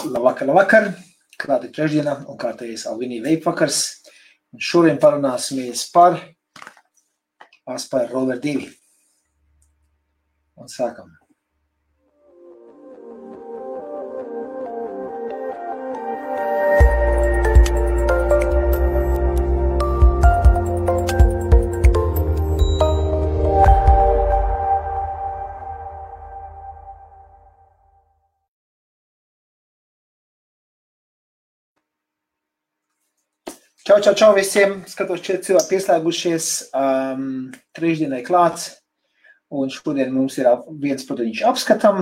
Labvakar. Klāt ir trešdiena un kārtējais Alvinija Vape vakars. Un šodien parunāsimies par Aspire Rover 2. Un sākam. Čau visiem, skatos 4 cilvēki pieslēgušies, trešdienai klāts, un šodien mums ir viens produktiņš apskatam,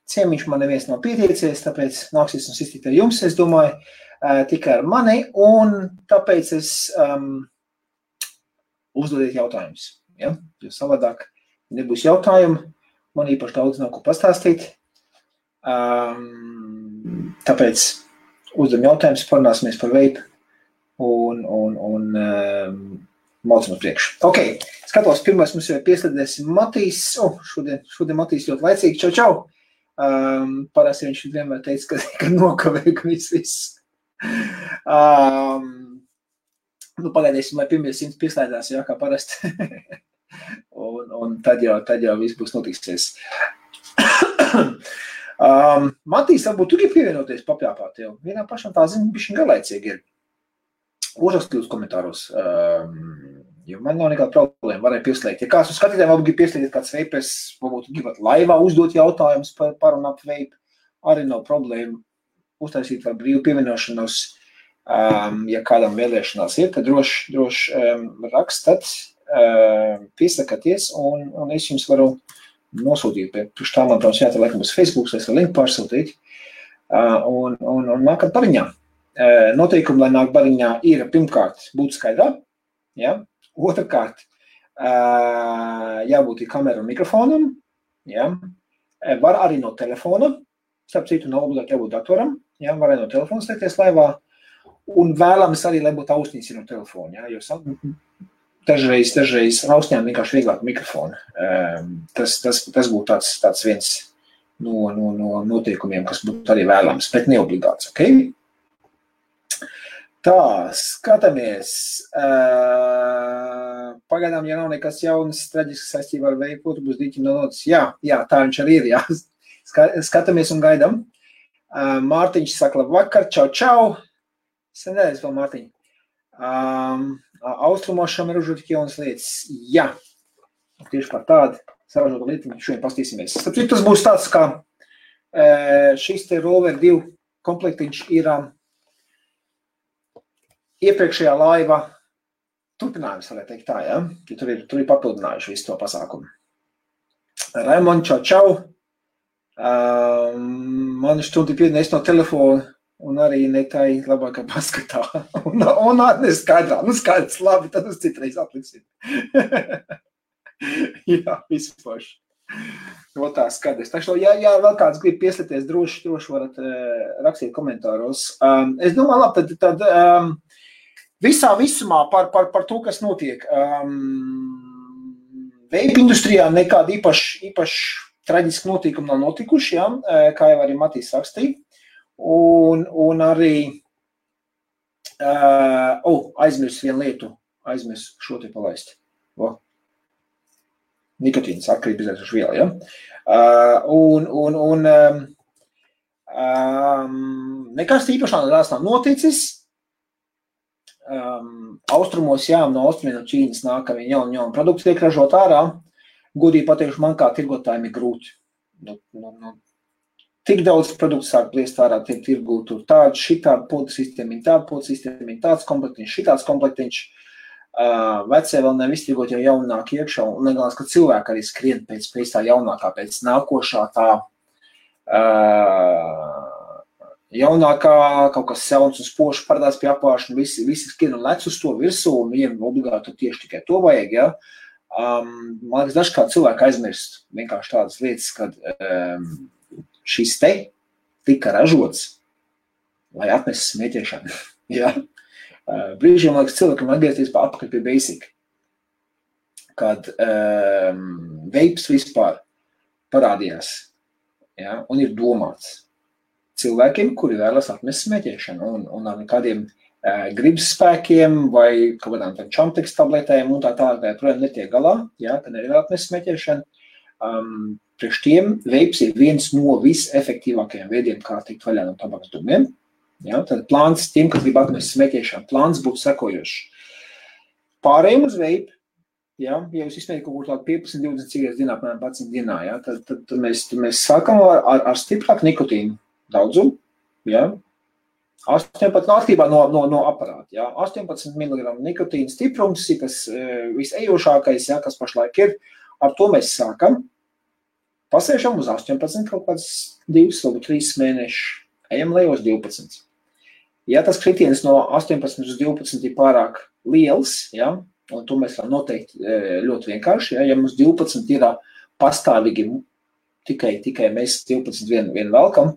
ciemiņš man neviens nav pietiecies, tāpēc nāksies un iztikt ar jums, es domāju, tikai ar mani, un tāpēc es uzdodiet jautājumus, ja? Jo savādāk nebūs jautājumu, man īpaši daudz nav ko pastāstīt, tāpēc uzdodam jautājumus, parunāsimies par vape, un maucam uz priekšu. Ok, skatos, pirmais mums jau pieslēdēs Matīs. Šodien Matīs ļoti laicīgi. Čau. Parasti viņš vienmēr teica, ka nokavē, ka viss. Pagaidīsim, lai pirmie 100 pieslēdās, jā, kā parasti. un tad jau viss būs notiksies. Matīs, varbūt tu gribi pievienoties papļāpāt jau. Vienā pašam tā zina, bišķiņ garlaicīgi ir. Uzrakstīt uz komentāros, jo man nav nekāda problēma, varēja pieslēgt. Ja kāds uz skatītājiem varbūt grib pieslēgt kāds vapers, varbūt gribat laivā uzdot jautājumus par un ap vape, arī nav problēma uztaisīt var brīvu pievienošanos. Ja kādam vēlēšanās ir, tad droši rakstat, piesakaties, un es jums varu nosūtīt. Pirms tā man, protams, jātā laikam uz Facebook, es varu linku pārsūtīt, un nākat pariņā. Noteikumi, lai nāk bariņā, ir pirmkārt būt skaidrā, ja? Otrkārt, jābūt ir kamera un mikrofonam, ja? Var arī no telefona, starp citu nav obligāti jābūt datoram, ja? Var arī no telefona slēgties laivā, un vēlams arī, lai būtu austiņas no telefona, ja? Jo dažreiz austiņām vienkārši vieglāk mikrofonu. Tas būtu tāds viens no noteikumiem, kas būtu arī vēlams, bet neobligāts, ok? Tā, skatāmies. Pagaidām, ja nav nekas jaunas, traģisks saistībā ar vape, būs dīķim no notis. Jā, tā viņš arī ir, jā. Skatāmies un gaidam. Mārtiņš saka labvakar, čau. Senēs vēl, Mārtiņ. Austrumošam ir užūt tik jaunas lietas. Jā, tieši par tādu saražotu lietiņu šodien pastīsimies. Tas būs tāds, kā šis te Rover 2 komplektiņš ir iepriekšējā laiva turpinājums, varētu teikt tā, ja? Tur ir papildinājuši visu to pasākumu. Raimond, čau. Man štundi piedinājis no telefona un arī netai labākā paskatā. Un neskaidrā. Skaidrs, labi, tad uz citreiz atliksim. Jā, visu paši. No tā skaidrs. Ja vēl kāds grib pieslēties, droši varat rakstīt komentāros. Es domāju, labi, tad visā visumā par to, kas notiek. Vape industrijā nekāda īpaši traģiski notikumi nav notikuši, ja? Kā jau arī Matīs rakstīja. Un arī aizmirst vienu lietu, šo te palaist. Nikotīnas atkarība izraisuši viela, ja? Nekas īpaši nav noticis. Austrumos, jā, no austrumiem no Ķīnas nāk jauni produkti tiek ražot ārā. Godīgi pateikšu, man kā tirgotājiem ir grūti. Tik daudz produktu sāk pliest ārā, tiek tirgūt tur tādu, šitādu podu sistēmiņu, tāds komplektiņš, šitāds komplektiņš. Vecie vēl nevis tirgot jau jaunāk iekšā, un negalās, ka cilvēki arī skrien pēc tā jaunākā, pēc nākošā tā jaunākā, kaut kas sauns un spoši parādās pie apvāršana, visi skrien un lec uz to virsū, un viņiem obligāti tieši tikai to vajag, ja. Man liekas, dažkārt cilvēki aizmirst vienkārši tādas lietas, kad šis te tika ražots, lai atnesis smēķēšanu, ja. Brīžiem, man liekas, cilvēkam atgriezties atpakaļ pie basic, kad vapes vispār parādījās, ja, un ir domāts. cilvēkiem, kuri vēlas atmest smēķēšanu un ar kādiem gribas spēkiem vai kaut kādām čamteks tabletēm un tā tālāk, projām netiek galā, ja, ka nevar atmest smēķēšanu. Priekš tiem veips ir viens no visefektīvākajiem veidiem, kā tikt vaļā no tabakas dūmiem. Ja, tad plāns tiem, kas grib atmest smēķēšanu, plāns būtu sekojošs. Pārējiem uz veipu, ja jūs izsmējat kaut kur tādu 15-20 cigaretes dienā, apmēram 11 dienā, ja, tad mēs sākam ar stiprāku nikotīnu daudzumu, ja, 18 atkarībā no aparāta, ja, 18 mg nikotīna stiprums, kas visejošākais, ja, kas pašlaik ir, ar to mēs sākam, pasēšam uz 18 kaut kāds 2 vai 3 mēneši, ejam lejos 12. Ja tas kritiens no 18 uz 12 ir pārāk liels, ja, un to mēs varam noteikt ļoti vienkārši, ja mums 12 ir pastāvīgi, tikai mēs 12 vien velkam,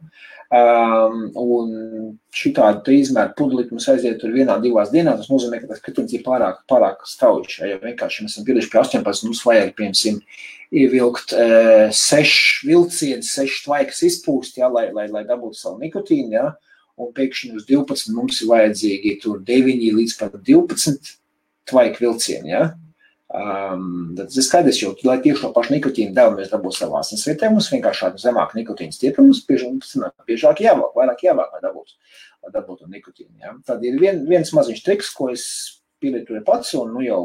un šitādu izmēru pudelīti mums aiziet tur 1-2 dienā, tas nozīmē, ka tas kritiens ir pārāk strauji, ja vienkārši mēs esam pieliši pie 18, mums vajag, piemēram, ievilkt 6 vilcienus, 6 tvaikas izpūst, ja, lai dabūtu savu nikotīnu, ja, un pēkšņi uz 12 mums ir vajadzīgi tur 9 līdz pat 12 tvaika vilcieni, ja. Tas ir skaidrs, jo, lai tieši to pašu nikotīnu devu mēs dabūtu savā asinsvietē, mums vienkārši zemāk nikotīna stieprums, biežāk jāvāk, vairāk jāvāk, lai dabūtu nikotīnu, ja. Tad ir viens maziņš triks, ko es pielietoju pats, un jau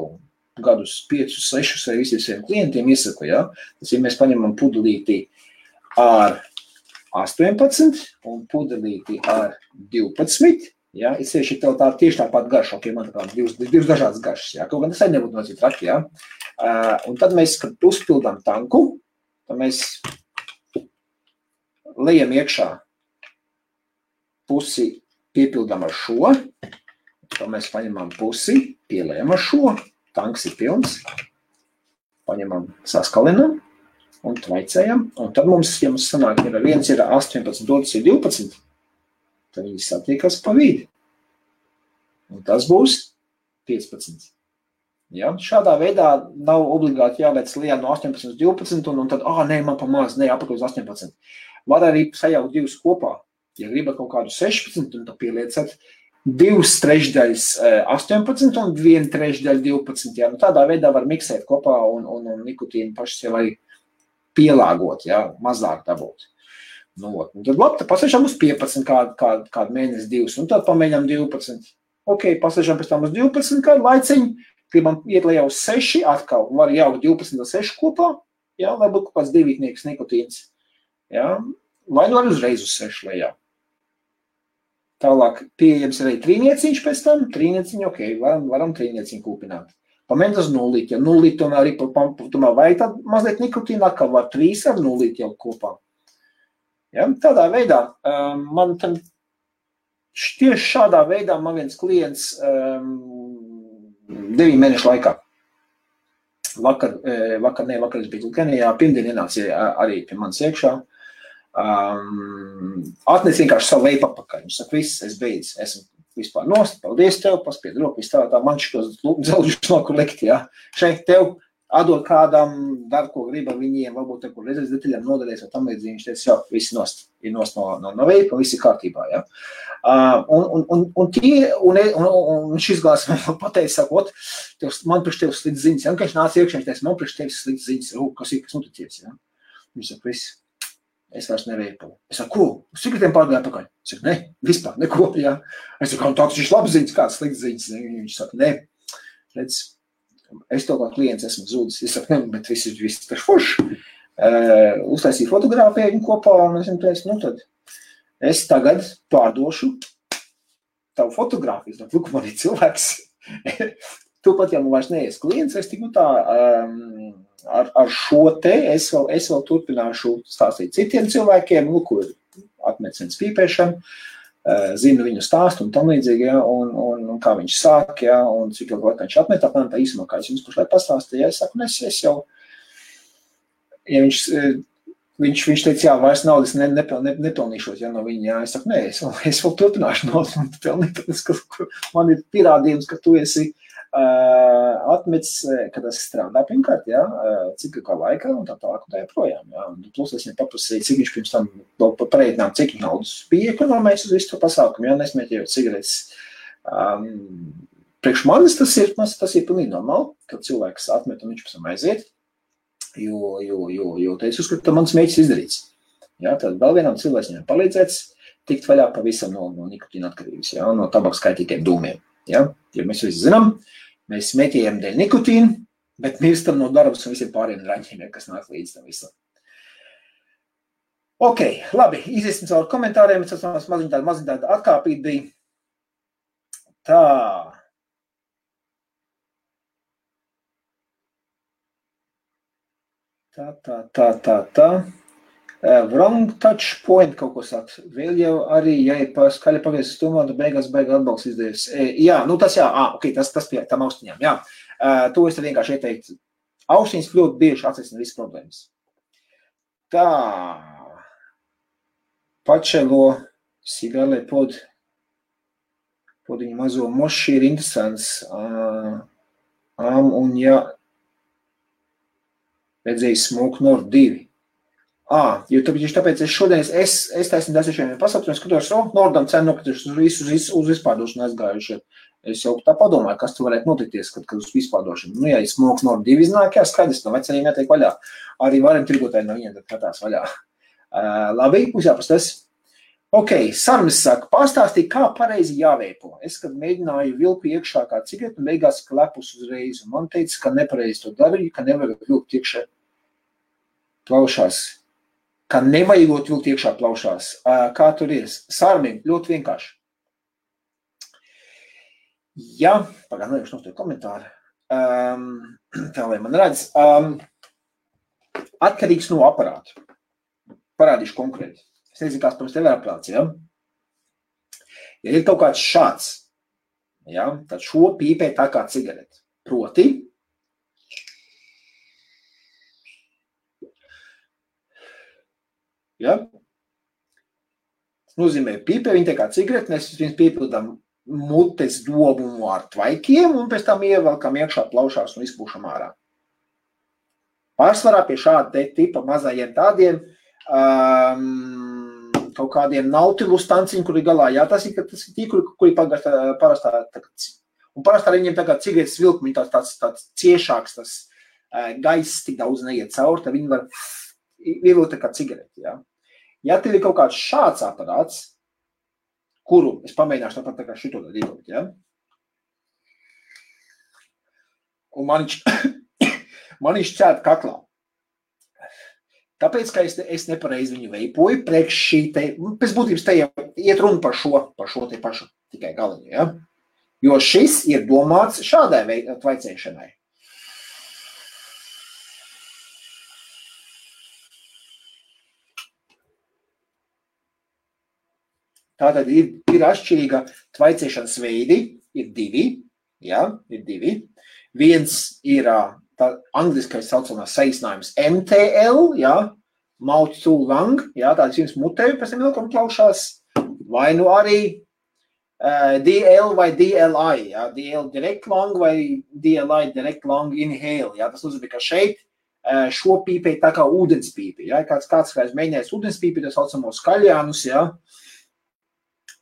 gadus 5, 6 vai visiem saviem klientiem iesaku, ja. Tas, ja mēs paņemam pudelīti ar 18 un pudelīti ar 12, ja, es tieši tev tieši tāpat garša, ok, man tā divas dažādas garšas, ja, kaut gan tas arī nebūtu nocīt traki, ja. Un tad mēs, kad uzpildām tanku, tad mēs lejam iekšā pusi, piepildām ar šo, tad mēs paņemam pusi, pielējam ar šo, tanks ir pilns, paņemam, saskalinam, un tvaicējam, un tad mums, ja mums sanāk, ja viens ir 18, otrs ir 12, tad viņi satiekas pa vidi. Un tas būs 15. Ja? Šādā veidā nav obligāti jāveic lejā no 18 uz 12, un tad, nē, man pa maz, nē, apakaļ uz 18. Var arī sajaukt divus kopā. Ja gribat kaut kādu 16, un tad pieliecat 2/3 18 un 1/3 12. Ja? Nu, tādā veidā var miksēt kopā un nikotīnu paši sev arī pielāgot, ja, mazāk dabūt. Nu, un tad labi, tad pasēžam uz 15 kādu mēnesi 2, un tad pamēģam 12. Ok, pasēžam pēc tam uz 12 kādu laiciņu, gribam iet lejā uz 6, atkal var jaukt 12 un 6 kopā, ja, lai būtu kaut kāds 2 nikotīns. Ja, vai nu var uzreiz uz 6 lejā. Tālāk pieejams arī trīnieciņš pēc tam, trīnieciņu, ok, varam trīnieciņu kūpināt. Pamēģināt uz 0, ja 0 tomēr arī tomēr vajag tad mazliet nikotīna, atkal var 3 ar 0 jau kopā. Ja, tādā veidā, man tad tieši šādā veidā man viens klients 9 mēnešu laikā. Vakar es biju Kenijā, pirmdien ienāca arī pie manis iekšā. Atnes vienkārši savu veipu apakaļ. Viņš saka, viss, es beidzu, esmu vispār nost, paldies tev, paspied roku, viss tā man šitos dzelžus no kur likt, ja. Šeit tev atdod kādam, dar, ko grib ar viņiem, varbūt te, kur redzēs detaļām nodarēs, vai tam līdzīgi, viņš teica, jā, viss nost, ir nost no veipa, viss ir kārtībā, ja. Un šis glās man pateica, sakot, man priekš tev slikts ziņas, ja, un kad viņš nāca iekšā, viņš teica, man priekš tev slikts ziņas, kas noticies, ja. Viņš saka, viss. Es vairs neveipu. Es saku, ko? Uz cigaretēm pārgāju pakaļ? Es saku, ne, vispār, neko, jā. Es saku, tāds viņš labs ziņas, kāds slikts ziņas. Viņš saka, ne, redz, es to kā klients esmu zūdis. Es saku, ne, bet viss taču forši. Uztaisīju fotogrāfiju kopā, un es viņam teicu, nu tad es tagad pārdošu tavu fotogrāfiju. Es saku, man ir cilvēks. Tūpat, ja man vairs neies klients, es tiku tā... Ar šo te es vēl turpināšu stāstīt citiem cilvēkiem, kur atmecens pīpēšanu, zinu viņu stāstu un tam līdzīgi, ja, un kā viņš sāk, ja, un cik ilgi laikā viņš atmet, apmēram tā īsumā, kā es jums pašlaik pastāstīju, ja, es saku, es jau, ja viņš teica, jā, vairs naudas nepelnīšos, ja, no viņa, jā, es saku, nē, es vēl turpināšu naudas pelnīt, man ir pierādījums, ka tu esi atmets, kad tas strādā pirmkārt, jā, cik kā laikā un tā tālāk un tā joprojām, jā. Plus es viņam paprasīju, cik viņš pirms tam pareitinām, cik naudas bija ekonomējis uz visu to pasākumu, jā, nesmēķējot cigaretes. Priekš manis tas ir pilnīgi normāli, kad cilvēks atmet un viņš pēc tam aiziet, jo te es uzskatu, ka mans mēģis izdarīts. Jā, tad vēl vienam cilvēcim palīdzēts tikt vaļā pavisam no nikotīna atkarības, jā, no tabaks kaitīgiem dūmiem. Ja? Jo mēs visi zinām, mēs smēķējam dēļ nikotīnu, bet mirstam no darbas un visiem pāriem raņķiem, kas nāk līdz tam visam. Ok, labi, iziesim caur komentāriem, es maziņ tāda atkāpīt bija. Tā. Tā. Wrong touch point kaut ko saka. Vēl jau arī, ja ir skaļi pagriezis stumā, tad beigās atbalsts izdevies. Jā, nu tas jā, ok, tas pie tam austiņām, jā. To es tad vienkārši ieteiktu. Austiņas ļoti bieži atrisina visas problēmas. Tā. Pačelo sigālē podiņu mazo moši ir interesants. Un ja redzēju Smoke North 2. Jo tāpēc es šodien, es taisni desiešiem pasaukt, un skatos, Nordam cenu nokrituši uz vispārdošanu aizgājuši. Es jau tā padomāju, kas tu varētu notikties, kad uz vispārdošanu. Nu, ja Smoke North 2 iznāk, jā, skaidrs, no veceriem jātiek vaļā. Arī varam tirgotāji no viņiem tad katās vaļā. Labi, būs jāpastas. Ok, Sarmis saka, pastāstīja, kā pareizi jāveipo. Es, kad mēģināju vilku iekšā kā cigaretu, un beigās klepus uzreiz, un man teica, ka nepareizi to darīju, ka nevajag vilkt iekšā plaušās. Ka nevajagot vilkt iekšā plaušās. Kā tur ir? Sarmim, ļoti vienkārši. Jā, pagājuši no to komentāru. Tā, lai man redz. Atkarīgs no aparātu. Parādīšu konkrēti. Es nezinu, kāds pirms tev ir aparāts, ja? Ja ir kaut kāds šāds, ja, tad šo pīpē tā kā cigareti. Proti, ja? Tas nozīmē pīpē, viņi tā kā cigareti, mēs viņus piepildām mutes dobumu ar tvaikiem un pēc tam ievelkam iekšā plaušās un izpūšam ārā. Pārsvarā pie šāda tipa mazajiem tādiem kaut kādiem nautilus tanciņu, kuri galā, jā, tas ir tīkli, kuri parastā, un parastā viņiem tā kā cigaretes vilkumi, tāds ciešāks, tas gaiss tik daudz neiet cauri, tad viņi var ievilkt tā kā cigareti, jā. Ja tev ir kaut kāds šāds aparāts, kuru es pamēģināšu tāpat tā kā šito tad ievilkt, jā. Un man viņš cēt kaklā. Tāpēc, ka es nepareizi viņu veipoju, priekš šī te, pēc būtības te iet runa par šo te pašu tikai galiņu, ja? Jo šis ir domāts šādai tvaicēšanai. Tātad ir atšķirīga tvaicēšanas veidi, ir divi, ja, ir divi. Viens ir tā angliskais saucamās saīsinājums MTL, jā, mouth to lung, jā, tāds jums mutēju pēc tam ilgam plaušās, vai nu arī DL vai DLI, jā, DL direct lung vai DLI direct lung inhale, jā, tas nozīmē, ka šeit šo pīpē tā kā ūdenspīpi, jā, kāds mēģinājis ūdenspīpi, tas saucamo skaļjānus, jā,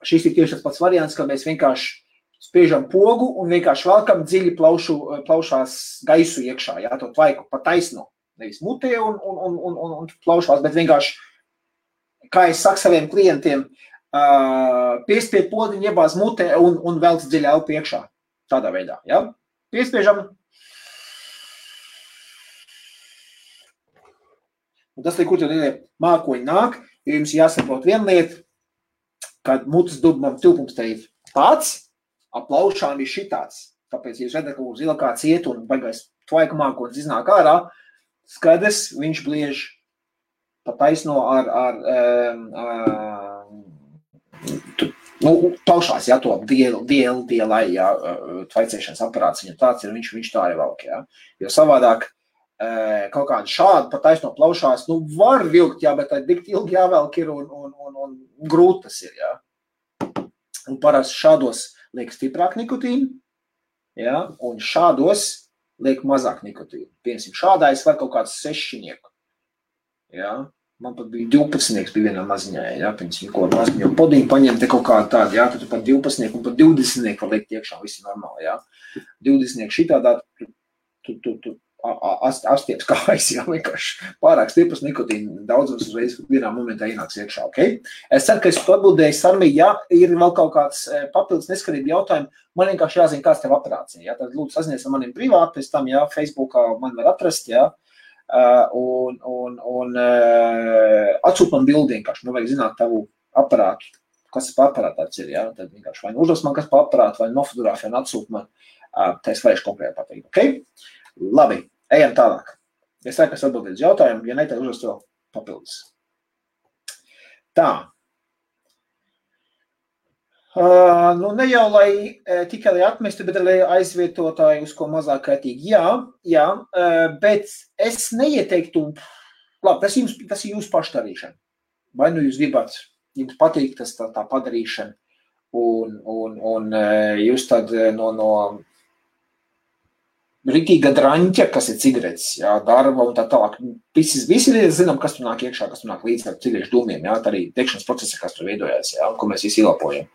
šis ir tieši tas pats variants, kad mēs vienkārši spiežam pogu un vienkārši velkam dziļi plaušās gaisu iekšā, jā, to tvaiku pa taisno, nevis mutē un plaušās, bet vienkārši, kā es saku saviem klientiem, piespied podiņu, iebāz mutē un velc dziļi elpu iekšā, tādā veidā, jā. Piespiežam. Un tas, kur tad mākoņi nāk, jo jums jāsaprot viena lieta, kad mutes dubumam tilpums te ir tāds, aplaušām ir šitāds. Tāpēc, ja jūs redzat, ka zila kāds iet un baigais tvaiku mākonis iznāk ārā, skaidrs, viņš bliež pa taisno plaušās, jā, to DLI, jā, tvaicēšanas aparāts, viņam tāds ir, viņš tā arī valk, jā. Jo savādāk kaut kādu šādu pa taisno plaušās, var vilkt, jā, bet tā tik ilgi jāvelk ir un grūti tas ir, jā. Un parasti šādos liek stiprāk nikotīnu, Ja? Un šādos liek mazāk nikotīnu. Piemēram, šādā es varu kaut kāds 6. Ja? Man pat bija 12 bija vienā maziņā, ja? Piemēram, ko maziņu podiņu paņem te kaut kādu tādu, ja? Tad tu pat 12 un pat 20 var liekt iekšā, viss ir normāli, ja? 20 šitādā, tu apstieps kājas, ja? Vienkārši pārāk stipras nikotīna daudzums uzreiz vienā momentā ienāks iekšā, ok? Es ceru, ka es atbildēju, Sarmī, ja ir vēl kaut kāds papildus neskarību jautājumi, man vienkārši jāzina, kāds tev operācija, ja? Tad lūdzu sazinies ar maniem privāti, pēc tam, ja, Facebookā man var atrast, ja? Un atsūt man bildi vienkārši, man vajag zināt tavu aparātu, kas par aparātu tāds ir, ja? Tad vienkārši vai uzdos man kas par aparātu, vai nofotogrāfiju un atsūt man, tā es varēšu konkrēti pateikt, ok? Labi, ejam tālāk. Es ceru, ka es atbildēju uz jautājumu, ja ne, tad uzdos vēl papildus. Tā. Nu, ne jau, lai tikai lai atmestu, bet lai aizvietotāju uz ko mazāk kaitīgi. Jā, bet es neieteiktu, labi, tas ir jūsu pašdarīšana. Vai nu jūs gribat, jums patīk tas tā padarīšana, un jūs tad no ritīga draņķa, kas ir cigaretes, jā, darba un tā tālāk. Visi zinām, kas tur nāk iekšā, kas tur nāk līdz ar cigarešu dūmiem, jā, tā arī degšanas procesa, kas tur veidojās, jā, ko mēs visi ielapojam.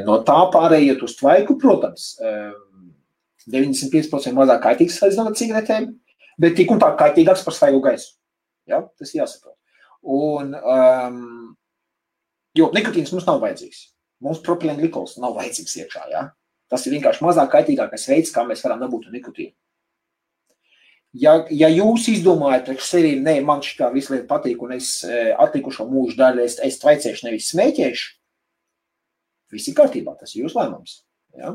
No tā pārējot uz tvaiku, protams, 95% mazāk kaitīgs salīdzinot ar cigaretēm, bet tik un tā kaitīgāks par svaigu gaisu. Jā, tas jāsaprot. Un, jo nikotīns mums nav vajadzīgs. Mums propilēna glikols nav vajadzīgs iekšā, jā. Tas ir vienkārši mazāk kaitīgākais veids, kā mēs varam dabūt nikotīnu. Ja jūs izdomājat priekš sevi, ne, man šitā visu lieta patīk, un es atlikušo mūžu daļu, es tvaicēšu, nevis smēķēšu, viss ir kārtībā, tas ir jūsu lēmums. Ja?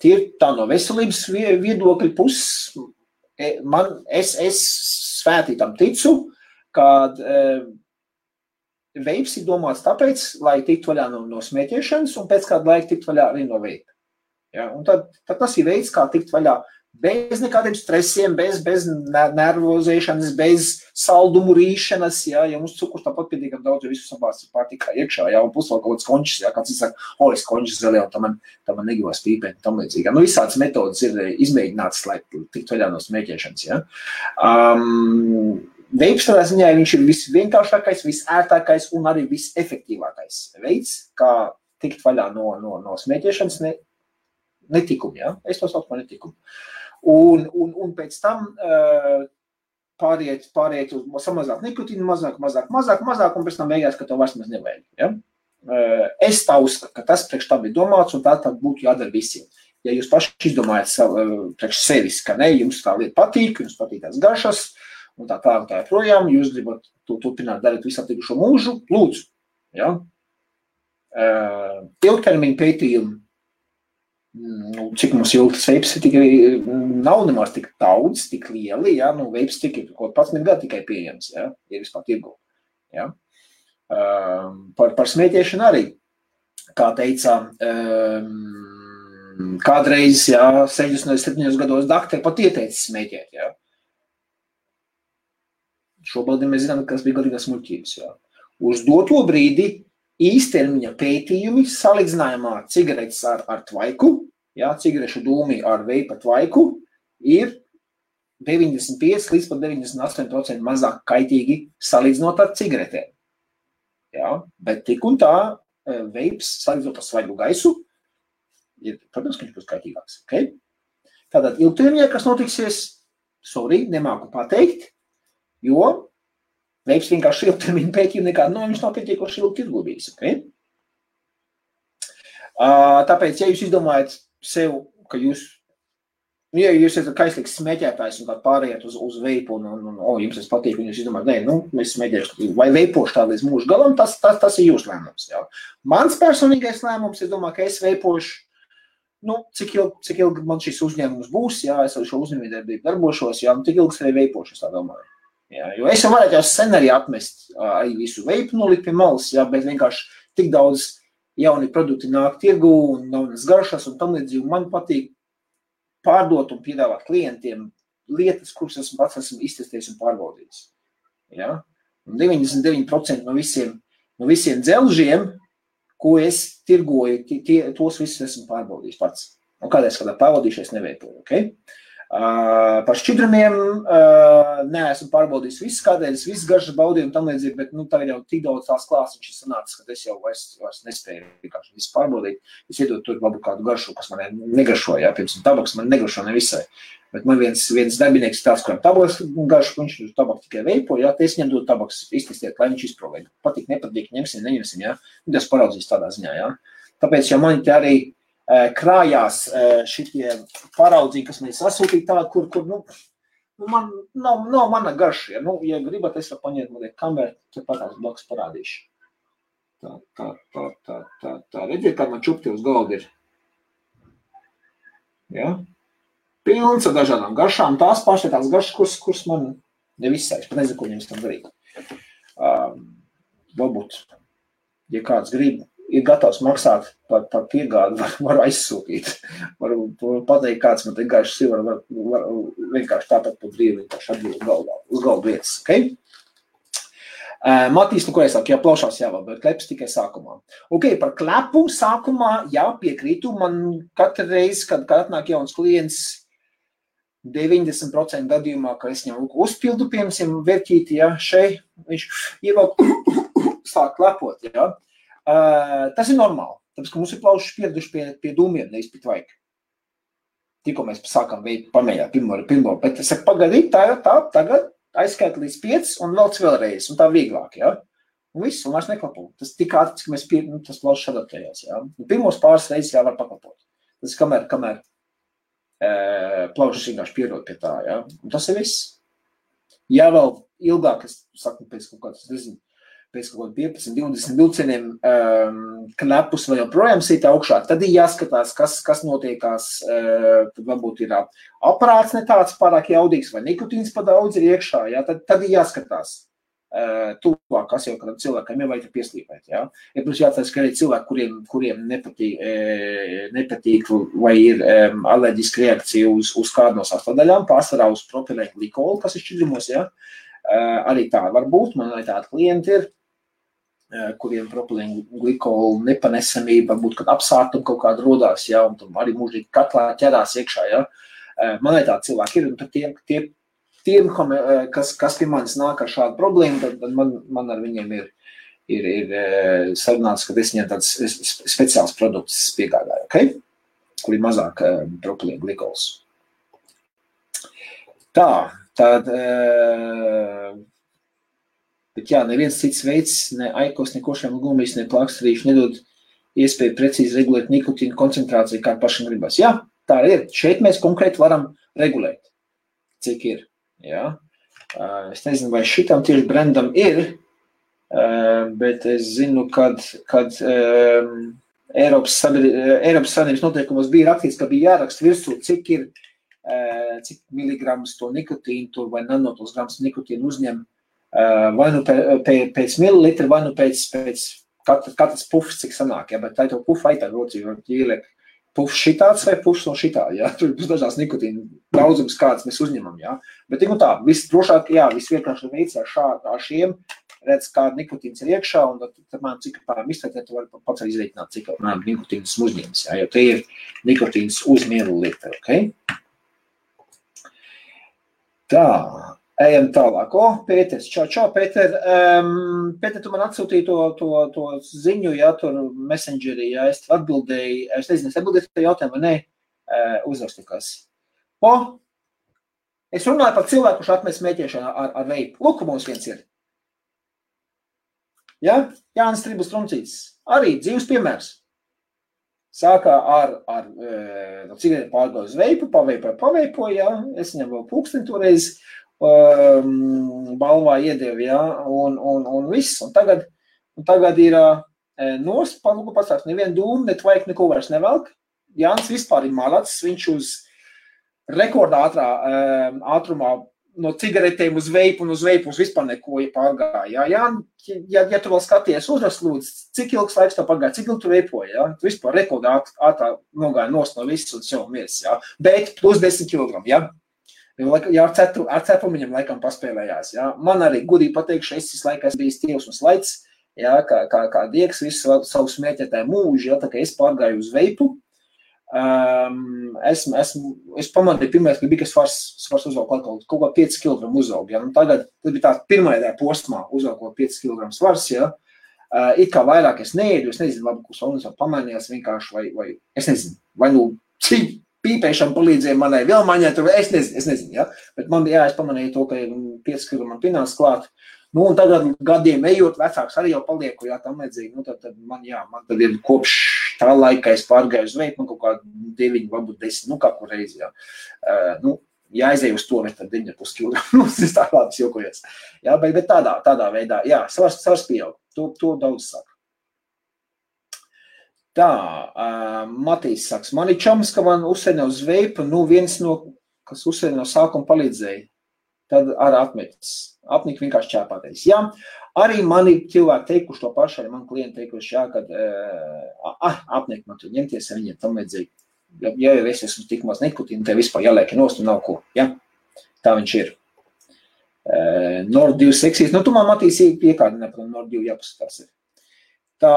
Tie ir tā no veselības viedokļa puses, es svētī tam ticu, kad veips ir domāts tāpēc, lai tiktu vaļā no smēķēšanas, un pēc kādu laiku tiktu vaļā arī no veipa. Ja, un tad tas ir veids, kā tikt vaļā bez nekādiem stresiem, bez nervozēšanas, bez saldumu rīšanas, ja mums cukurs tāpat pietiekam daudz, jo visu sabāsts ir pārtikā iekšā, ja, un pusvēl kaut kāds končis, ja, kāds saka, es končis zaļē, un tam man negivās pīpēt, tam līdzīgi. Ja. Nu, visādas metodas ir izmēģinātas, lai tikt vaļā no smēķēšanas, ja. Veips tādā ziņā viņš ir visvienkāršākais, visērtākais un arī visefektīvākais veids, kā tikt vaļā no smēķēšanas netikumu, ja? Es to saucu par netikumu. Un pēc tam pāriet uz samazāk nikotīnu, mazāk, un pēc tam beigās, ka tev vairs maz nevajag. Ja? Es tā uzskatu, ka tas priekš tā bija domāts, un tā būtu jādara visiem. Ja jūs paši izdomājat priekš sevis, ka ne, jums tā lieta patīk, jums patīk tās garšas, un tā projām, jūs gribat to turpināt darīt visu atlikušo mūžu, lūdzu. Ja? Ilgtermiņa pētījumi, cik mums ilgtas veips nav nemaz tik daudz, tik lieli, ja? Nu, veips tik ir kaut 11 gadu tikai pieejams, ja? Ir vispār tirgu. Ja? Par smēķēšanu arī, kā teica, kādreiz, ja, 67 gados dakteri pat ieteica smēķēt, ja? Šobrīd mēs zinām, kas bija galīgās muļķības. Ja? Uz doto brīdi īstermiņa pētījumi salīdzinājumā cigaretes ar tvaiku, ja, cigarešu dūmi ar veipa tvaiku, ir 95 līdz pat 98% mazāk kaitīgi salīdzinot ar cigaretēm. Ja? Bet tik un tā veips salīdzinot ar svaigu gaisu, ir, protams, ka viņš būs kaitīgāks. Okay? Tātad ilgtermiņā, kas notiksies, nemāku pateikt, jo veips vienkārši ilgtermiņa pētījumi nekādu, viņš nav pietiekoši ilgi tirgubīgs. Okay? Tāpēc, ja jūs izdomājat sev, ka jūs esat kaislīgs smēķētājs un tā pārējāt uz veipu un jums tas patīk, un jūs izdomājat, es smēķēšu vai veipošu tā līdz mūžu galam, tas ir jūsu lēmums. Jā. Mans personīgais lēmums, es domāju, ka es veipošu, cik ilgi man šis uzņēmums būs, jā, es ar šo uzņēmējdarbību darbošos, jā, cik ilgi es arī veipošu, es tā domāju. Jā, jo es varētu jau sen arī atmest arī visu veipu nolikt pie malas, jā, bet vienkārši tik daudz jauni produkti nāk tirgu un jaunas garšas un tam līdzīgi. Man patīk pārdot un piedāvāt klientiem lietas, kuras esmu iztestējis un pārbaudījis. Ja? Un 99% no visiem dzelžiem, ko es tirgoju, tos visus esmu pārbaudījis pats. Un kādreiz kādā pavadījušies neveipoju, okay? Par šķidrumiem neesmu pārbaudījis visu, kādreiz visu garšas baudīju un tam līdzīgi, bet tagad jau tik daudz tās klāsas ir sanācis, ka es jau vairs nespēju vienkārši visu pārbaudīt. Es iedod tur labu kādu garšu, kas man negaršo, jā, piemēram, tabaks man negaršo nevisai. Bet man viens darbinieks tāds, kuram tabaks garšu, viņš tabaks tikai veipo, jā, te es viņam dodu tabaks iztestiet, lai viņš izprovē. Patīk, nepatīk, ņemsim, neņemsim, jā. Tas paraudzīs tādā ziņā, jā. Tāpēc, ja man te arī krājās šitie paraudzīgi, kas mēs sasūtīja tādu, kur man nav mana garša. Ja, ja gribat, es varu paņemt mazliet kameru, tad patās blakus parādīšu. Tā. Redziet, kā man čupti uz galda ir. Ja? Pilns ar dažādām garšām. Tās pašas tās garšas, kuras man nevisai. Es pat nezinu, ko viņam tam darīt. Varbūt, ja kāds grib, ir gatavs maksāt par piegādi, varu aizsūtīt. Varu pateikt, kāds man te garšas ir, var vienkārši tāpat pa brīvi vienkārši atbild uz galdu vietas. Okay? Matīs, ko es saku, jā, plaušās jāvēl, bet kleps tikai sākumā. Ok, par klepu sākumā, jā, piekrītu. Man katru reizi, kad atnāk jauns klients, 90% gadījumā, ka es viņam uzpildu, piemēram, verķīti, jā, šeit, viņš ievēl sāk klepot, jā. Tas ir normāli, tāpēc, ka mums ir plaušas pieraduši pie dūmiem, nevis pie tvaika. Tikko mēs sākam veikt pamējā pirmo, bet es saku, pagaidīt, tā, tagad aizskaita līdz 5 un velc vēlreiz, un tā vieglāk, jā. Un viss, un vairs neklapo. Tas tik ātris, ka mēs tas plaušas adaptējās, jā. Pirmos pāris reizes jā var paklapot. Tas kamēr plaušas vienkārši pierod pie tā, jā. Un tas ir viss. Jā, vēl ilgāk, es saku, pēc kaut kāds, nezinu, pēc kaut kādu 15-20 vilcieniem klepus vai joprojām sīt augšā, tad ir jāskatās, kas notiekās, tad varbūt ir aparāts ne tāds pārāk jaudīgs vai nikotīns pa daudz ir iekšā, jā, tad ir jāskatās tuvāk, kas jau kādam cilvēkam jau vajag pieslīpēt, jā. Ja, protams, jāatcerās, ka arī cilvēki, kuriem nepatīk vai ir alerģiska reakcija uz kādu no sastāvdaļām, pārsvarā uz propilēnu glikolu, kas ir šķidrumos, jā. Arī tā var būt, man arī tādi klienti ir, kuriem propilēnu glikolu nepanesamība, varbūt, kad apsārtumi kaut kāda rodās, jā, un tam arī mūžīgi katlā ķerās iekšā, jā. Man arī tādi cilvēki ir, un tad tiem, kas pie manis nāk ar šādu problēmu, tad man ar viņiem ir sarunāts, ka es viņiem tāds speciāls produkts piegādāju, okay? Kur ir mazāk propilēnu glikols. Tad, bet jā, neviens cits veids, ne aikos, ne košiem gumijas, ne plāksterīši nedod iespēju precīzi regulēt nikotīnu koncentrāciju, kā pašam gribas. Jā, tā ir. Šeit mēs konkrēti varam regulēt, cik ir. Jā. Es nezinu, vai šitam tieši brandam ir, bet es zinu, kad Eiropas Savienības noteikumos bija rakstīts, ka bija jāraksta virsū, cik miligramus to nikotīnu tur vai nanotos grams nikotīnu uzņem vai nu pēc mililitra, vai nu pēc katras pufs, cik sanāk, ja, bet tā ir to pufu aitā rocī, jo ieliek pufs šitāds vai pufs no šitā, ja, tur būs dažās nikotīnu daudzums, kāds mēs uzņemam, ja, bet tā, viss drošāk, jā, viss vienkārši veids ar šiem, redz, kāda nikotīns ir iekšā, un tad man cik pārām iztērtēt, tu vari pats arī izreikināt, cik nikotīns uzņems, ja, jo te ir nikotīns uz mililitra, ok? Tā. Ejam tālāk. Pēters, čau, Pēter. Pēter, tu man atsūtīji to ziņu, jā, tur messengerī, jā, es atbildēju, es nezinu, es atbildēju to jautājumu, vai ne, uzrakstīkās. Es runāju par cilvēku, kurš atmest smēķēšanu ar veipu. Lūk, mums viens ir. Jā, Jānis Tribus Truncītis. Arī dzīves piemērs. Sākā ar cigareti pārgāju uz veipu, paveipoju, jā, es viņam vēl pulksteni toreiz, balvā iedevi, jā, un viss. Un tagad ir nost, palūku pasāks, nevienu dūmu, ne tvaik, neko vairs nevelk. Jānis vispār ir malacis, viņš uz rekordā ātrumā no cigaretēm uz veipu un uz vispār neko pārgāja. Jā, ja tu vēl skaties uzrast, lūdzu, cik ilgs laiks tev pagāja, cik ilgi tu veipoji, jā? Tu vispār rekordā ātrā nogāja nost no viss un sev mies, jā? Bet plus 10 kg, jā? Jā, ar cepumiņam laikam paspēlējās, jā? Man arī gudīgi pateikšu, es laikas biju stīvs un slaids, jā, kā dieks visu savu smēķētāju mūžu, jā, tā kā es pārgāju uz veipu, Es pamanīju pirmais, ka bija, ka svars uzvalk kaut kā 5 kg uzaug. Ja? Tagad tas bija tāds pirmajā posmā uzvalkot 5 kg svars. Ja? It kā vairāk es neēdu, es nezinu, labi, kurš un pamainījās vienkārši, vai es nezinu, vai cik pīpēšana palīdzēja manai vēl maņai, es nezinu, ja? Bet man bija, es pamanīju to, ka 5 kg man pinās klāt. Un tagad gadiem ejot, vecāks arī jau palieku, jā, tam vajadzīgi, tad man tad ir kopš tā laika, es pārgāju uz veiku, man kaut kā 9, varbūt 10, kā kur reizi, jā. Ja aizēju uz to, tad 9,5 kg, es tā labi jokojies. Jā, bet tādā veidā, jā, svars pieaug, to daudz saka. Tā, Matīs saka, man ir čoms, ka man uzsēdina uz veipu, viens no, kas uzsēdina no sākuma palīdzēja, tad arī atmetis. Apnika vienkārši čēpātais. Jā, arī mani cilvēki teikuši to pašu, arī mani klienti teikuši, jā, kad apnika man tur ņemties ar viņiem, tam vajadzīgi. Ja jau es esmu tik maz nikotīnu, te vispār jāliek nost un nav ko. Jā, tā viņš ir. Nord 2 seksīs. Tu man Matīs piekādinē, par Nord 2 jāpaskatās ir. Tā.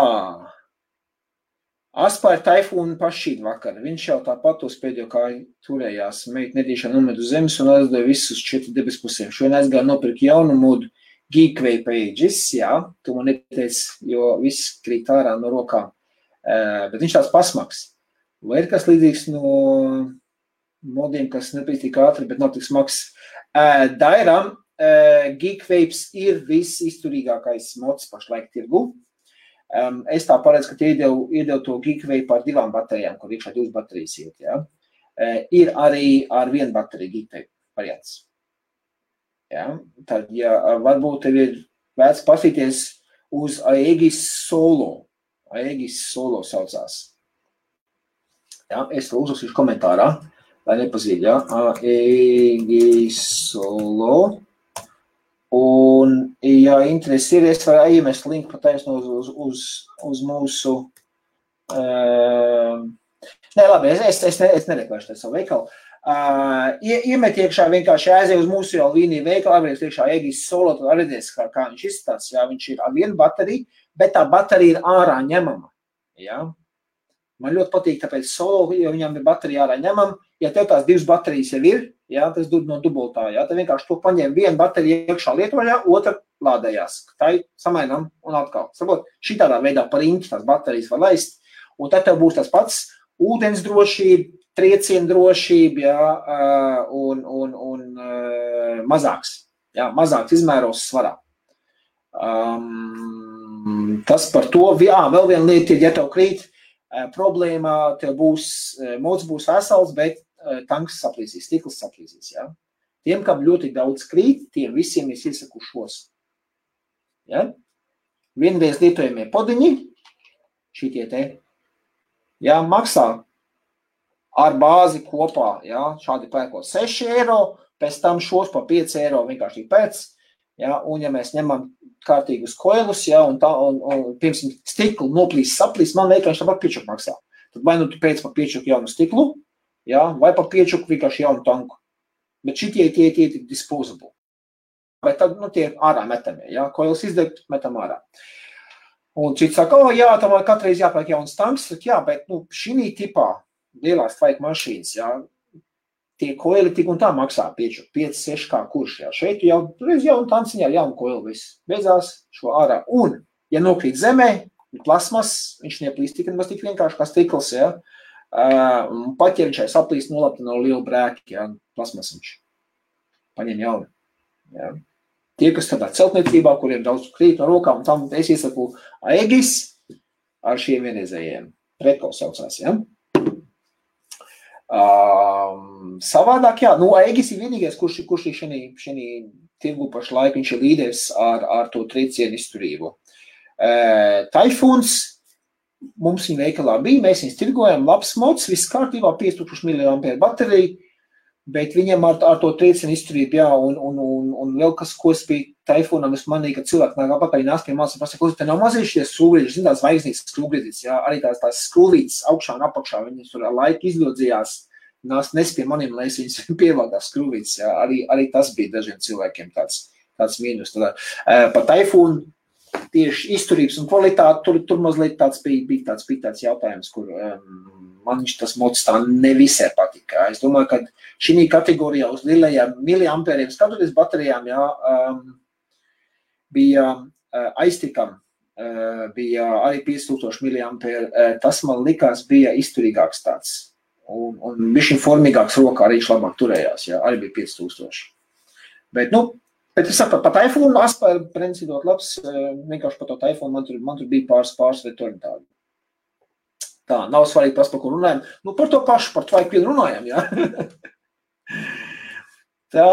Aspār taifūnu pašīt vakar. Viņš jau tāpat uz pēdējo kāju turējās. Meita nedīšā nomet uz zemes un aizdoja visus 4 debes pusēm. Šodien aizgāja nopirkt jaunu modu Geekway pages, jā. Tu man neteici, jo viss krīt ārā no rokām. Bet viņš tāds pasmaks. Vai ir kas līdzīgs no modiem, kas nepēc tik ātri, bet nav tik smags? Dairam, Geekways ir viss izturīgākais mods pašlaik tirgu. Es tā paredzu, ka tie iedev to Geekway par 2 baterijām, kur iekšā 2 baterijas iet, jā. Ir arī ar 1 bateriju Geekway variants. Jā, tad, ja varbūt tev ir vērts pasīties uz Aegis Solo. Aegis Solo saucās. Jā, es to uzrakstīšu komentārā, lai nepazīd, jā. Aegis Solo. Un, ja interesi ir, es varu iemest linku pataisno uz mūsu... Nē, labi, es nereklēšu savu veikalu. Iemet iekšā vienkārši aiziet uz mūsu jau līniju veikalu, aizvēries iekšā Aegis Solo, tad redzēs, kā viņš izstās. Jā, viņš ir ar 1 bateriju, bet tā baterija ir ārā ņemama. Jā. Man ļoti patīk, tāpēc Solo, jo viņam ir baterija ārā ņemama. Ja tev tās 2 baterijas jau ir, jā, tas no dubultā, jā, tad vienkārši to paņem 1 baterija iekšā lietojā, otra lādējās. Tā samainam un atkal. Sabot, šitādā veidā par riņķi tās baterijas var laist, un tad tev būs tas pats ūdens drošība, trieciena drošība, jā, un mazāks, jā, mazāks izmēros svarā. Tas par to, jā, vēl viena lieta ir, ja tev krīt, problēma, tev mods būs vesels, bet tanks saplīsīs, stikls saplīsīs, jā. Tiem, kam ļoti daudz krīt, tiem visiem es iesaku šos. Ja? Vienreiz lietojamie podiņi, šitie te, jā, maksā ar bāzi kopā, jā, šādi pērkot 6 eiro, pēc tam šos pa 5 eiro vienkārši pēc, jā, un ja mēs ņemam kārtīgus koilus, jā, un piemēram, stiklu noplīs, saplīs, man vienkārši tāpat piečuku maksā. Tad vai nu tu pēc pa piečuku jaunu stiklu, jā, vai pa piečuku vienkārši jaunu tanku. Bet šitie tie disposable. Bet tad, tie ārā metamie, jā, koilus izdegt, metam ārā. Un cits saka, jā, tam katreiz jāpērk jauns tanks, jā, bet, šī tipā lielās tvaika mašīnas, jā, tie koili tik un tā maksā piečuku, 5-6 kā kurš, jā. Šeit jau jaunu tanciņā ar jaunu koilu viss. Beidzās šo ārā. Un, ja nokrīt zemē, plasmas, viņš neplīst tik vienkārši kā stikls, jā. Pat, ja viņš saplīst nolapta no liela brēka, jā, plasmas viņš paņem jaunu. Jā. Tie, kas tādā celtniecībā, kuriem daudz krīt no rokām, un tam es iesaku Aegis ar šiem vienreizējiem. Pretko saucās, jā. Savādāk, jā, Aegis ir vienīgais, kurš ir šī tirgu pašlaik, viņš ir līderis ar to triecienu izturību. Taifūns mums viņa veikalā bija, mēs viņus tirgojam, labs mods, viss kārtībā, 5000 mAh baterija, bet viņam ar to triecienu izturību, jā, un vēl kas, ko es biju Taifūnam, es manīju, ka cilvēki nāk apakaļ nāc pie malas un pasaka, te nav mazīšies skrūvītis, zin tās zvaigznītas skrūvītis, jā, arī tās skrūvītis augšā un apakšā, viņas tur ar laiku izļodzījās, nes pie maniem, lai es viņas pievaldās skrūvītis, jā, arī tas bija dažiem cilvēkiem tāds mīnus. Par Taifūnu tieši izturības un kvalitāte, tur mazliet bija tāds jautājums, kur man tas mods tā nevisai patika. Es domāju, ka šī kategorijā uz lielajām miliampēriem skatoties baterijām, bija aiztikam, bija arī 5000 miliampēri, tas man likās bija izturīgāks tāds. Un bišķiņ formīgāks rokā arī viņš labāk turējās, arī bija 5000. Bet es saprotu, pat iPhone aspēr principot labs, vienkārši par to iPhone man tur bija pāris vietori tādi. Tā, nav svarīgi tas, par ko runājam. Par to pašu, par tvaiku vien runājam, jā. Tā.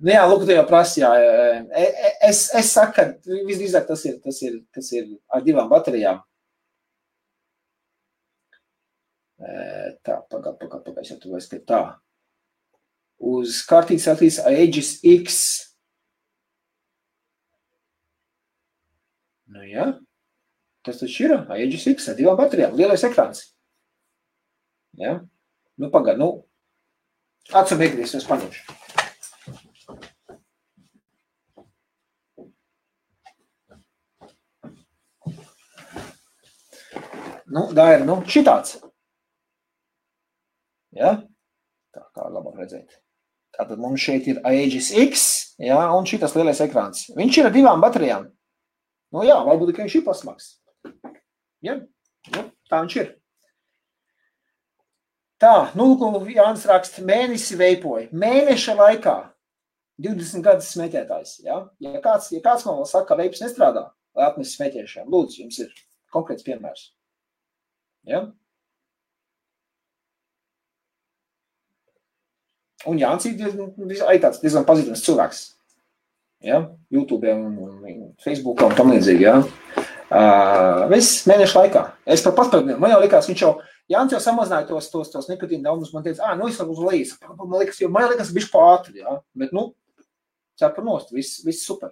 Jā, lūk, tu jau prasi, jā. Es saku, ka visdrīzāk tas ir ar 2 baterijām. Tā, pagad, es jau tu vairs, ka tā. Uz kartītes atīs Aegis X. Jā, tas taču ir Aegis X ar 2 baterijām, lielais ekrāns. Jā, pagad, atsum iegrīs, es paņemšu. Tā ir, šitāds. Jā, tā kā labāk redzēt. Tātad mums šeit ir Aegis X, jā, un šitas lielais ekrāns. Viņš ir ar 2 baterijām. Jā, varbūt, ka viņš ir pasmaks. Jā, tā viņš ir. Tā, Jānis raksta, mēnesi veipoja. Mēneša laikā 20 gadus smēķētājs, jā. Ja kāds man vēl saka, ka veips nestrādā, lai atnes smēķēšanu, lūdzu, jums ir konkrēts piemērs. Jā. Un Jānis ir tāds diezgan pazīstams cilvēks. Ja? YouTube un Facebook un tam līdzīgi. Ja? Viss mēnešu laikā. Es pat paspēju, man jau likās, Jānis jau samazināja tos nikotīna daudzums. Man teica, es varu uz lejas. Man liekas, bišķi pātri. Ja? Bet, cepur nost, viss super.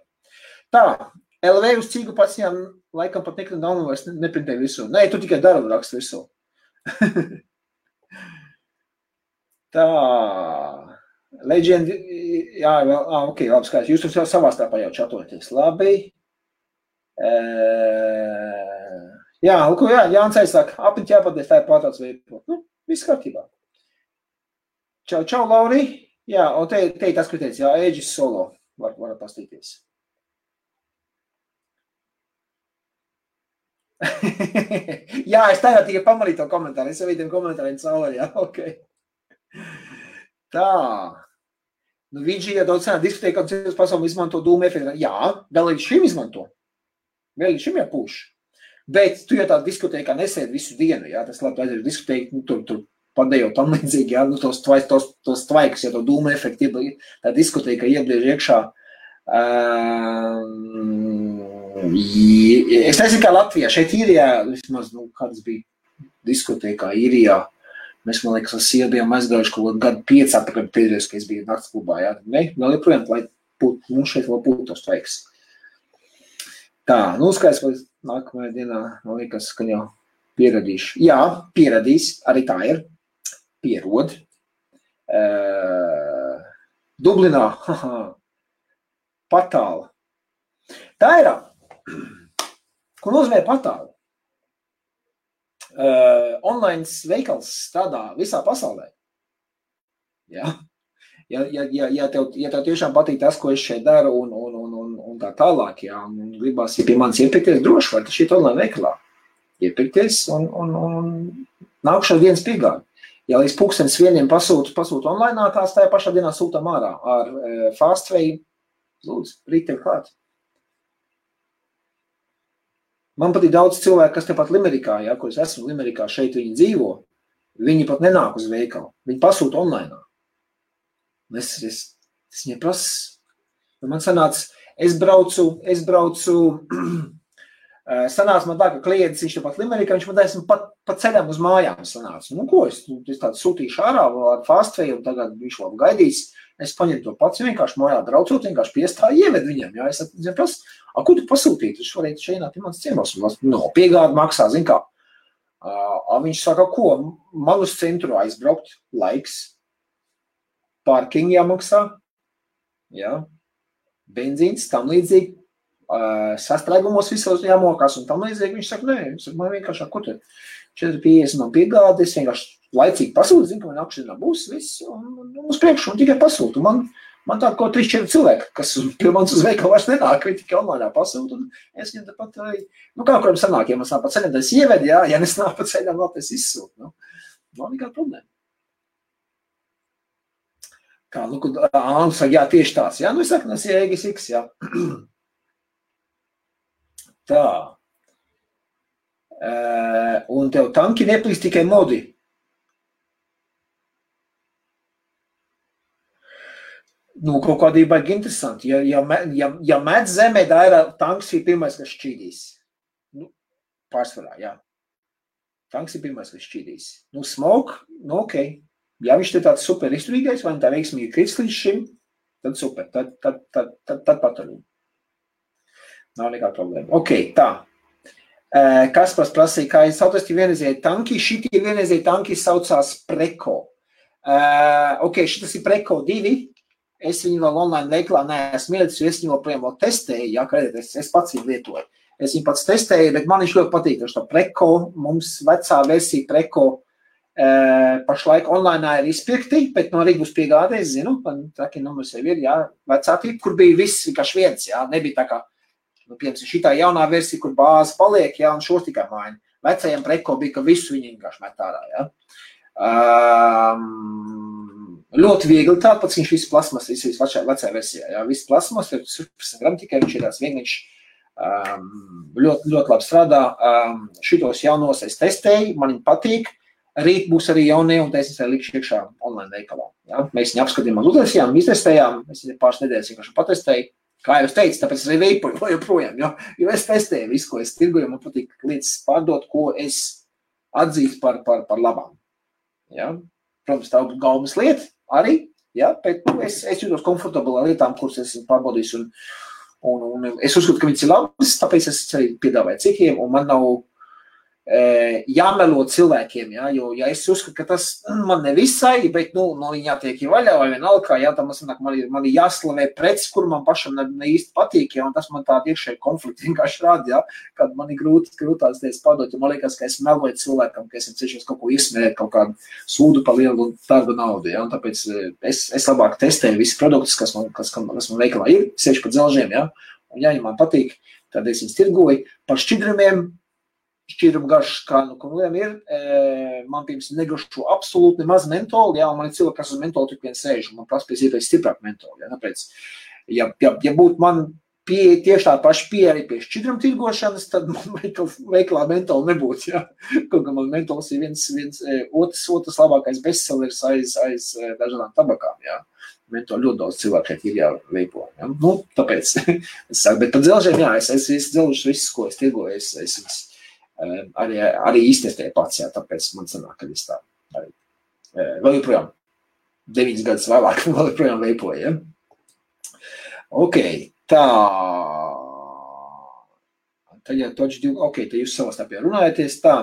Tā, LV uz cīgu pats viņām laikam pat nikotīna daudzums vairs neprintēja visu. Nē, tu tikai darbu rakstu visu. Tā, Legend, jā, ok, labi skaidrs, jūs jau savā starpā jau čatoties, labi. Jā, Jānis aizsaka, apniņķi jāpadies, tā ir pārtāds veipot. Viss kārtībā. Čau, Lauri. Jā, un te tas, ko teica, Aegis Solo, var pastīties. Jā, es tagad tikai pamanīju to komentāru, es jau vidiem komentāriem cauri, jā, ok. Tā. Vīdži, ja daudz cenā diskotēkā un citas pasauli izmanto dūmu efektu. Jā, vēl līdz šim izmanto. Vēl līdz šim jāpūš. Bet tu jau tā diskotēkā nesēdi visu dienu, jā, tas labi aiziet diskotēku, tur padējo tam līdzīgi, jā, tos tvaikus, ja to dūmu efektu, tā diskotēkā iebliež iekšā. Es nezinu, kā Latvijā, šeit Īrijā, vismaz, kādas bija diskotēkā Īrijā, mēs, man liekas, ar sievu bijām aizgājuši kaut gadu 5 atpakaļ pēdējos, ka es biju nakts klubā, jā. Ne, vēl joprojām, lai mums šeit vēl būtu tos tvaiks. Tā, skaidrs, vai nākamajā dienā, man liekas, ka jau pieradīšu. Jā, pieradīs, arī tā ir. Pierod. Dublinā, patāla. Tā ir. Ko nozīmē patāla? Online veikals strādā visā pasaulē. Ja? Ja tev tiešām patīk tas, ko es šeit daru un tā tālāk, ja, un gribās, ja pie manis iepirkties, droši var šeit online veikalā iepirkties un nākušā dienas piegādi. Ja līdz 1:00 pasūta online, tās tajā pašā dienā sūtam ārā ar Fastway, lūdzu, rīt tev klāt. Man patīk daudz cilvēku, kas tepat Limerikā, ja, kur es esmu Limerikā, šeit viņi dzīvo, viņi pat nenāk uz veikalu, viņi pasūta online. Es viņai prasu, man sanāca, es braucu, sanāca man tā, ka klients, viņš tepat Limerikā, viņš man taisam pa ceļam uz mājām sanāca. Ko es tādu sūtīšu ārā ar Fastway, un tagad viņš labi gaidīs, es paņemu to pats, vienkārši mājā braucot, vienkārši piestāju ieved viņam, ja, es prasu, ko tu pasūtītu? Viņš varētu šeit ienākt mans ciemos. Piegādi maksā, zin kā. Viņš saka, ko? Man uz centru aizbraukt, laiks, parking jāmaksā, jā, benzīns, tam līdzīgi, sastrēgumos visos jāmokās un tam līdzīgi. Viņš saka, nē, man vienkārši, ko te 4,50 man piegāda, es vienkārši laicīgi pasūtu, zinu, ka man apšķirnā būs viss, un uz priekšu, un tikai pasūtu. Man tā ko 3-4 cilvēki, kas pie manis uz veikalu vairs nenāk, viņi tikai online pasūtu, un es viņam tāpat arī, kā kuram sanāk, ja man sanāk pa ceļam, tad es ievedu, jā, ja nesnāk pa ceļam, vēl es izsūtu. Nav nekāda problēma. Kā, saka, jā, tieši tās, jā, es saku, tas ir EGS X, jā. Tā. Un tev tanki neplīst tikai modi. Kaut kādī baigi interesanti. Ja met zemē, tā tanks ir pirmais, kas šķīdīs. Pārsvarā, jā. Tanks ir pirmais, kas šķīdīs. Smoke, ok. Ja viņš te tāds super izturīgais, vai tā veiksmīgi krits līdz šim, tad super, tad paturīgi. Nav nekā problēma. Ok, tā. Kaspars prasīja, kā saucās vienreizēji tanki. Šitie vienreizēji tanki saucās Preko. Ok, šitas ir Preko 2. Es viņu vēl online veiklā neesmu ielicis, jo es viņu vēl testēju, jā, es pats viņu lietoju. Es viņu pats testēju, bet man viņš ļoti patīk, ka Preko, mums vecā versija Preko pašlaik online ir izpirkti, bet no arī būs piegādē, es zinu, traki numurs jau ir, jā, vecā tipa, kur bija viss vienkārši viens, jā, nebija tā kā, piemēram, šitā jaunā versija, kur bāze paliek, jā, un šos tikai maina. Vecajam Preko bija, ka visu viņi vienkārši met ārā, jā. Ļoti viegli tād, pats viņš viss plasmas, viss vecā versijā, jā, viss plasmas, 16 gram tikai, viņš ir tās vienīgs, ļoti labi strādā, šitos jaunos es testēju, man viņi patīk, rīt būs arī jaunie, un es arī likšu iekšā online veikalā, jā, mēs viņu apskatījām, uztaisījām, iztestējām, es viņu pāris nedēļas vienkārši patestēju, kā jau es teicu, tāpēc es arī veipoju joprojām, jo es testēju visu, ko es tirgoju, man patīk lietas pārdot, ko es atzīstu par labām, jā, protams, tā galvas lieta, arī, jā, bet es jūtos komfortabli ar lietām, kuras esmu pārbaudījis, un es uzskatu, ka viņas ir labas, tāpēc es arī piedāvāju citiem, un man nav jāmelo cilvēkiem, jā, jo ja es uzskatu, ka tas man nevisai, bet, viņi jātiek vaļā vai vienalga, jā, tā man ir jāslavē preces, kur man pašam ne īsti patīk, jā, un tas man tādu iekšēju konfliktu vienkārši rāda, jā, kad man ir grūtās teicis pārdot, jo man liekas, ka es meloju cilvēkam, ka esmu cenšies kaut ko izsmērēt, kaut kādu sūdu par lielu darba naudu, jā, un tāpēc es labāk testēju visi produktus, kas man veikalā ir, sevišķi pa dzelžiem, jā, un ja man patīk, tad es viņus tirgoju par šķidrumiem, šķīrumu garš, kā ir, man pirms negrašu absolūti nemaz mentoli, jā, un man ir cilvēki, kas uz mentoli tik vien sēž, un man prasa pēc iespējas stiprāk mentoli, jā, tāpēc, ja būtu man pieeja tieši tā paša pieeja arī pie šķidrumu tirgošanas, tad man veikalā mentoli nebūtu, jā, kaut kā man mentols ir viens otrs labākais bestsellers aiz dažādām tabakām, jā. Mentoli ļoti daudz cilvēku šeit ir jāveipo, jā, tāpēc, es saku, bet par dzelžiem, jā, es dzelžus visus, ko es tirgoju, es arī iztestēju pats, jā, tāpēc man sanāk, ka es tā arī vēl joprojām 9 gadus vēlāk vēl joprojām veipoju, ja? Ok, tā. Tad jau ok, tad jūs savā starpā runājaties, tā.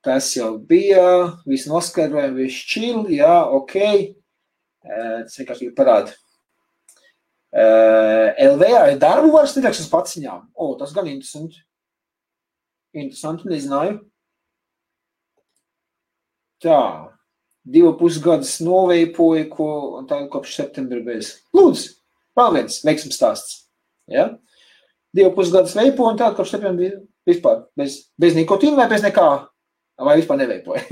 Tas jau bija, viss noskaidrojam, viss chill, jā, ok. Tas vienkārši parāda. LVA ir darbu varas nedēļas uz paciņām. Tas gan interesanti. Interesanti, nezināju. Tā, 2,5 gadus noveipoju, un tā kopš septembra bez. Lūdzu, vēl viens veiksmes stāsts. Ja? 2,5 gadus veipoju, un tā kopš septembra vispār bez nikotīna vai bez nekā, vai vispār neveipoju.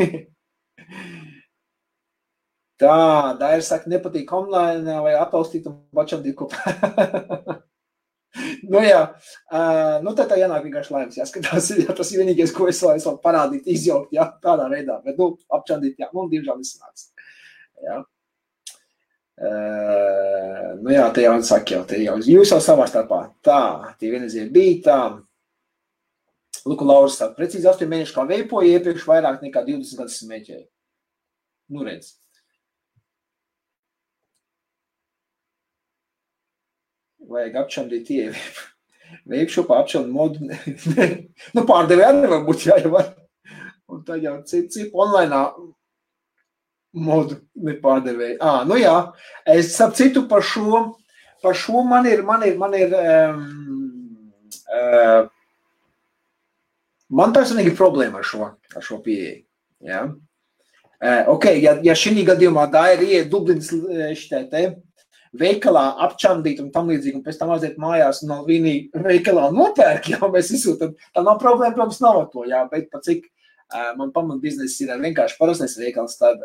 Tā, Daira saka, nepatīk online vai atbalstīt un bačandīt kopā. Jā, tad tā jānāk vienkārši laimes, jāskatās, jā, tas ir vienīgais, ko es vēl parādīt, izjaukt, jā, tādā veidā, bet, apčandīt, jā, diemžēl nesanāks, jā. Jā, te jau saka, jūs jau savā starpā, tā, tie vienreizie bija tā, Luku Lauris saka, precīzi 8 mēneši kā veipoja, iepriekš vairāk nekā 20 gadus smēķēja. Redz. Vajag apčandīt veikšopā apčandu modu. Pārdevēja arī nevar būt jāievar. Un tā jau cipu online modu nepārdevēja. Jā, es ap citu par šo man ir Man personīgi ir problēma ar šo pieeju. Ja? Ja šī gadījumā tā ir iet Dublinas veikalā apčandīt un tam līdzīgi, un pēc tam aiziet mājās no vienī veikalā nopērk, jā, mēs izsūtam, tā nav problēma, protams, nav ar to, jā, bet pa cik man pamat biznesa ir vienkārši parastais veikals, tad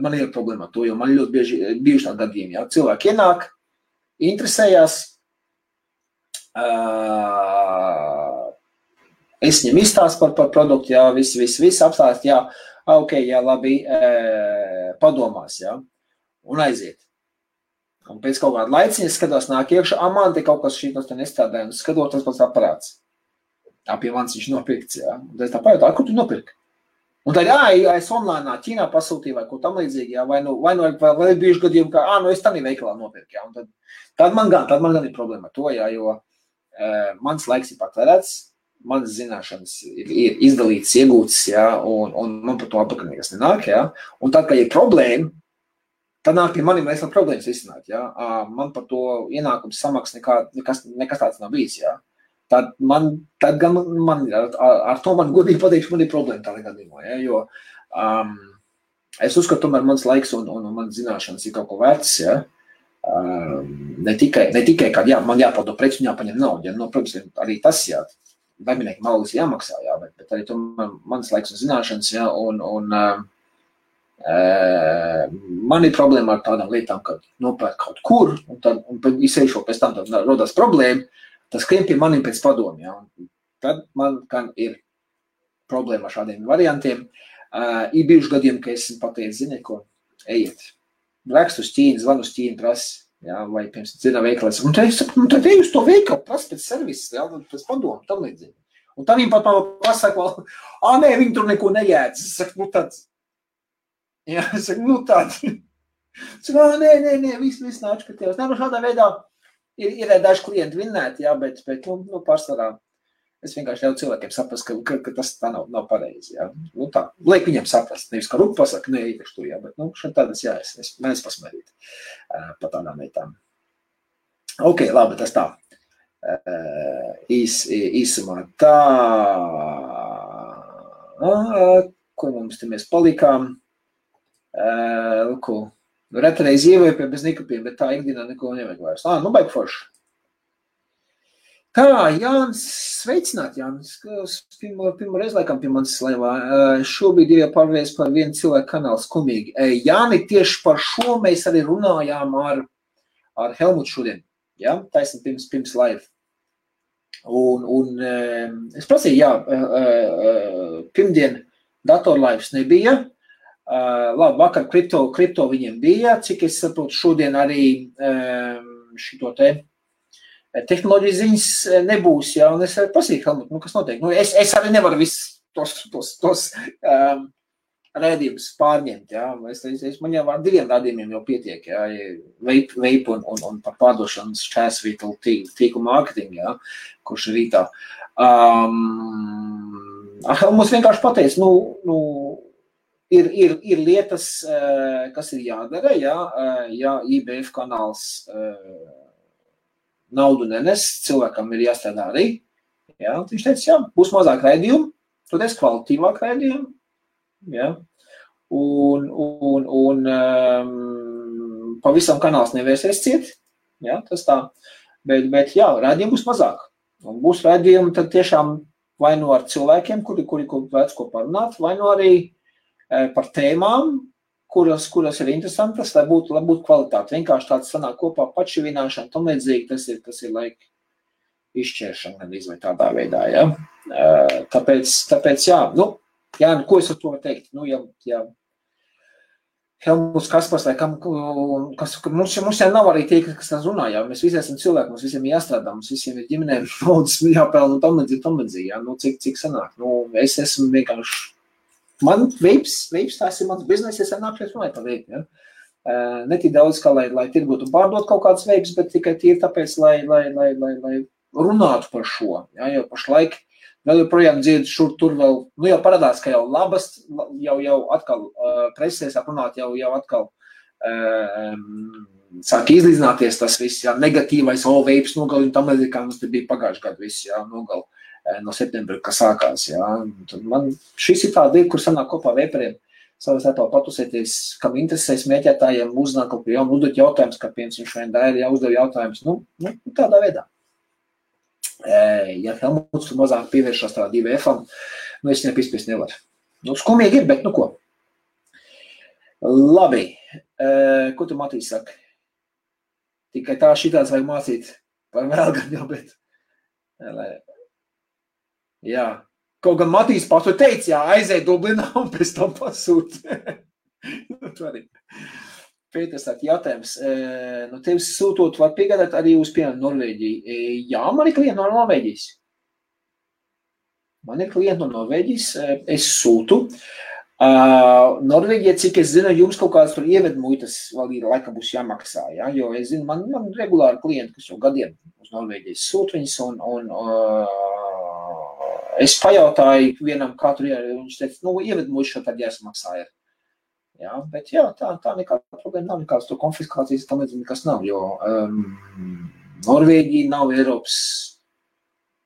man ir problēma ar to, jo man ļoti bieži bijuši tādi gadījumi, jā, cilvēki ienāk, interesējās, es viņam izstāstu par produktu, jā, viss apstāst, jā, ok, jā, labi, padomās, jā, un aiziet. Un pēc kaut kāda laiciņa skatos nāk iekšā, man te kaut kas šītos te nestrādāja, un skatot tas pats aparāts. Pie manis viņš nopirkts, jā. Un tad tā pajautāju, kur tu nopirki? Un tad, es online Ķīnā pasūtīju vai ko tam līdzīgi, jā, vai ir bijuši gadījumi, ka, es tādā veikalā nopirku, jā. Un tad man gan ir problēma ar to, jā, jo mans laiks ir patērēts, manas zināšanas ir izdalītas, iegūtas, jā, un man par to apakaļ nekas nenāk, jā. Un tad, kad ir problēma, tad nāk pie maniem vēl problēmas izsināt, jā. Man par to ienākums samaks nekas tāds nav bijis, jā. Tad gan man ar to man godīgi pateikšu, man ir problēma tādā gadījumā, jā, jo es uzskatu, tomēr mans laiks un manas zināšanas ir kaut ko vērts, jā. Ne tikai, kad man jāpaldo preci un jāpaņem naudu, jā, protams, arī tas, jā, darbinieki algas jāmaksā, jā, bet arī tomēr mans laiks un zināšanas, jā, un man ir problēma ar tādām lietām, kad nopērk kaut kur, un izsējušo pēc tam rodās problēma, tas skrien pie maniem pēc padomu, jā, un tad man gan ir problēma ar šādiem variantiem. Ir bijuši gadījumi, ka esmu pateicis, zini, ko, ejiet, rakstu uz Ķīnu, zvanu uz Ķīnu, prasi, jā, vai pirms dzirdā veikalēs, un tad ej uz to veikalu, prasi pēc servises, jā, pēc padomu, tam līdzīgi. Un tad viņi pat man pasaka, nē, viņi tur neko nejēdz. Es saku, tāds. Jā, es saku, tāds. Es saku, nē, viss nāc, ka tevs. Nē, šādā veidā ir daži klienti vinnēti, jā, bet pārsvarā es vienkārši ļauju cilvēkiem saprast, ka tas tā nav pareizi, jā. Tā, liek viņiem saprast, nevis kā rupu pasaka, nē, īpaši tur, jā, bet, šeit tādas, jā, es mēdz pasmērīt pa tādām lietām. Ok, labi, tas tā. Īsumā tā, ko mums te mēs palikām, retreiz ievēpē bez nikapiem, bet tā ikdienā neko nevajag vairs. Baigi forši. Tā, Jānis, sveicināt, Jānis, pirmo reizi laikam pie manis laivā. Šobrīd ir jau pārvērst par vienu cilvēku kanālu skumīgi. Jāni, tieši par šo mēs arī runājām ar Helmutu šodien. Ja? Taisni pirms live. Un es prasīju, jā, pirmdien datorlaivs nebija. Labi, vakar kripto viņiem bija, cik es saprotu, šodien arī šito te tehnoloģijas ziņas nebūs, jā, un es arī prasīju, Helmut, kas notiek? Es arī nevaru visus tos rēdījumus pārņemt, jā, man jau ar 2 rādījumiem jau pietiek, jā, vape un par pārdošanas šķērsvītu tīklu mārketingu, jā, kurš ir rītā. Helmuts vienkārši pateica, ir lietas, kas ir jādara, ja IBF kanāls naudu nenes, cilvēkam ir jāstrādā arī. Ja? Viņš teica, jā, būs mazāk raidījumu, tad es kvalitīvāk raidījumu. Ja? Un pavisam kanāls nevērsies ciet. Ja? Tas tā. Bet jā, raidījumu būs mazāk. Un būs raidījumi tad tiešām vai no ar cilvēkiem, kuri vērts ko parunāt, vai no arī par tēmām, kuras ir interesantas, lai būtu kvalitāte. Vienkārši tāds sanāk kopā pašivināšana, tam līdzīgi, tas ir laika izšķēršana, gan vai tādā veidā, ja. Tāpēc jā, ko es ar to varu teikt? Ja Helmuts Kaspars, vai mums jau nav arī tie, kas tās runā, jā, mēs visi esam cilvēki, mums visiem jāstrādā, mums visiem ir ģimenēm naudas jāpelna un tam līdzīgi, jā, cik sanāk, es esmu vienkārši man vapes, tās ir mans biznes, es nākšies runāt par vape, ja? Ne tik daudz, kā lai tirgot un pārdot kaut kādas vapes, bet tikai tīri tāpēc, lai runātu par šo, ja? Jo pašlaik vēl joprojām dzird šur tur vēl, jau parādās, ka jau labas, jau atkal presē sāk runāt, jau atkal sāk izlīdzināties tas viss, jā, negatīvais, veips nogali, un tam līdzīgi, kā mums te bija pagājuši gadu viss, jā, nogali no septembra, kas sākās, jā. Tad man šis ir tāda lieta, kur sanāk kopā veipariem, savā starpā patusēties, kam interesē smēķētājiem, uzzināt kaut ko jaunu, uzdot jautājumus, kā piemēram viņš vien daļa, ja uzdev jautājumus, nu, tādā veidā. Ja Helmuts tur mazāk pievēršās tādā 2F-am, nu, es nepispies nevaru. Nu, skumīgi ir, bet nu ko. Labi, ko tu Matīs saka? Tikai tā šitāds vajag mācīt par vēl gan jau, bet... Jā, kaut gan Matīs pats to teica, jā, aizēj Dublinā un pēc tam pasūt. Pēters saka, jautājums, no tevis sūtot, var piegādāt arī uz piemēram Norvēģiju? Jā, man ir klienti no Norvēģijas. Man ir klienti no Norvēģijas, es sūtu. Norvēģija, cik es zinu, jums kaut kādas tur ievedmuitas vēl ir, laikam būs jāmaksā, ja? Jo es zinu, man regulāri klienti, kas jau gadiem uz Norvēģijas sūt viņas, un es pajautāju vienam, kā tur ir, viņš teica, nu, ievedmuitas šo tad jāsamaksā ir. Jā, bet jā, tā nekāda problēma nav, nekādas to konfiskācijas, tam līdzīgi nekas nav, jo Norvēģija nav Eiropas,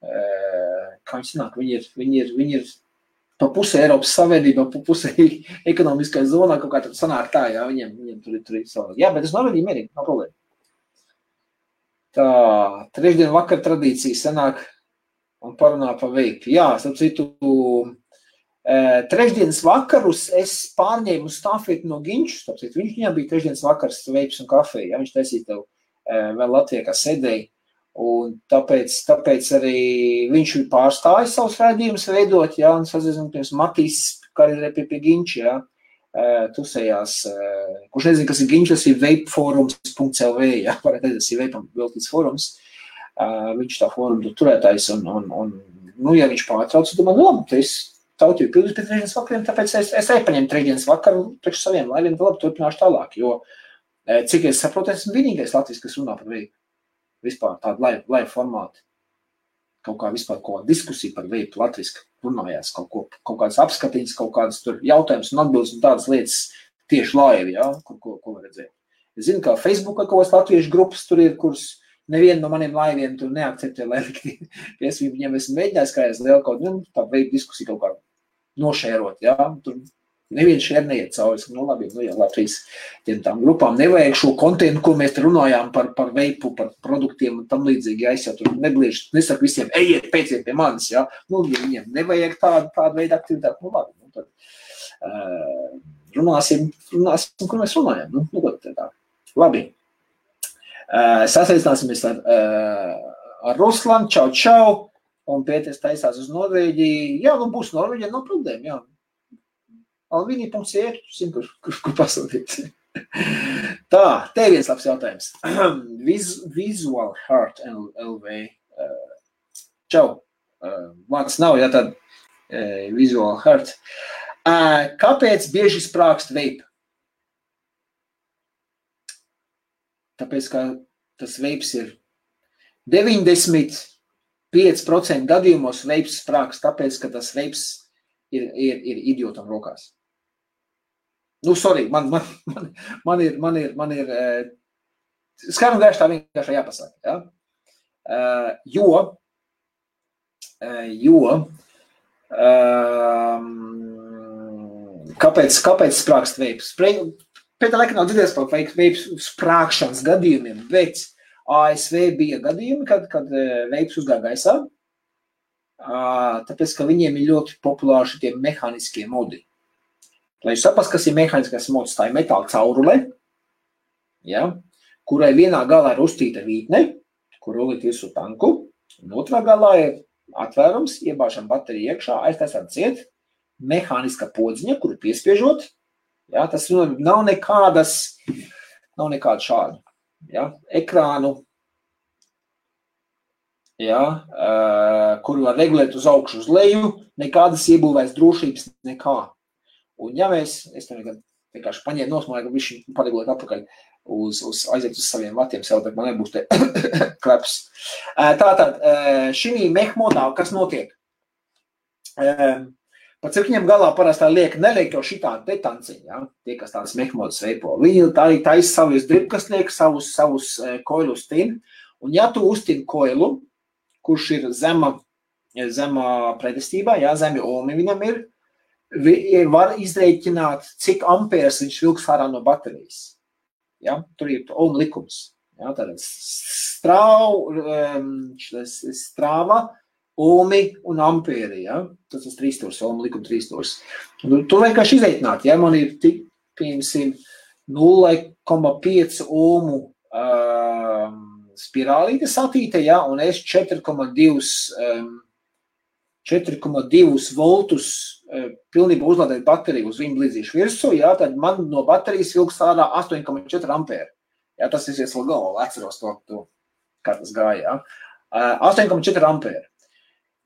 kā viņi sanāk, viņi ir pa pusē Eiropas Savienībā, pa pusē ekonomiskā zonā, kaut kā tad sanāk tā, jā, viņiem tur ir savā. Jā, bet es Norvēģiju mierīgi, nav problēma. Tā, trešdien vakar tradīcija sanāk un parunā pa veipu. Jā, starp citu, trešdienas vakarus es pārņēmu stafeti no Ginču, starp citu, viņam bija trešdienas vakars veips un kafija, ja viņš taisīja tev vēl Latvijā, kā sēdēja. Un tāpēc arī viņš pārstāja savus raidījumus veidot, jā, un sazinu, pirms Matīs, kā arī pie Ginča, jā, tusējās, kurš nezinu, kas ir Ginča, tas ir vapeforums.lv, jā, varētu teikt, tas ir veipam veltīts forums, viņš tā forumu turētājs, un, nu, ja viņš pārtrauc, tad man, labi, tu esi tautīju pildus pēc trešdienas vakariem, tāpēc es arī paņemu trešdienas vakaru priekš saviem laiviem, labi, turpināšu tālāk, jo, cik es saprotu, esmu vienīgais Latvijas, kas runā par veipu. Vispār tādu laivu formātu, kaut kā vispār kaut kāda diskusija par veipu latviski runājās, kaut kādas apskatiņas, kaut kādas tur jautājumus un atbildes un tādas lietas tieši laivi, jā, ko var redzēt. Es zinu, ka Facebookā kaut kādas latviešu grupas tur ir, kuras nevienu no maniem laiviem tur neakceptē, lai piesvību viņiem esmu mēģinājis, kā es lielu kaut tādu veipu diskusiju kaut kā nošērot, jā, tur neviens šeit neiet cauri, nu labi, nu jā, Latvijas tām grupām nevajag šo kontentu, ko mēs te runājām par veipu, par produktiem un tam līdzīgi, ja es jau tur nesaku visiem, ejiet, pēciet pie manis, ja, nu, ja viņiem nevajag tādu veidu aktivitāti, nu labi, nu tad runāsim, kur mēs runājam, nu ko tā. Labi, sasaistināsimies ar Ruslanu, čau, un Pēters taisās uz Norvēģiju, jā, nu būs Norvēģija, nav problēma, jā. Alvini.cr, kur pasūtīt. Tā, te viens labs jautājums. Visual Heart LV. Čau. Vārds nav, ja tad Visual Heart. Kāpēc bieži sprākst veipa? Tāpēc, ka tas veips ir 95% gadījumos veips sprākst, tāpēc, ka tas veips ir idiotam rokās. Nu, sorry, man ir skaidri un gaiši tā vienkārši jāpasaka, ja? Kāpēc sprākst veips? Pēc laikā nav dzirdēs par veips sprākšanas gadījumiem, bet ASV bija gadījumi, kad veips uzgāja gaisā, tāpēc, ka viņiem ir ļoti populāri šitie mehāniskie modi. Lai jūs saprast, kas ir mehāniskais mods, tā ir metāla caurule, ja, kurai vienā galā ir uztīta vītne, kur rolīt visu tanku, un otrā galā ir atvērums, iebāšana baterija iekšā, aiztaisām ciet, mehāniska podziņa, kuru piespiežot, ja, tas nav nekāda šāda, ja, ekrānu, ja, kuru var regulēt uz augšu uz leju, nekādas iebūvēs drošības, nekā. Un ja es tam vienkārši paņēmu nosmāju, ka viņš paregulēt atpakaļ aiziet uz saviem vatiem sev, bet man nebūs te kleps. Tātad, šī mehmodā, kas notiek? Pat cik viņam galā parasti neliek jau šitādi te tanciņi, ja? Tie, kas tādas mehmodas veipo. Viņi arī taisa savus dribkas liek, savus koilus tin. Un ja tu uztin koilu, kurš ir zema pretestībā, ja, zemi ohmi viņam ir, var izrēķināt, cik amperes viņš vilks ārā no baterijas. Ja? Tur ir ohmi likums. Ja? Tātad strāva, ohmi un ampēri, ja? Tas ir 3 stūrs, ohmi likuma 3 stūrs. Tu vienkārši izreikināt, ja man ir tik, piemēram, 0,5 ohmu spirālīte satīte, ja? Un es 4,2 voltus pilnībā uzlādēt bateriju uz viņu blīdzīšu virsū, ja? Tad man no baterijas vilks ārā 8,4 ampēri. Ja? Tas ir vēl galvā, atceros to, kā tas gāja, ja? 8,4 ampēri.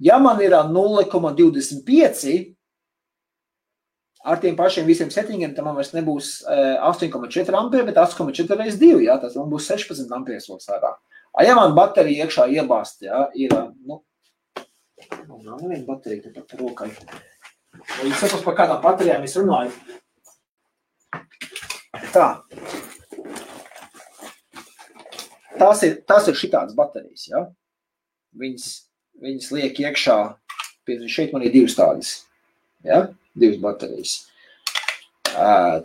Ja man ir 0,25 ar tiem pašiem visiem settingiem, tad man vairs nebūs 8,4 ampēri, bet 8,4 reiz 2, ja? Tas man būs 16 ampērs vēl sārā. Ja man baterija iekšā iebāst, ja? Ir, nav neviena baterija te pat rokai. Jūs saprast, par kādām baterijām es runāju. Tā. Tās ir šitādas baterijas, ja? Viņas liek iekšā, šeit man ir 2 tādas, ja? 2 baterijas.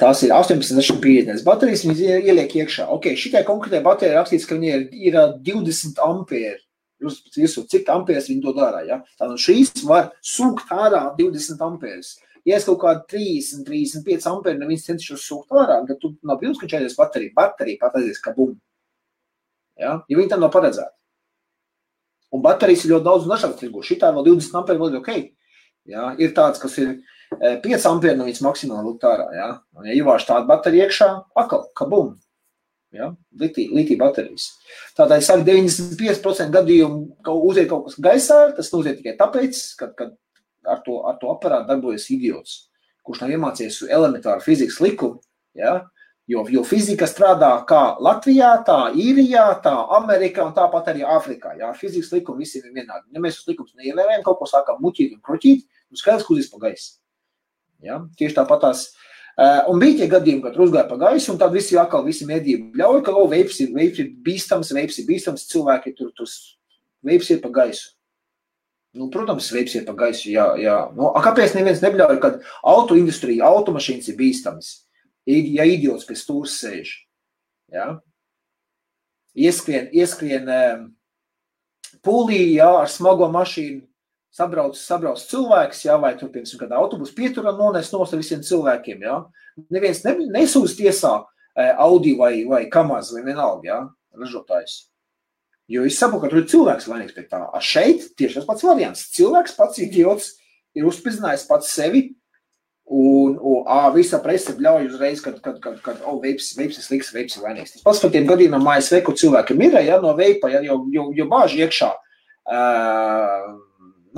Tās ir 18,50 baterijas, viņas ieliek iekšā. Ok, šitai konkrētai baterija rakstīts, ka viņa ir 20 ampēri. Jūs cik ampērs viņi dod ārā, ja? Tātad šīs var sūkt ārā 20 ampērs. Ja es kaut kādu 30-35 ampēri neviens cenšos sūkt ārā, tad tu nav bijis, ka čaidies baterija pat aizies kabum. Ja? Ja viņi tam nav paredzēti. Un baterijas ir ļoti daudz un dažādas tirgu. Šitā vēl 20 ampēri vēl ir ok. Ja? Ir tāds, kas ir 5 ampēri no viņas maksimāli lūgt ārā. Ja? Un ja ievāž tādu bateriju iekšā, akal, kabum. Ja? Litī baterijas. Tātad, es saku, 95% gadījumu uziet kaut kas gaisā, tas uziet tikai tāpēc, kad ar to aparātu darbojas idiots, kurš nav iemācījies elementāru fizikas likumu, ja? Jo fizika strādā kā Latvijā, tā Īrijā, tā Amerikā un tāpat arī Āfrikā. Ja? Fizikas likumi visiem ir vienādi. Ja mēs uz likumus neievērējam, kaut ko sākam muķīt un kroķīt, un skaidrs, ka uzīs pa gaisu. Ja? Tieši tāpatās. Un bija tie gadījumi, kad uzgāja pa gaisu, un tad visi medību ļauj, ka veips ir bīstams, cilvēki tur veips ir pa gaisu. Nu, protams, veips ir pa gaisu, jā. Nu, kāpēc neviens nebļauj, kad autoindustrija, automašīnas ir bīstamas? Ja idiots pie stūras sēž, ja? Ieskrien pūlī, ja, ar smago mašīnu, sabrauc cilvēks, ja, vai tur, piemēram, kādā autobusu pieturā nones nos ar visiem cilvēkiem, ja? Neviens nesūdz tiesā Audi vai Kamaz vai vienalga, ja, ražotājs. Jo es saprotu, ka tur ir cilvēks vainīgs pie tā. A šeit tieši tas pats variants. Cilvēks pats idiots ir uzspridzinājis pats sevi, un visa presa bļauj uzreiz, kad veips ir sliks, veips ir vainīgs. Tas pats par tiem gadījumiem ASV, kur cilvēkiem ir, ja, no veipa, ja, jo bāži iekšā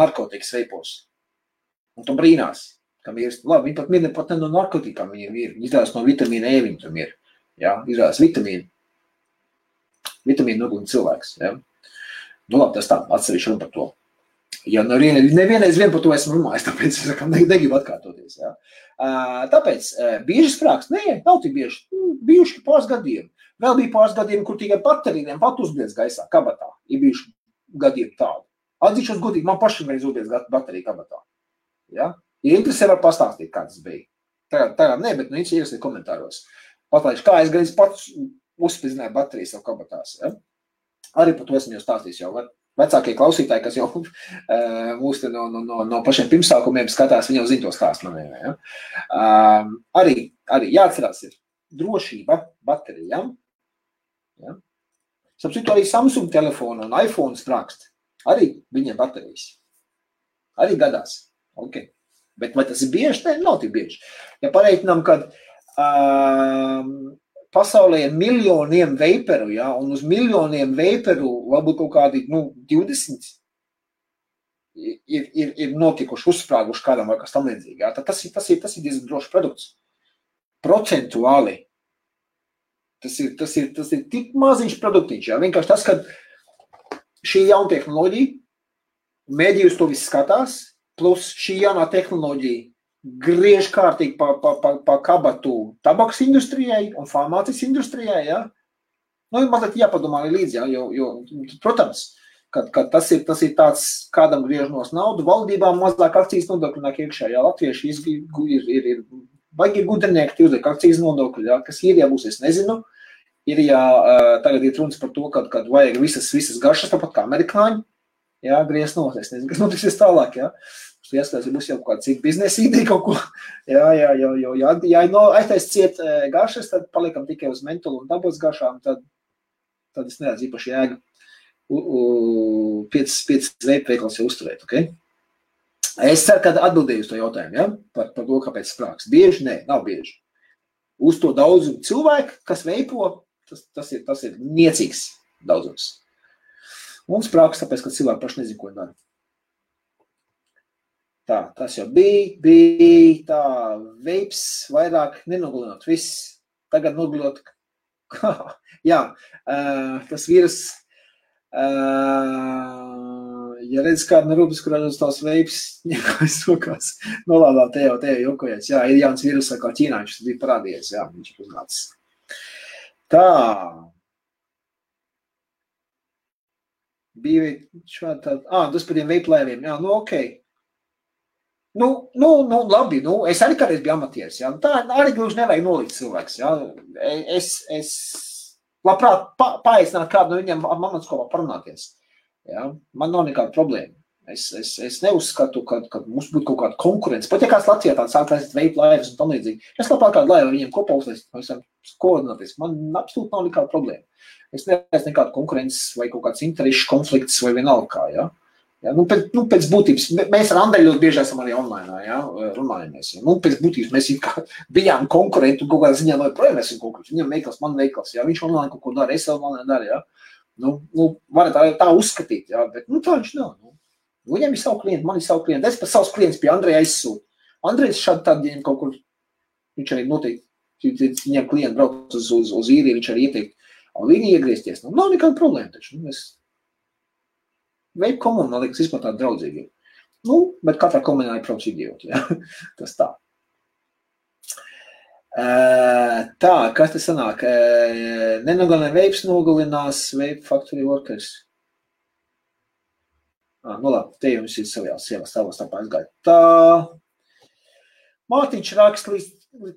narkotikas veipos. Un tu brīnās, kam ir, labi, viņi pat ne no narkotikām viņiem ir, viņi izrādās no vitamīna E viņi tam ir, ja, izrādās vitamīnu noglina cilvēks, ja. Nu labi, tas tā, atsevišķi runa par to. Ja nevienreiz vien par to esmu runājis, tāpēc es negribu atkārtoties. Ja. Tāpēc bieži sprāks, nav tik bieži, bijuši pāris gadījumi. Vēl bija pāris gadījumi, kur tikai baterijiem pat uzbliedz gaisā, kabatā. Ir bijuši gadījumi tādi. Atzīšos godīgi, man pašam reiz uzbliedz baterija kabatā. Ja. Ja interesē, var pastāstīt, kā tas bija. Tagad ne, bet interesē komentāros. Patlaiši, kā es gan pats uzspridzināju bateriju savu kabatās. Ja. Arī par to esmu jau stāstījis jau. Vecākie klausītāji, kas jau mūs no pašiem pirmsākumiem skatās, viņi jau zina to stāstu maniem. Ja? Arī jāatcerās ir drošība baterijām. Ja? Sapcitu arī Samsung telefonu un iPhone sprākst. Arī viņiem baterijas. Arī gadās. Okay. Bet vai tas ir bieži? Ne, nav tik bieži. Ja pareiķinām, kad pasaulē ir miljoniem veiperu, ja, un uz miljoniem veiperu varbūt kaut kādi 20 ir notikuši, uzsprāguši kādam vai kas tam līdzīgi. Ja. Tas ir diezgan drošs produkts. Procentuāli. Tas ir tik maziņš produktiņš. Ja. Vienkārši tas, ka šī jauna tehnoloģija, mēdījus to viss skatās, plus šī jaunā tehnoloģija griež kārtīgi pa kabatu tabaks industrijai un farmācijas industrijai, ja? Nu, mazliet jāpadomā līdzi, ja? Jo, protams, kad tas ir tāds, kādam griežnos naudu, valdībām mazāk akcijas nodokļu nāk iekšā, ja latvieši ir baigi gudrinieki, tie uzliek akcijas nodokļu, ja? Kas ir, ja būs, es nezinu, ir, ja tagad ir runas par to, kad vajag visas garšas, tāpat kā amerikāņi, ja, griezt nos, es nezinu, kas notiksies tālāk, ja? Ieskatās, ja būs jau kāda cita biznesa ideja kaut ko, ja aiztais ciet garšas, tad paliekam tikai uz mentolu un dabas garšām, tad es neredzu īpaši jēgu 5 veikals jau uzturēt, ok? Es ceru, ka atbildēju uz to jautājumu, ja? Par to, kāpēc sprāks. Bieži? Nē, nav bieži. Uz to daudzumu cilvēku, kas veipo, tas ir niecīgs daudzums. Un sprāks, tāpēc, ka cilvēki paši nezin, ko dara. Tā, tas jau bija tā, veips vairāk nenogalinot, viss. Tagad nogalinot, jā, tas vīrus, ja redz kādu no rūpes, kurā uz tās veips, ņemkājas rokās, nolādā te jau jokojies, jā, ir jauns vīrus, kā ķīnāņš, tas bija parādījies, jā, viņš ir uznācis. Tā. Bija šādi tādi, tas par tiem veiplēviem, jā, nu, okei. Nu, labi, es arī kādreiz biju amatieris, jā, tā arī gluži nevajag nolikt cilvēks, jā, es labprāt paaicināt kādu no viņiem amatskopā parunāties, jā, man nav nekāda problēma, es neuzskatu, ka mums būtu kaut kāda konkurence, pat ja kāds Latvijā tāds sāk taisīt veipu laivas un tam līdzīgi, es labprāt kādu laivu viņiem kopā uztaisīt, mēs varam koordināties, man absolūti nav nekāda problēma, es neredzu nekādu konkurences vai kaut kāds interešu konflikts vai vienalga kā, jā. Ja, pēc būtības, mēs ar Andreju ļoti bieži esam arī online, ja, runājamies. Ja. Pēc būtības mēs bijām konkurenti un kaut kādā ziņā joprojām esam konkurenti. Viņam veikals, man veikals, ja. Viņš online kaut ko dara, es online daru, ja. Varat tā uzskatīt, ja, bet tā viņš nav. Viņam ir savu klientu, man ir savu klientu. Es pat savus klientus pie Andreja aizsūtu. Andrejs šādi tad, ja kaut kur, viņš arī noteikti, viņam klienti brauc uz īriju, viņš arī ieteikt, un viņi iegriezties. Nav nekāda problēma taču. Veipu komuna, liekas, vispār tāda draudzīgi. Bet katrā komunā ir prauc idioti, ja? Tas tā. Tā, kas te sanāk? Nenogalina veips, nogalinās veipu factory workers. Labi, te jums ir savās stāvās tāpā aizgāja. Tā, Mārtiņš raksta līdz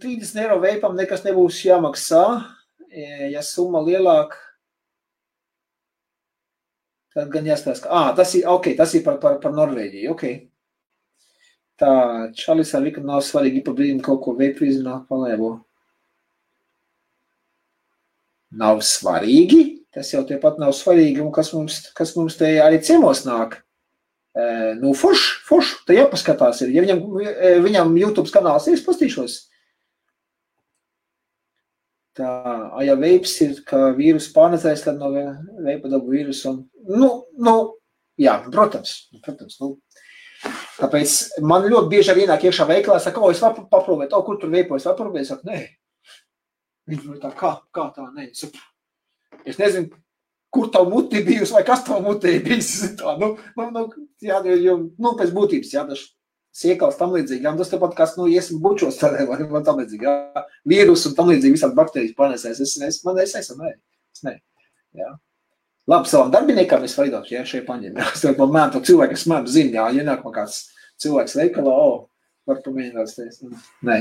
30 eiro veipam nekas nebūs jāmaksā, ja summa lielāka. Tad gan jāskatās, ka, tas ir par Norvēģiju, ok. Tā, Čalis ar Viku nav svarīgi pa brīdim kaut ko veipu izrunāt palēvo. Nav svarīgi? Tas jau tepat nav svarīgi, un kas mums te arī ciemos nāk. Forš, te jāpaskatās ir. Ja viņam YouTube kanāls ir, es pastīšos. Tā, ja veips ir, ka vīrus pārnedzēs, tad no veipa dabu vīrusu un, jā, protams. Tāpēc man ļoti bieži arī ienāk iekšā veiklā, saka, es varu paprovēt, kur tur veipo, es varu paprovēt, saka, nē. Viņš tā, kā tā, nē. Es nezinu, kur tavu muti bijusi vai kas tavu muti bijusi. Tā, jā, pēc būtības, jā, daži siekals tam līdzīgi, jā, tas tepat kas, iesim bučos tādē, vai tam līdzīgi, jā, vīrus un tam līdzīgi visādi bakterijas panesēs, es ne, jā. Labi, savam darbiniekam es vaidot, jā, šeit paņem, jā, es tev mēm to cilvēku, es mēm zinu, jā, ienāk man kāds cilvēks veikalā, var pamēģināt teikt, nē.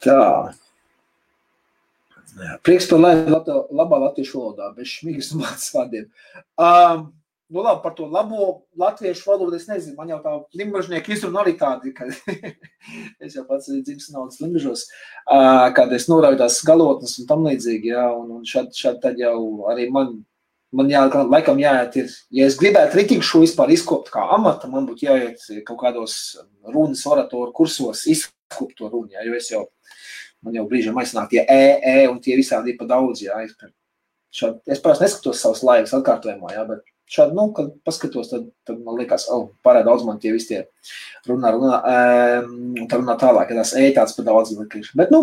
Tā. Prieks par labā latviešu valodā, bez šmīgas un mācas vārdiem. Labi, par to labo latviešu valodu, es nezinu, man jau tā limbažnieki izruna arī tādi, ka es jau pats dzimis naudas limbažos, kad es norauju tās galotnes un tam līdzīgi, jā, un šādi tad jau arī man laikam jāiet ir, ja es gribētu ritīgi šo vispār izkopt kā amata, man būtu jāiet kaut kādos runas oratoru kursos izkopt to runu, jā, jo man jau brīžam aiznāk tie un tie visādi ir pa daudz, jā, es parasti neskatos savas laivas atkārtojumā, jā, bet šādi, kad paskatos, tad man liekas, pārāk daudz man tie visi tie runā, un tā runā tālāk, ja tās tāds pa daudz likīši. Bet,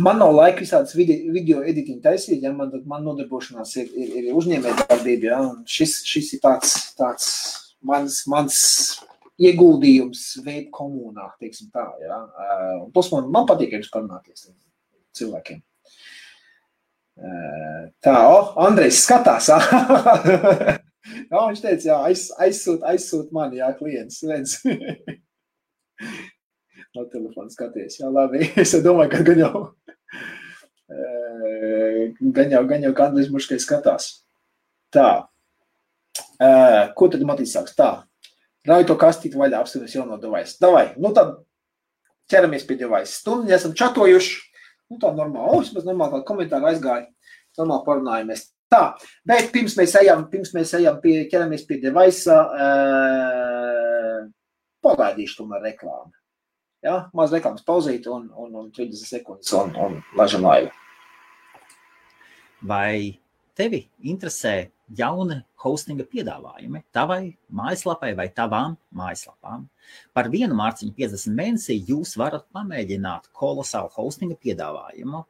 Man nav laika visādas video editing taisīt, ja man nodarbošanās ir uzņēmējdarbība, ja, un šis ir tāds mans ieguldījums veid komunā, teiksim tā, ja. Plus man patīk jums parunāties cilvēkiem. Tā, Andrejs skatās, jā, viņš teica, jā, aizsūt mani, jā, klients, redz. No telefona skaties, jā, labi, es domāju, ka gan jau Andrejs Muškai skatās. Tā, ko tad Matīs sāks? Tā, rauj to kastīti vaļā, apskaties jauno device. Davai, nu tad ķeramies pie device. Stundu esam čatojuši. Nu, tā normāli, vismaz normāli kādu komentāru aizgāja, normāli parunājamies. Tā, bet pirms mēs ejam ķeramies pie device, pagaidīšu tomēr reklāmu. Ja? Maz reklāmas pauzīt un 30 sekundes un laižam laivu. Vai tevi interesē jauni hostinga piedāvājumi tavai mājaslapai vai tavām mājaslapām? Par 1 mārciņu 50 mēnesī jūs varat pamēģināt kolosālu hostinga piedāvājumu.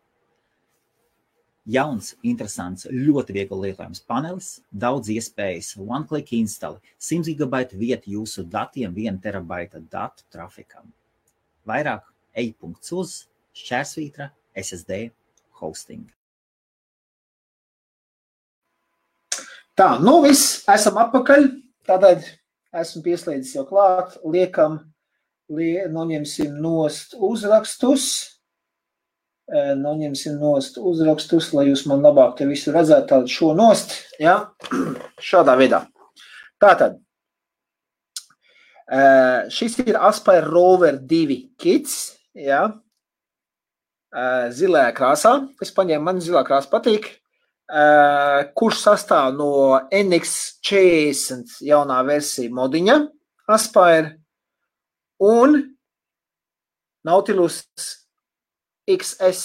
Jauns, interesants, ļoti viegli lietojams panelis, daudz iespējas, one-click instali, 100 GB vieta jūsu datiem, 1 terabaita datu trafikam. Vairāk ej.uz /SSD hosting. Tā, nu viss, esam atpakaļ, tātad esmu pieslēdzis jau klāt, noņemsim nost uzrakstus, lai jūs man labāk te visu redzētu, tātad šo nost, ja, šādā veidā. Tātad, šis ir Aspire Rover 2 kits, ja, zilajā krāsā, es paņēmu, man zilā krāsa patīk, kurš sastāv no NX40 jaunā versija modiņa Aspire un Nautilus XS,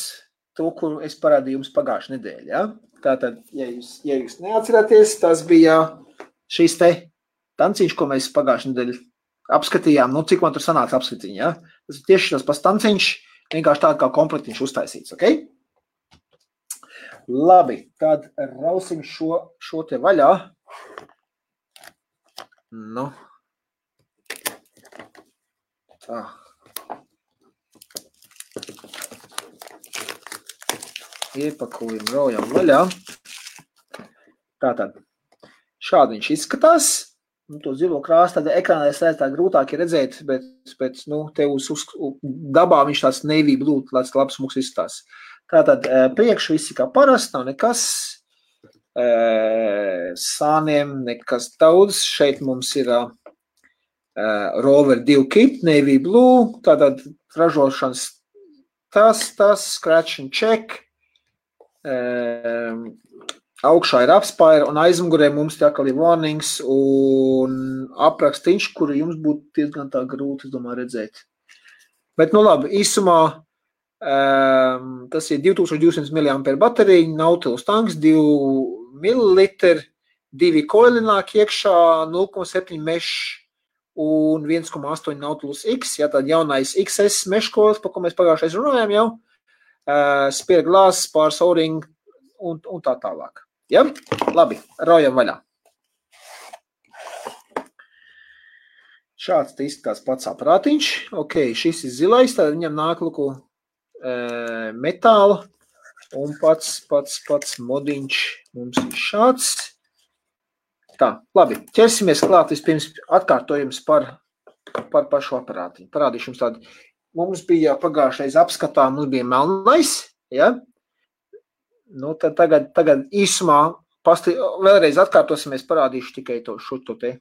to, kuru es parādīju jums pagājušajā nedēļā. Ja? Tātad, ja jūs neatceraties, tas bija šīs te tanciņš, ko mēs pagājušajā nedēļā apskatījām. Nu, cik man tur sanāca apskatiņi, ja? Tas ir tieši tas pats tanciņš, vienkārši tāda kā komplektiņš uztaisīts, ok? Labi, tad rausim šo te vaļā. Nu. Tā. Iepakojam, raujam vaļā. Tātad, šādi viņš izskatās. Nu, to zilo krāsu, tad ekrānā tā grūtāk ir redzēt, bet nu, te uz dabā viņš tāds navy blue, tāds labs mūks izskatās. Tātad, priekš visi kā parasti, nav nekas, sāniem nekas daudz. Šeit mums ir Rover 2 kit, navy blue, tātad ražošanas tas, scratch and check. Augšā ir Aspire un aizmugurē mums tā kā ir warnings un aprakstīņš, kuru jums būtu diezgan tā grūti, es domāju, redzēt. Bet, nu labi, īsumā tas ir 2200 mAh baterija, Nautilus tanks, 2 ml, 2 koili nāk iekšā, 0,7 mesh un 1,8 Nautilus X, ja tad jaunais XS mesh koils, par ko mēs pagājušais runājām jau, spare glass, pāris o-ring un tā tālāk. Ja? Labi, raujam vaļā. Šāds te izskatās pats aparātiņš. Ok, šis ir zilais, tad viņam nāk luku metāla un pats modiņš mums ir šāds. Tā, labi, ķersimies klāt vispirms atkārtojums par pašu aparātiņu. Parādīšu jums tādu. Mums bija pagājušais apskatā, mums bija melnais, ja? Nu, tad tagad īsumā vēlreiz atkārtosimies, parādīšu tikai šo te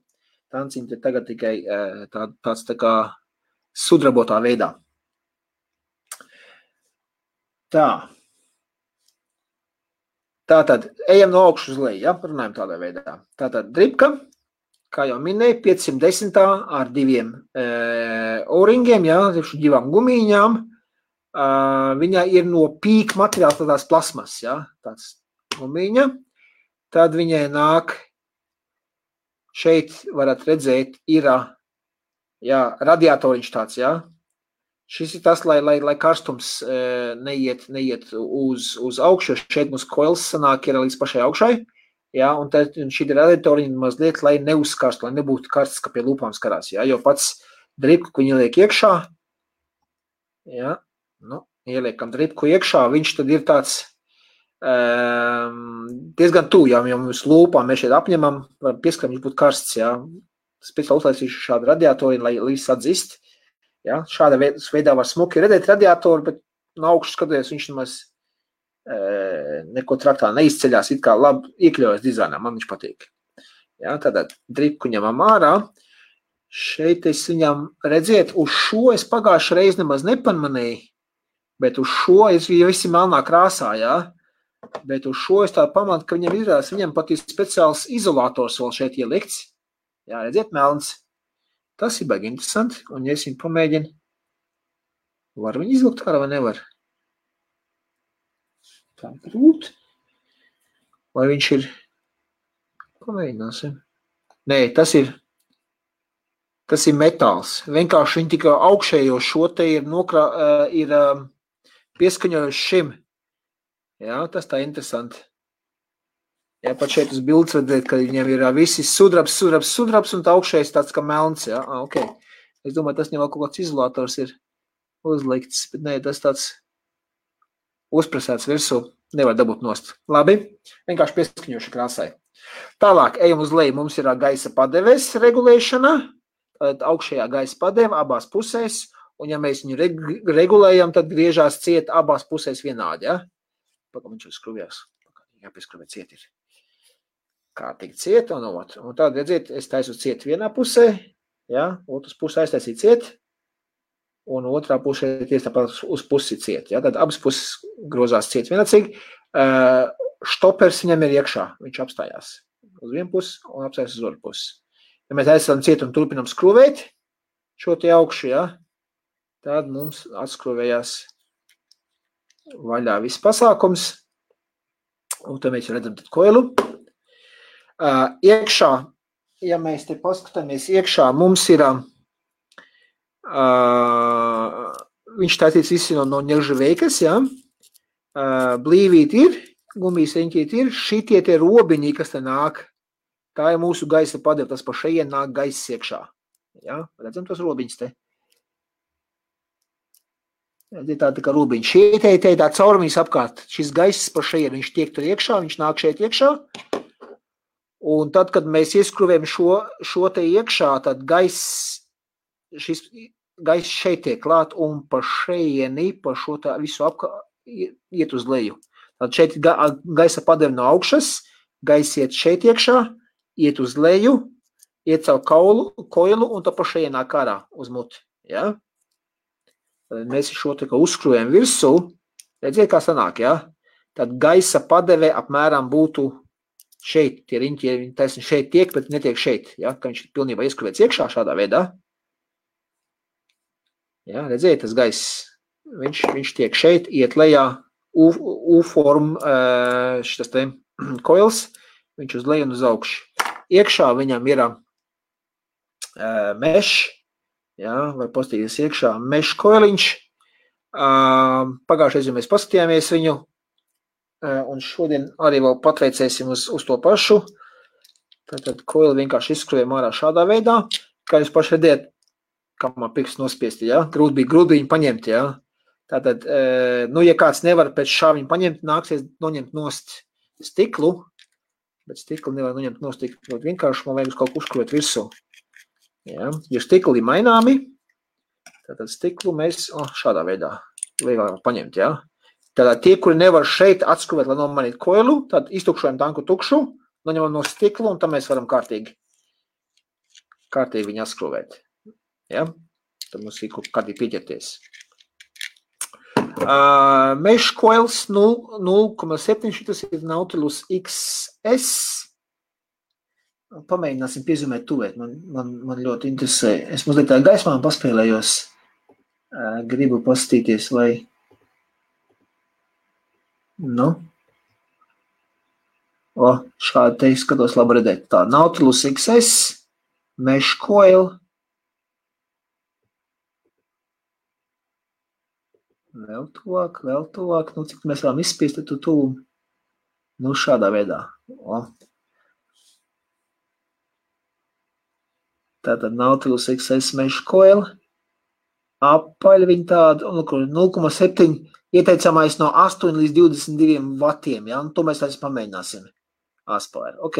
tanciņu, te tagad tikai tāds tā kā sudrabotā veidā. Tā. Tātad, ejam no augšas uz leju, ja? Runājam tādā veidā. Tātad, dripka, kā jau minēju, 510 ar 2 o-ringiem, ja? 2 gumīņām. Viņa ir no pīk materiāls, tādās plasmas, ja? Tāds gumīņa. Tad viņai nāk, šeit varat redzēt, ir, ja, radiatoriņš tāds, ja? Šis ir tas, lai karstums neiet uz augšu, šeit mums koils sanāk ir līdz pašai augšai, jā, un šī radiatoriņa mazliet, lai neuzkarstu, lai nebūtu karsts, ka pie lūpām skarās, jā, jo pats dripku, ko viņi liek iekšā, jā, nu, ieliekam dripku iekšā, viņš tad ir tāds diezgan tuvu, jā, jo mums lūpām mēs šeit apņemam, varam pieskaram, viņš būtu karsts, jā, speciāli uzlaicīšu šādu radiatoriņu, lai līdz atzist. Ja, šāda veidā var smuki redzēt radiatoru, bet no augšas skatoties viņš nemaz neko traktā neizceļās, it kā labi iekļaujas dizainā, man viņš patīk. Ja, tātad dripku ņemam ārā. Šeit es viņam redziet, uz šo es pagājušajā reizi nemaz nepamanīju, bet uz šo es visi melnā krāsā, ja? Bet uz šo es tā pamatu, ka viņam izrādās, viņam pat ir speciāls izolators vēl šeit ielikts. Jā, redziet, melns. Tas ir baigi interesanti, un ja es viņu pamēģinu, var viņu izlikt ārā vai nevar? Tā ir grūti. Vai viņš ir? Pamēģināsim. Nē, tas ir metāls. Vienkārši viņi tikai augšējo šo te ir pieskaņojuši šim. Jā, tas tā interesanti. Jā, pat šeit uz bildes redzēt, ka viņiem ir visi sudrabs, un tā augšējais tāds kā melns, jā, ok. Es domāju, tas vēl kaut kāds izolators ir uzlikts, bet nē, tas tāds uzpresēts virsū, nevar dabūt nost. Labi, vienkārši pieskaņoši krāsai. Tālāk, ejam uz leju, mums ir gaisa padeves regulēšana, augšējā gaisa padeve abās pusēs, un ja mēs viņu regulējam, tad griežās ciet abās pusēs vienādi, jā? Pakam viņš uzskruvjās, jāpieskruvē ciet ir. Kārtīgi ciet, un tad, redziet, es taisu ciet vienā pusē, ja, otras pusē aiztaisīt ciet, un otrā pusē tieši tāpat uz pusi ciet, ja, tad abas puses grozās ciet vienācīgi, štopers viņam ir iekšā, viņš apstājās uz vienu pusi un apstājās uz otru pusi. Ja mēs aizsam ciet un turpinam skruvēt šo te augšu, ja, tad mums atskruvējās vaļā viss pasākums, un tad mēs redzam tad koilu. Iekšā, ja mēs te paskatāmies iekšā, mums ir, viņš tātīts visi no ņeržaveikas, ja, blīvīt ir, gumijas riņķīt ir, šitie tie robiņi, kas te nāk, tā ir mūsu gaisa padeva, tas pa šeien nāk gaiss iekšā, ja, redzam tos robiņus te. Tā kā robiņi, šie te tā caurumiņas apkārt, šis gaiss pa šeien, viņš tiek tur iekšā, viņš nāk šeit iekšā, un tad, kad mēs ieskruvējam šo te iekšā, tad šis gaiss šeit tiek klāt un pa šeieni, pa šo tā visu iet uz leju. Tad šeit gaisa padeve no augšas, gaiss iet šeit iekšā, iet uz leju, iet caur koilu un tad pa šeienā kārā uz muti. Ja? Tad mēs šo te kā uzskruvējam virsū, redziet, kā sanāk, ja? Tad gaisa padeve apmēram būtu šeit, tie riņķi, taisni šeit tiek, bet netiek šeit, ja, ka viņš pilnībā ieskruvēts iekšā šādā veidā. Ja, redziet, tas gaiss, viņš tiek šeit, iet lejā, U-form, šitas te koils, viņš uz leju un uz augšu. Iekšā viņam ir mesh, ja, var pastīties iekšā mesh koiliņš. Pagājušais, ja mēs paskatījāmies viņu, un šodien arī vēl patveicēsim uz to pašu. Tātad koili vienkārši izskrujam ārā šādā veidā. Kā jūs paši redzēt, kā man pirksts nospiesti, ja? Grūti viņu paņemt, ja? Tātad, nu, ja kāds nevar pēc šā viņu paņemt, nāksies noņemt nost stiklu, bet stiklu nevar noņemt nost stiklu. Vienkārši man vajag uz kaut ko uzkrūt virsū. Ja? Ja stikli maināmi, tātad stiklu mēs šādā veidā vieglāk paņemt, ja? Tātad tie, kuri nevar šeit atskruvēt, lai nomainītu koilu, tad iztukšojam tanku tukšu, noņemam no stiklu, un tam mēs varam kārtīgi viņu atskruvēt. Ja? Tad mums ir kārtīgi pieķerties. Mesh coils 0,7, šitas ir Nautilus XS. Pamēģināsim piezumēt tuvēt, man ļoti interesē. Es mazliet tā gaismā paspēlējos, gribu pastīties, vai... Nu, šādi te skatos labi redzēt. Tā, Nautilus XS, Mesh Coil. Vēl tuvāk. Nu, cik mēs varam izspiest, tad tu. Nu, šādā veidā. O. Tātad Nautilus XS mesh coil. Apaļ viņi tādu, 0,7 ieteicamais no 8 līdz 22 vatiem, ja? Un to mēs arī pamēģināsim. Aspire. Ok,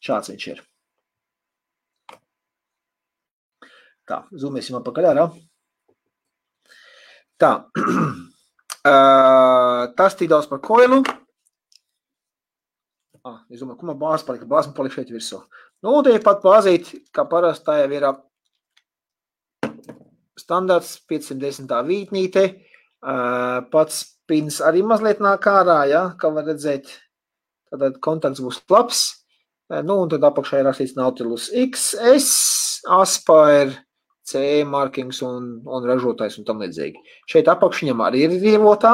šāds viņš ir. Tā, zoomēsim apakaļ ārā. Tā, tas tik daudz par koilu. Es domāju, ko man bāze palika? Bāze man palika šeit virsū. Nu, un te ir pat bāzīt, kā parasti tā jau ir standarts 510. vītnīte. Pats pins arī mazliet nāk ārā, ja, kā var redzēt. Tātad kontakts būs labs. Nu, un tad apakšā ir rakstīts Nautilus XS, Aspire, CE markings un ražotājs un tam līdzīgi. Šeit apakšiņam arī ir rievotā.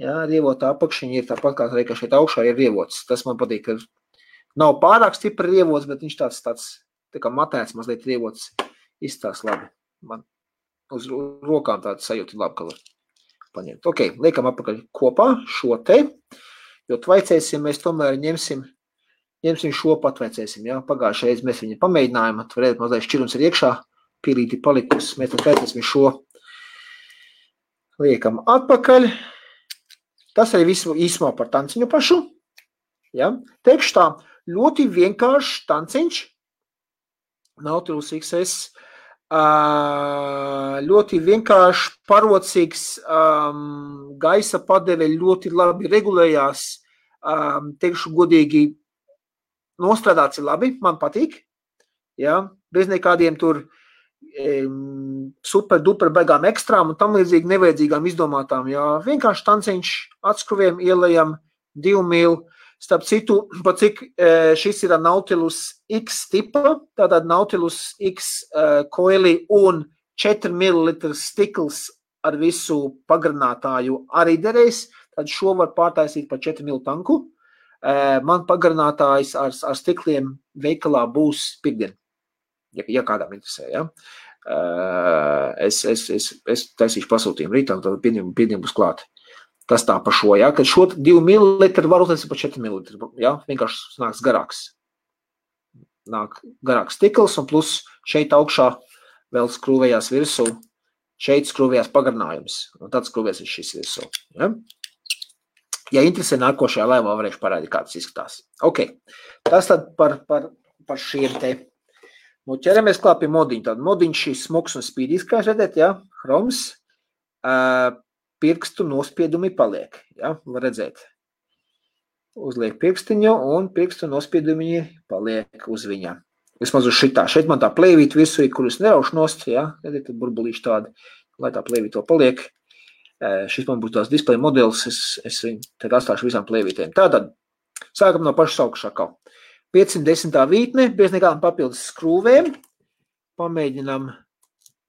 Jā, rievotā apakšiņa ir tāpat kā arī, ka šeit augšā ir rievots. Tas man patīk, ka nav pārāk stipri rievots, bet viņš tāds tā kā matēts mazliet rievots izstās labi. Man uz rokām tāds sajūta labi, ka var paņemt. Ok, liekam apakaļ kopā šo te, jo tvaicēsim, mēs tomēr ņemsim šo patvaicēsim, jā. Pagājušajā reiz mēs viņu pamēģinājām, varētu mazliet šķirums ir iekšā, pīlīti palikus, mēs tvaicēsim šo, liekam atpakaļ. Tas arī visu īsumā par tanciņu pašu, jā. Teikšu tā, ļoti vienkāršs tanciņš, Nautilus XS, ļoti vienkārši parocīgs, gaisa padeve ļoti labi regulējās, teikšu godīgi, nostrādāts ir labi, man patīk, jā, bez nekādiem tur super duper baigām ekstrām un tam līdzīgi nevajadzīgām izdomātām, jā, vienkārši tanciņš atskruviem ielējam 2 mil, starp citu, pa cik šis ir Nautilus X tipa, tātad Nautilus X coili un 4 ml stikls ar visu pagarinātāju arī derēs, tad šo var pārtaisīt pa 4 mil tanku. Man pagarinātājs ar stikliem veikalā būs pirmdien, ja kādām interesē, ja. Es taisīšu pasūtījumu rītā, tad pirmdien būs klāt. Tas tā pa šo, ja, kad šo 2 ml var uztaisīt pa 4 ml, ja, vienkārši nāks garāks. Nāk garāks stikls un plus šeit augšā vēl skrūvējās virsū, šeit skrūvējās pagarinājums, un tad skrūvēs šis virsū, ja. Ja interesē nākošajā laivā, varēšu parādīt, kā tas izskatās. Ok, tas tad par šiem te. Nu, ķeramies klāt pie modiņa. Tad modiņš šis smuks un spīdīs, kā redzēt, ja, hroms, pirkstu nospiedumi paliek, ja, var redzēt. Uzliek pirkstiņu un pirkstu nospiedumi paliek uz viņa. Vismaz uz šitā. Šeit man tā plēvīt visu, kurus neraušu nost, ja, redzēt, tad burbulīši tādi, lai tā plēvīt to paliek. Šis man būs tās display modelis, es viņu tad atstāšu visām plēvītēm. Tātad, sākam no pašas augšā. 510. vītne, bez nekādām papildus skrūvēm. Pamēģinam,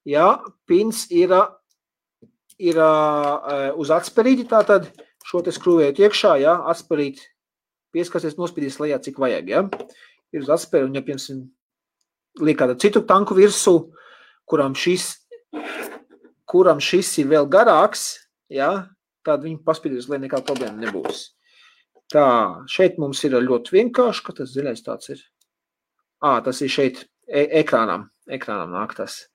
jā, pins ir uz atsperīti, tātad šo te skrūvējot iekšā, jā, atsperīt, pieskasies, nospīdīs lejā, cik vajag, jā. Ir uz atsperi un, ja, piemēram, liek kādu citu tanku virsū, kuram šis ir vēl garāks, ja, tad viņu paspīdīs, lai nekāda problēma nebūs. Tā, šeit mums ir ļoti vienkārši, ka tas ziļais tāds ir. Tas ir šeit ekrānam nāk tas.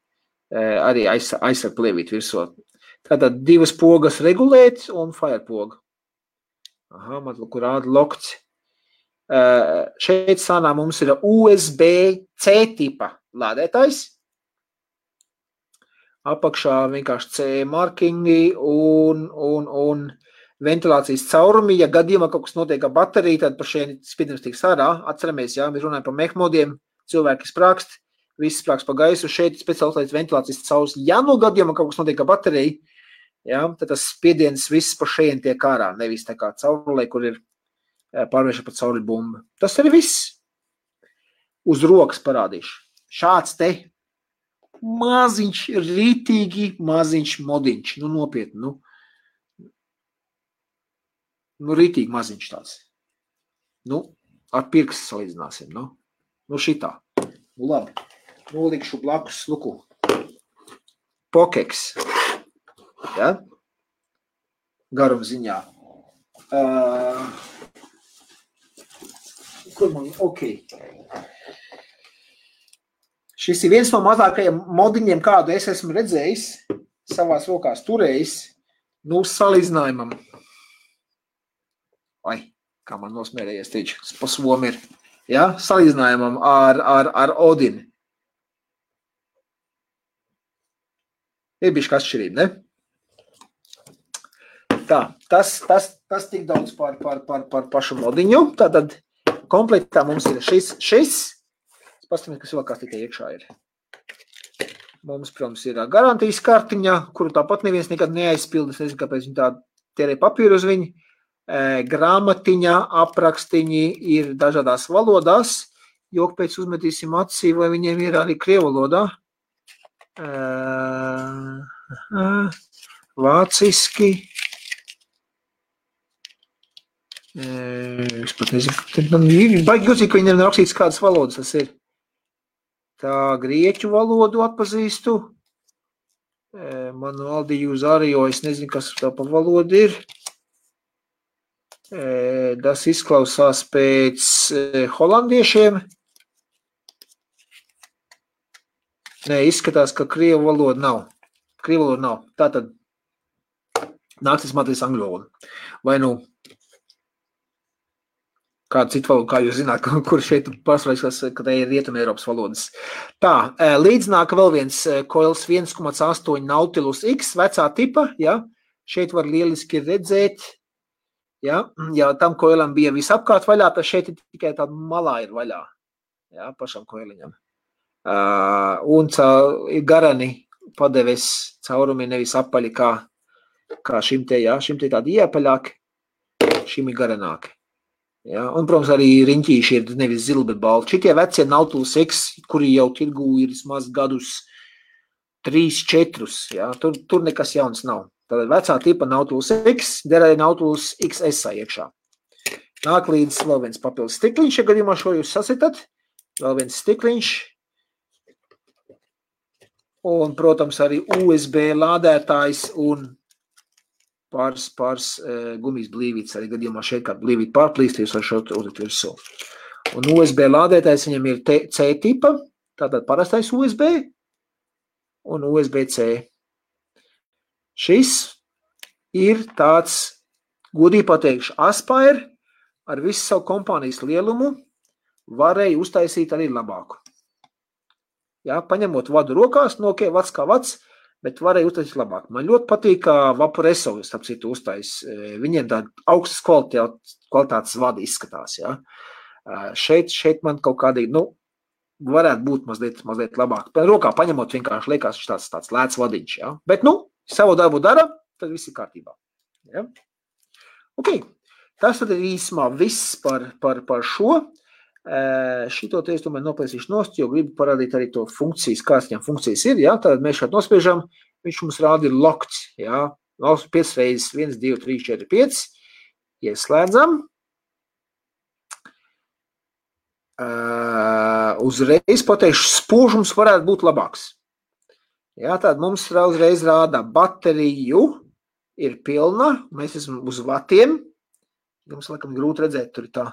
Arī aizsarg plēvīt virsot. Tātad 2 pogas regulēt un fire poga. Man kur rāda lokts. Šeit sanā mums ir USB-C tipa lādētājs. Apakšā vienkārši CE markingi un ventilācijas caurumi. Ja gadījumā kaut kas notiek ar bateriju, tad par šiem spiedums tiks ārā. Atceramies, jā, mēs runājam par mehmodiem, cilvēki sprākst, viss sprākst pa gaisu, šeit speciālais ventilācijas caurs. Ja no gadījumā kaut kas notiek ar bateriju, jā, tad tas spiediens viss pa šeit tiek ārā, nevis tā kā caurulē, kur ir pārvērša pa cauruli bumba. Tas arī viss. Uz rokas parādīšu. Šāds te maziņš, rītīgi maziņš modiņš. Nu, nopietni, nu rītīgi maziņš tāds. Nu, ar pirkstu salīdzināsim, nu šitā. Nu, labi. Nolikšu blakus, luku. Pokeks. Ja? garuma ziņā. Kur man? Ok. Šis ir viens no mazākajiem modiņiem, kādu es esmu redzējis, savās rokās turējis, nu, salīdzinājumam. Vai, kā man nosmērējies teiči, pa somu ir. Ja? Salīdzinājumam ar Odini. Ir bišķi atšķirība, ne? Tā, tas tik daudz par pašu modiņu. Tātad komplektā mums ir šis. Pastamies, kas vēl kāds tikai iekšā ir. Mums, protams, ir garantijas kartiņa, kuru tāpat neviens nekad neaizpilda. Es nezinu, kāpēc viņi tā tērē papīru uz viņu. Grāmatiņa, aprakstiņi ir dažādās valodās. Jok pēc uzmetīsim acī, vai viņiem ir arī krievu valodā. Vāciski. Es pat nezinu. Baigi jūtīgi, ka viņiem ir rakstīts, kādas valodas tas ir. Tā grieķu valodu atpazīstu. Manu Aldiju uz Arijo, es nezinu, kas tā pa valodu ir. Tas izklausās pēc holandiešiem. Nē, izskatās, ka krievu valoda nav. Tātad nācis matīs angļu valodu. Vai nu kādu citu valodu, kā jūs zināt, kur šeit pārsvarīgs, ka tā ir Rietuma Eiropas valodas. Tā, līdznāk vēl viens Coils 1,8 Nautilus X, vecā tipa, ja, šeit var lieliski redzēt, ja, tam Coilam bija visapkārt vaļā, tad šeit tikai tāda malā ir vaļā, ja, pašam Coiliņam. Un ir garani padeves caurumi nevis apaļi kā šim te, ja, šim te tādi iepaļāki, šim ir garanāki. Ja, un, protams, arī riņķīši ir nevis zili, bet balti. Šitie vecie Nautilus X, kuri jau tirgū ir vismaz gadus 3-4, ja, tur nekas jauns nav. Tātad vecā tipa Nautilus X, derēja Nautilus XS iekšā. Nāk līdz vēl viens papildus stikliņš, ja gadījumā šo jūs sasitat. Vēl viens stikliņš. Un, protams, arī USB lādētājs un pāris gumijas blīvītes, arī gadījumā šeit kāda blīvīta pārplīst, jūs var šeit uzlikt virsū. Un USB lādētājs viņam ir C tipa, tātad parastais USB un USB-C. Šis ir tāds, godīgi pateikšu, Aspire ar visu savu kompānijas lielumu varēja uztaisīt arī labāku. Ja, paņemot vadu rokās, no ok, vats kā vats, bet varēja uztaisīt labāk. Man ļoti patīk, kā Vaporesso, starp citu, uztais. Viņiem tāda augstas kvalitātes vadi izskatās. Ja. Šeit man kaut kādīgi, nu, varētu būt mazliet labāk. Rokā paņemot vienkārši liekas, viņš tāds lēts vadiņš. Ja. Bet, nu, savu darbu dara, tad viss ir kārtībā. Ja. Ok, tas tad ir īsumā viss par šo. Šito te es tomēr noplēsīšu nost, jo gribu parādīt arī to funkcijas, kāds viņam funkcijas ir, ja, tad mēs šeit nospiežam, viņš mums rāda ir locked, ja, 5 reizes, 1, 2, 3, 4, 5, ieslēdzam, uzreiz pateikšu, spožums varētu būt labāks, ja, tad mums uzreiz rāda bateriju, ir pilna, mēs esam uz vatiem, jums laikam grūti redzēt, tur ir tā,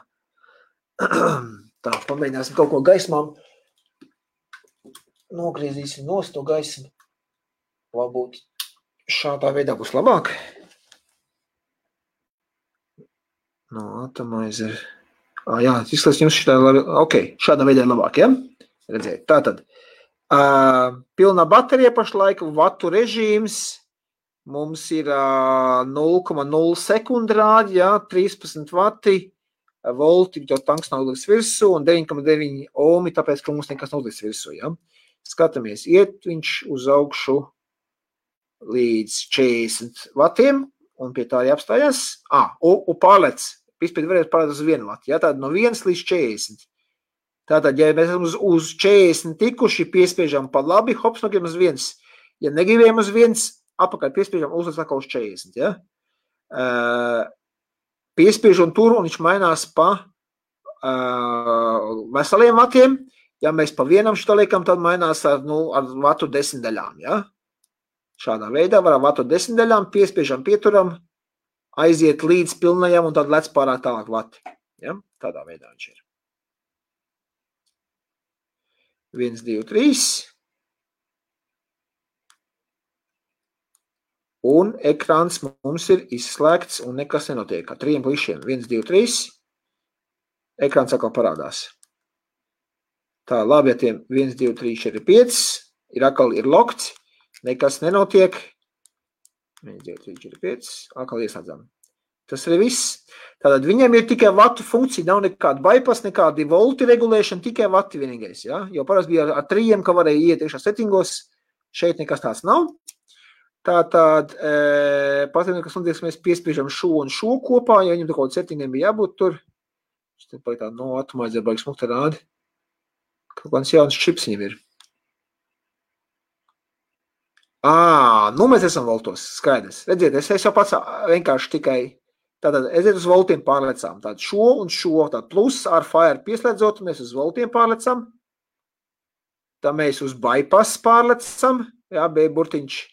tā, pamēģināsim kaut ko gaismām. Nogriezīsim nost to gaismu. Varbūt šādā veidā būs labāk. No, atomizer. Jā, izskatās jums šitā labi. Ok, šādā veidā ir labāk, ja? Redzēt. Tātad, pilnā baterija pašlaik, vatu režīms. Mums ir 0,0 sekundrādi, ja, 13 vati. Volti, jo tanks nav uzliks virsū, un 9,9 ohmi, tāpēc, ka mums nekas nav uzliks virsū. Ja? Skatāmies, iet viņš uz augšu līdz 40 vatiem, un pie tā arī apstājās. Un pārlec, vispēc varētu pārlec uz 1 vati, ja? Tātad no 1 līdz 40. Tātad, ja mēs esam uz 40 tikuši, piespiežam pa labi, hops, nogribam uz 1. Ja negribējam uz 1, apakaļ piespiežam, uzliks atkal uz 40. Ja? Piespiež un tur, un viņš mainās pa veseliem vatiem. Ja mēs pa vienam šito liekam, tad mainās ar vatu 10 daļām. Ja? Šādā veidā var ar vatu 10 daļām, piespiežam, pieturam, aiziet līdz pilnajam un tad lec pārāk tālāk vati. Ja? Tādā veidā viņš ir. 1, 2, 3. Un ekrāns mums ir izslēgts un nekas nenotiek. Ar 3 plišiem. 1, 2, 3. Ekrāns atkal parādās. Tā, labi, ja tiem 1, 2, 3, 4, 5. Atkal ir lokts. Nekas nenotiek. 1, 2, 3, 4, 5. Atkal ieslēdzam. Tas ir viss. Tātad viņam ir tikai vatu funkcija, nav nekāda bypass, nekādi volti regulēšana, tikai vati vienīgais. Ja? Jo parasti bija ar 3, ka varēja iet iekšā settingos. Šeit nekas tāds nav. Tātad, patīk, kas notiek, mēs piespiežam šo un šo kopā, ja viņam tā kaut settingiem bija jābūt tur. Šis te paliek tā no atomaizdzer baigi smukta rādi. Kaut kāds jauns čips viņam ir. Nu mēs esam voltos, skaidrs. Redziet, es jau pats vienkārši tikai, tātad aiziet uz voltiem pārlecām. Tātad šo un šo, tātad plus ar fire pieslēdzot, mēs uz voltiem pārlecam. Tā mēs uz bypass pārlecam. Jā, B burtiņš.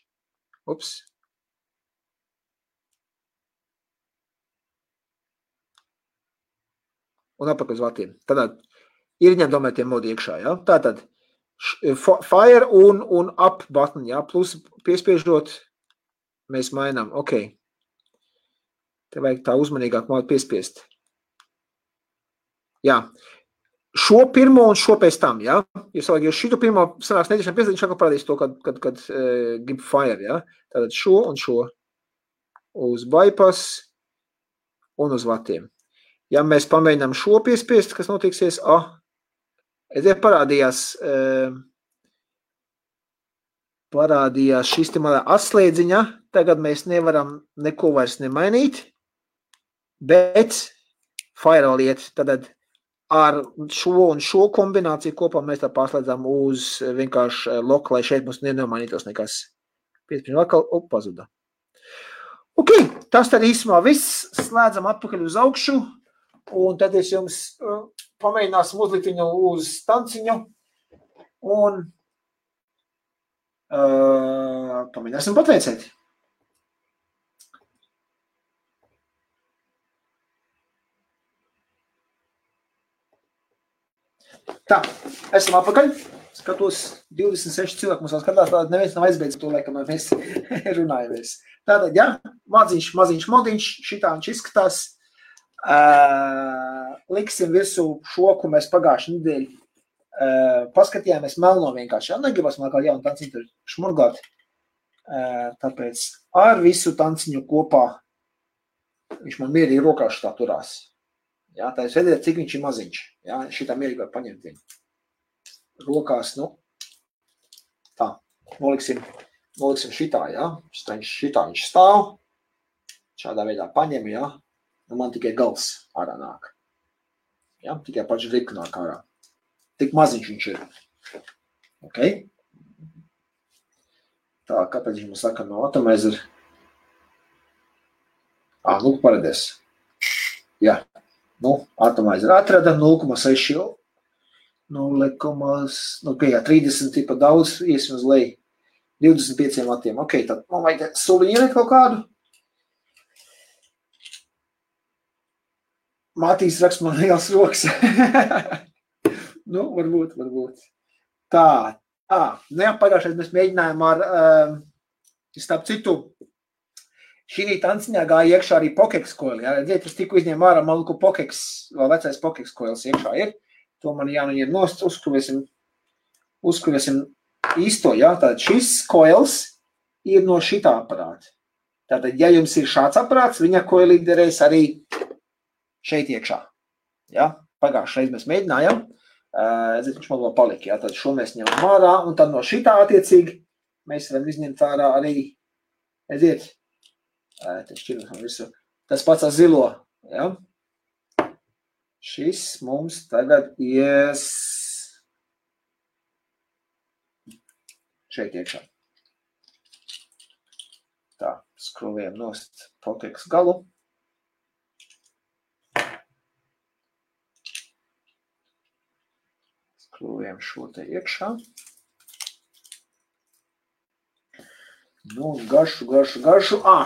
Ups. Un apakaļ uz vatiem. Tātad ir ņem tomēr tie modi iekšā, jā. Tātad fire un up button, jā. Plus piespiežot, mēs mainām. Ok. Te vajag tā uzmanīgāk modu piespiest. Jā. Šo pirmo un šo pēc tam, jā. Ja šito pirmo sanāks netiešām pieslēgt, viņš atkal parādīs to, kad grib fire, jā. Tātad šo un šo uz bypass un uz vatiem. Ja mēs pamēģinām šo piespiest, kas notiksies, parādījās šis te malā atslēdziņa, tagad mēs nevaram neko vairs nemainīt, bet firewall iet, tad ar šo un šo kombināciju kopā mēs tā pārslēdzām uz vienkārši loku, lai šeit mums nenomainītos nekas. 5 atkal, pazuda. Ok, tas tad īsumā viss. Slēdzam atpakaļ uz augšu, un tad es jums pamēģināsim uzlikt viņu uz stanciņu, un pamēģināsim patveicēt. Tā, esam atpakaļ. Skatos, 26 cilvēku mums vēl skatās, tātad neviens nav aizbeidzis to, laikam, mēs runājamies. Tātad, jā, maziņš modiņš, šitā viņš izskatās. Liksim virsū šo, ko mēs pagājuši nedēļu paskatījāmies melno vienkārši. Jā, negribas man kā jaunu tanciņu tur šmurgāt. Tāpēc ar visu tanciņu kopā viņš man mierīgi rokās šitā turās. Jā, tā jūs redzēt, cik viņš ir maziņš. Jā, šitā mierīgi var paņemt viņu. Rokās, tā, noliksim šitā, jā. Šitā viņš stāv. Šādā veidā paņem, jā. Man tikai gals ārā nāk. Jā, tikai paši rika nāk ārā. Tik maziņš viņš ir. Ok. Tā, kāpēc viņš man saka no atomizer? Paredies. Jā. Atomizer atrada 0,6, 30 tipa daudz, iesim uz leju, 25 vatiem. Ok, tad man vajag soliņu ielikt kaut kādu. Mātīs rakst man liels rokas. Varbūt. Tā, pagājušais mēs mēģinājām ar, starp citu, šī tanciņā gāja iekšā arī Pokex coil. Ja? Es tikko izņēmu ārā maluku Pokex, vēl vecais Pokex coils iekšā ir. To man jānoņem nost, uzskruvēsim īsto. Ja? Tātad šis coils ir no šitā aparāta. Tātad, ja jums ir šāds aparāts, viņa coil derēs arī šeit iekšā. Ja? Pagājušajā reiz mēs mēģinājām. Viņš man vēl palika. Ja? Tad šo mēs ņemam ārā, un tad no šitā attiecīgi mēs varam izņemt ārā arī, tas pats ar zilo. Ja? Šis mums tagad ies šeit iekšā. Tā, skrūvējam nost Pokex galu. Skrūvējam šo te iekšā. Nu, garšu.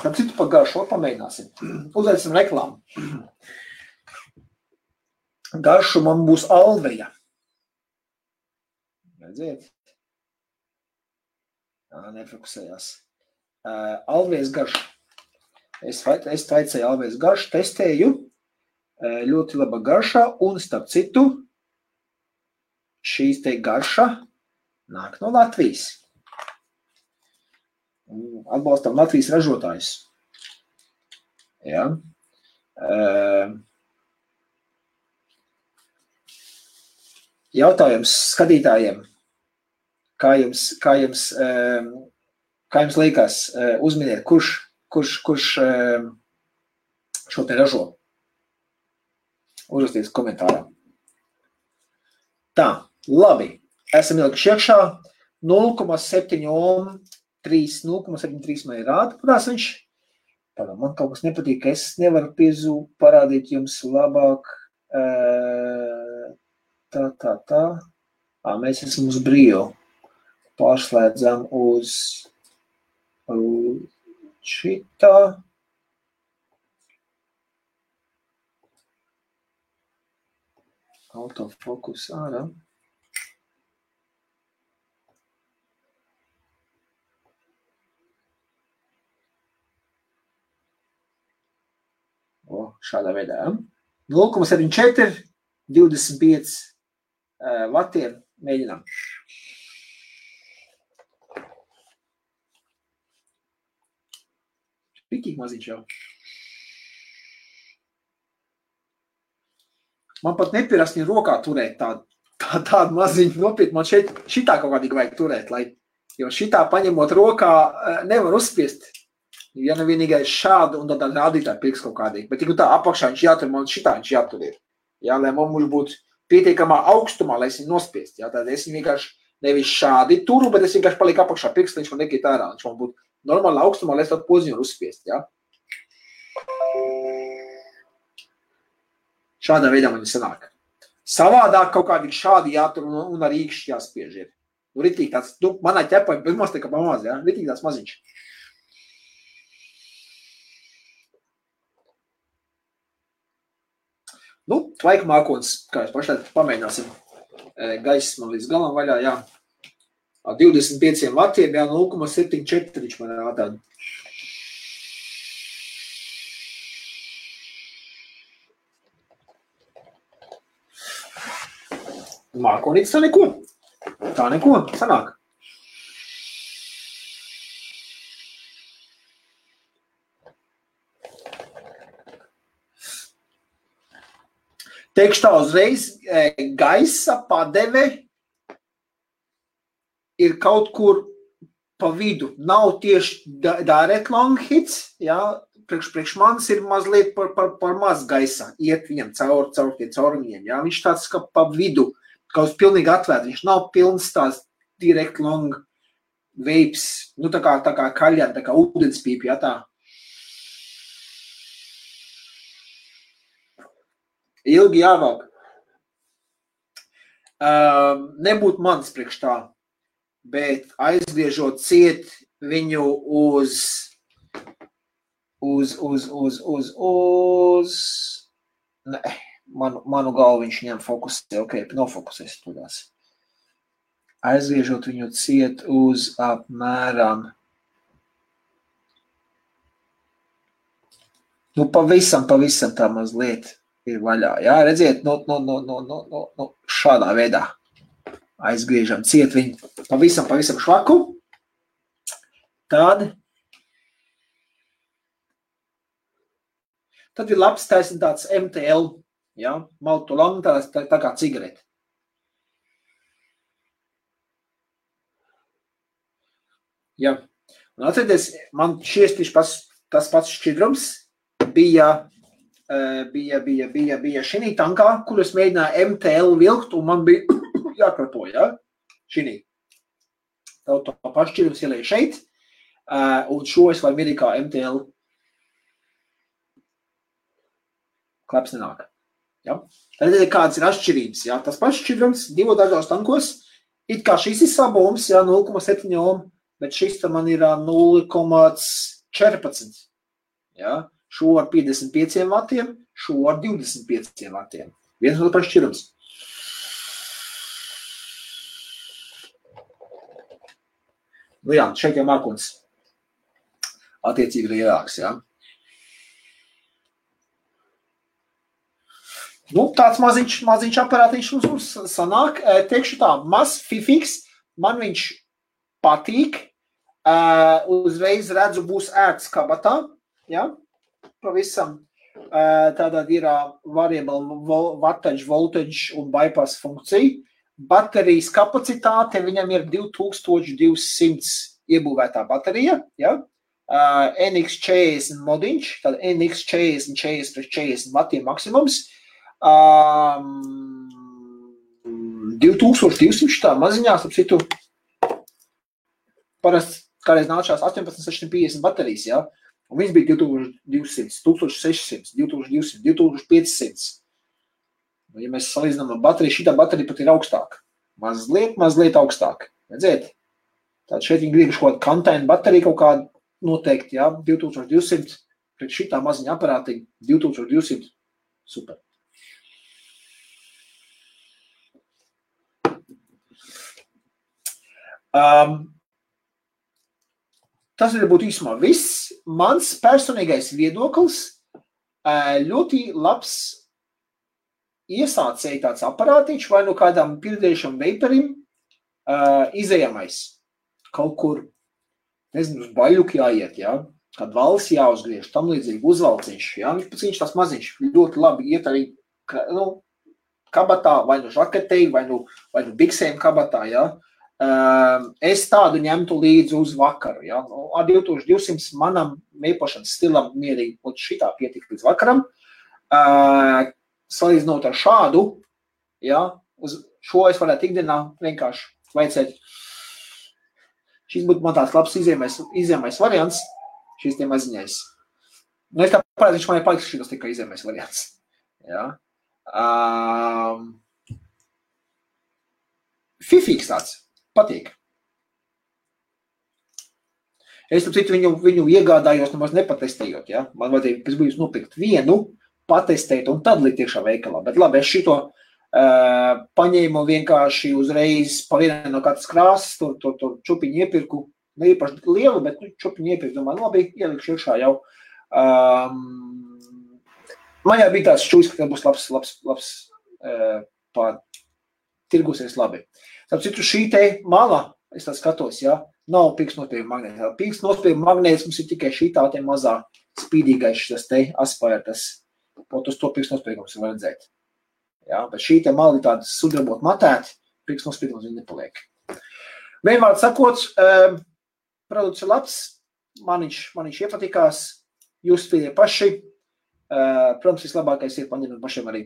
Tam citu par garšu, pamēģināsim. Uzveicam reklāmu. Garšu man būs Alveja. Redziet? Nefokusējās. Alvejas garšu. Es taicēju Alvejas garšu, testēju. Ļoti laba garša, un starp citu, šīs te garša nāk no Latvijas. Atbalstam Latvijas ražotājus. Ja. Jautājums skatītājiem, kā jums liekas, uzminiet, kurš šo te ražo? Uzrakstiet komentārā. Tā, labi. Esam ielikuši iekšā 0,73 man ir rāda, kurās viņš. Man kaut kas nepatīk, es nevaru parādīt jums labāk. Tā. Mēs esam uz brīvu. Pārslēdzam uz šitā. Autofokus ārā. Šādā veidā. 0,74, 25 vatiem mēģinām. Pitīgi maziņš jau. Man pat nepierast viņa rokā turēt tādu maziņu nopietnu. Man šitā kaut kādīgi vajag turēt, jo šitā paņemot rokā nevar uzspiest. Ja nevienīgais šādu un tad rādītāji pirks kaut kādīgi. Bet tā apakšā viņš jātur, man šitā viņš jātur ir. Jā, lai mums būtu pietiekamā augstumā, lai es viņu nospiest. Jā, tad es viņu vienkārši nevis šādi turu, bet es vienkārši palieku apakšā pirks, lai viņš man nekīt ārā. Viņš man būtu normāli augstumā, lai es tādu poziņu uzspiest. Jā. Šādā veidā man sanāk. Savādāk kaut kādīgi šādi jātur un ar īkšķi jāspiež ir. Ritīgi tāds, manā ķepā ir pirmās tā kā pamaz, jā, ritīgi tāds maziņš. Tvaika mākonis, kā jūs pašlaik pamēģināsim. Gaiss man līdz galam vaļā, jā. 25 vatiem, jā, 0,74 viņš man rādā. Mākonītis tā neko. Tā neko, sanāk. Teikšu tā uzreiz, gaisa padeve ir kaut kur pa vidu. Nav tieši direct long hits, jā, priekš manis ir mazliet par maz gaisā. Iet viņam caur tiem caurumiņiem, jā. Viņš tāds kā pa vidu, kaut kas pilnīgi atvērt. Viņš nav pilns tās direct long vapes, tā kā kaļļā, tā kā ūdenspīpi, jā, tā. Ilgi jāvāk. Nebūtu mans priekš tā, bet aizgriežot ciet viņu uz ne, manu galvu viņš ņem fokusē, nofokusēs tudās. Aizgriežot viņu ciet uz apmēram pavisam tā mazliet ir vaļā, jā, redziet, šādā veidā aizgriežam ciet viņu pavisam švaku, tad ir labs taisn tāds MTL, jā, maltu lang, tā kā cigarete. Jā, un atcerieties, man šies tas pats šķidrums bija šinī tankā, kur es mēģināju MTL vilkt, un man bija jākrato, jā, šinī. Tā pašķirums ielēja šeit, un šo es varu mierīgi kā MTL. Klaps nenāk. Ja? Tad kāds ir atšķirības. Ja? Tas pašķirums 2 dažādos tankos, it kā šis ir sabums, ja, 0,7 ohm, bet šis man ir 0,14. Ja? Šo ar 55 vatiem, šo ar 25 vatiem. Viens no pašķirums. Nu jā, šeit jau mākums attiecīgi lielāks, jā. Nu, tāds maziņš aparātiņš mums sanāk. Teikšu tā, mazs fifiks, man viņš patīk. Uzreiz redzu, būs ērts kabatā, jā, pavisam. Tātad ir variable voltage un bypass funkcija. Baterijas kapacitāte, viņam ir 2200 iebūvētā baterija, ja? NX40 modiņš, tad NX40, 40 vatiem maksimums, 2200 tā maziņās, ap citu, parasti kādreiz nāčās 18650 baterijas, ja? Un viņas bija 2200, 1600, 2200, 2500. Ja mēs salīdzinām ar bateriju, šitā baterija pat ir augstāk. Mazliet augstāk. Redziet? Tātad šeit viņi grib kaut kādu kantainu bateriju kaut kādu noteikti, jā, 2200, pret šitā maziņa aparātiņa 2200. Super. Tas ir būtu īsumā viss. Mans personīgais viedoklis ļoti labs iesācēja tāds aparātiņš vai no kādām pirdējušam veiparim izējamais. Kaut kur, nezinu, uz baļuki jāiet, jā, kād valsts jāuzgriež, tam līdzīgi uzvalciņš, jā, viņš tās maziņš ļoti labi iet arī, nu, kabatā, vai no žaketei, vai no biksēm kabatā, jā. Es tādu ņemtu līdzi uz vakaru, jā. Ar 2200 manam meipošanas stilam mierīgi, šitā pietika līdz vakaram. Salīdzinot ar šādu, ja, uz šo es varētu ikdienā vienkārši veicēt. Šis būtu man tāds labs izējamais variants, šis tie maziņais. Nu, es tā parādu, viņš man ir paliks šitas tikai izējamais variants. Ja. Fifīgs tāds, patīk. Es tam citu viņu iegādājos, nemaz nepatestējot, ja. Man vajadzēja pēc būs nopirkt vienu, patestēt un tad likt iekšā veikalā. Bet labi, es šito paņēmu vienkārši uzreiz pa vienai no katras krāsas, tur čupiņu iepirku, ne īpaši lielu, bet čupiņu iepirku, domāju, labi, ielikšu iekšā jau. Man jau bija tāds šķūs, ka būs labs tirgusies labi. Tāpēc citu šī te mala, es tā skatos, ja, nav pirkstnospējuma magnēta. Pirkstnospējuma magnētas mums ir tikai šī tā te mazā spīdīgais šis te aspērtas. Pot uz to pirkstnospējums var redzēt. Ja, bet šī te mali tāda sudrabot matēti, pirkstnospējums viņa nepaliek. Vienvārds sakot, produkts ir labs, man viņš iepatikās, jūs spēļie paši. Protams, vislabākais ir paņemt pašiem arī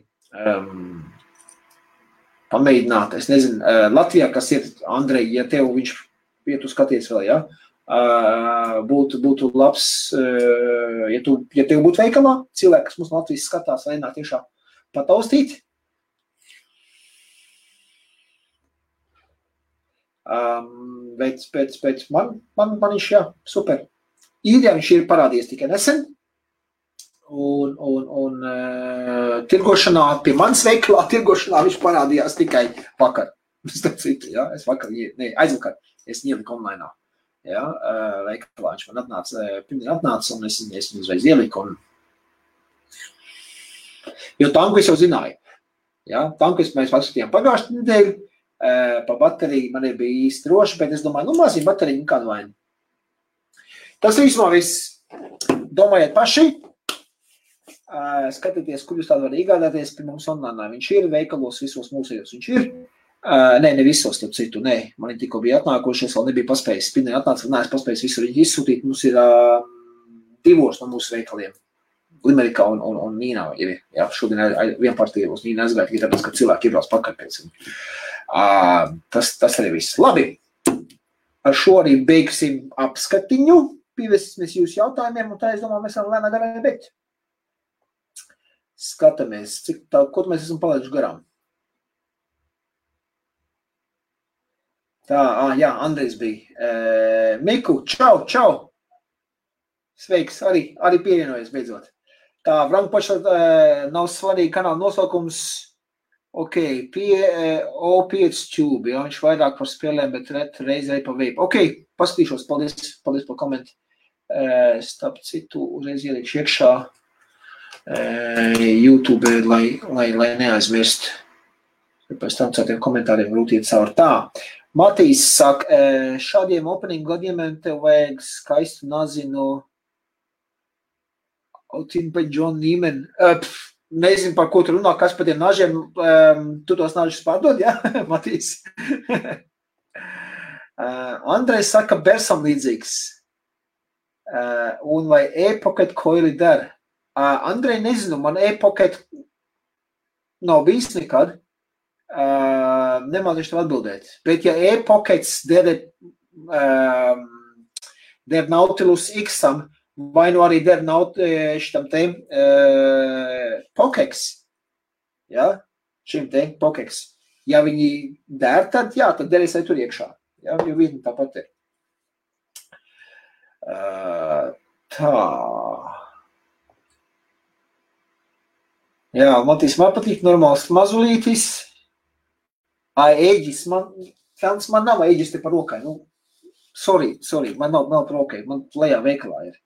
pamēģināt. Es nezinu, Latvijā, kas ir, Andrej, ja tev viņš pietu skaties vēl, ja? Būtu labs, ja tev būtu veikalā, cilvēki, kas mums Latvijas skatās, vai nāk tiešā pataustīt. Pēc man viņš, jā, super. Īrijā viņš ir parādījies tikai nesen, un tirgošanā, pie manas veikalā tirgošanā viņš parādījās tikai vakar. Aizvakar, es ieliku online. Ja, veikalā viņš man atnāca, un es viņu uzreiz ieliku. Jo tanku es jau zināju. Ja, tanku mēs paskatījām pagājušajā nedēļu, pa bateriju man bija īsti droši, bet es domāju, nu maziņ bateriju, kādu vainu. Tas īsumā viss. Domājiet paši, skatieties, kur jūs tādu var iegādāties pie mums online. Viņš ir veikalos, visos mūsējos viņš ir. Ne visos, tad citu, man tikko bija atnākošies, vēl nebija paspējis. Spinē atnāca, neesmu paspējis visur viņu izsūtīt. Mums ir divos no mūsu veikaliem. Limerikā un Nīnā ir. Jā, šodien vienpartija uz Nīnā aizgāja, tāpēc, ka cilvēki iebrauc pakaļ pēc viņu. Tas arī viss. Labi, ar šo arī beigsim apskatiņu. Pievesimies jūsu jautājumiem, un tā es domāju, mēs varam lēnā garā beigt. Skatāmies, ko mēs esam palaiduši garām. Tā, jā, Andrejs bija. Miku, čau! Sveiks, arī pievienojies beidzot. Tā, Vrankpaša nav svarīgi kanāla nosaukums. Ok, O5 Tube, jā, viņš vairāk par spēlēm, bet reizē pa veipu. Ok, paskatīšos, paldies par komentu. Starp citu, uzreiz ieliekšu iekšā YouTube, lai neaizmirst. Pēc tam citiem komentāriem grūti iet cauri. Tā, Matīs saka, šādiem opening gadījumiem tev vajag skaistu nazinu Otinpa John Neiman. Nezinu, par ko tu runā, kas par tiem nažiem. Tu tos nažus pārdod, jā, Matīs? Andrejs saka, Bersam līdzīgs. Un vai e-pocket koili der? Andrej, nezinu, man e-pocket nav bijis nekad. Nemācīšu tev atbildēt. Bet ja e-pockets der Nautilus X-am, vai nu arī der šitam te Pokex, ja? Šim te Pokex. Ja viņi der, tad jā, tad derēs arī tur iekšā. Ja? Jo vietni tāpat ir. Tā. Jā, Matīs, man patīk normāls mazulītis. Ēģis, man nav ēģis te par rokai. Nu, sorry, man nav par rokai. Man lejā veikalā ir.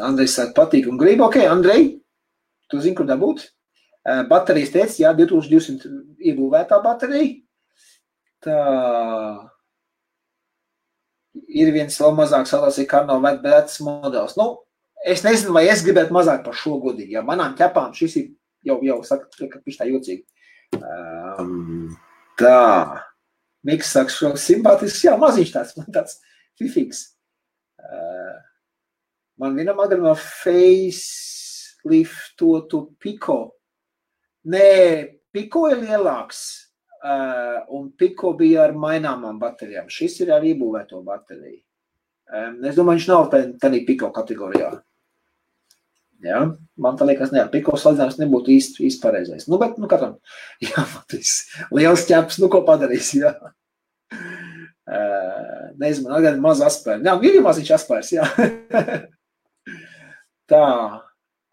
Andrejs saka, patīk un grib. Ok, Andrej, tu zini, kur dabūt? Baterijas teic, jā, 2200 iebūvētā baterija. Tā ir viens vēl mazāk salās, kā nav vecs modelis. Nu, es nezinu, vai es gribētu mazāk par šo godīgi. Ja manām ķepām šis ir jau saka, ka viņš tā jocīgi. Tā. Miks saka, šo simpātisks, jā, maziņš tāds, man tāds fifīgs. Man vienam agrumā faceliftotu Pico. Nē, Pico ir lielāks. Un Pico bija ar maināmām baterijām. Šis ir ar iebūvēto bateriju. Es domāju, viņš nav tādā Pico kategorijā. Jā, man tā liekas, ne, ar Pico salīdzinājums nebūtu īsti pareizais. Nu, bet, katram, jā, Matīs, liels ķeps, nu, ko padarīs, jā. Nezinu, man gan maz aspēri. Jā, ir maziņš aspērs, jā. Tā,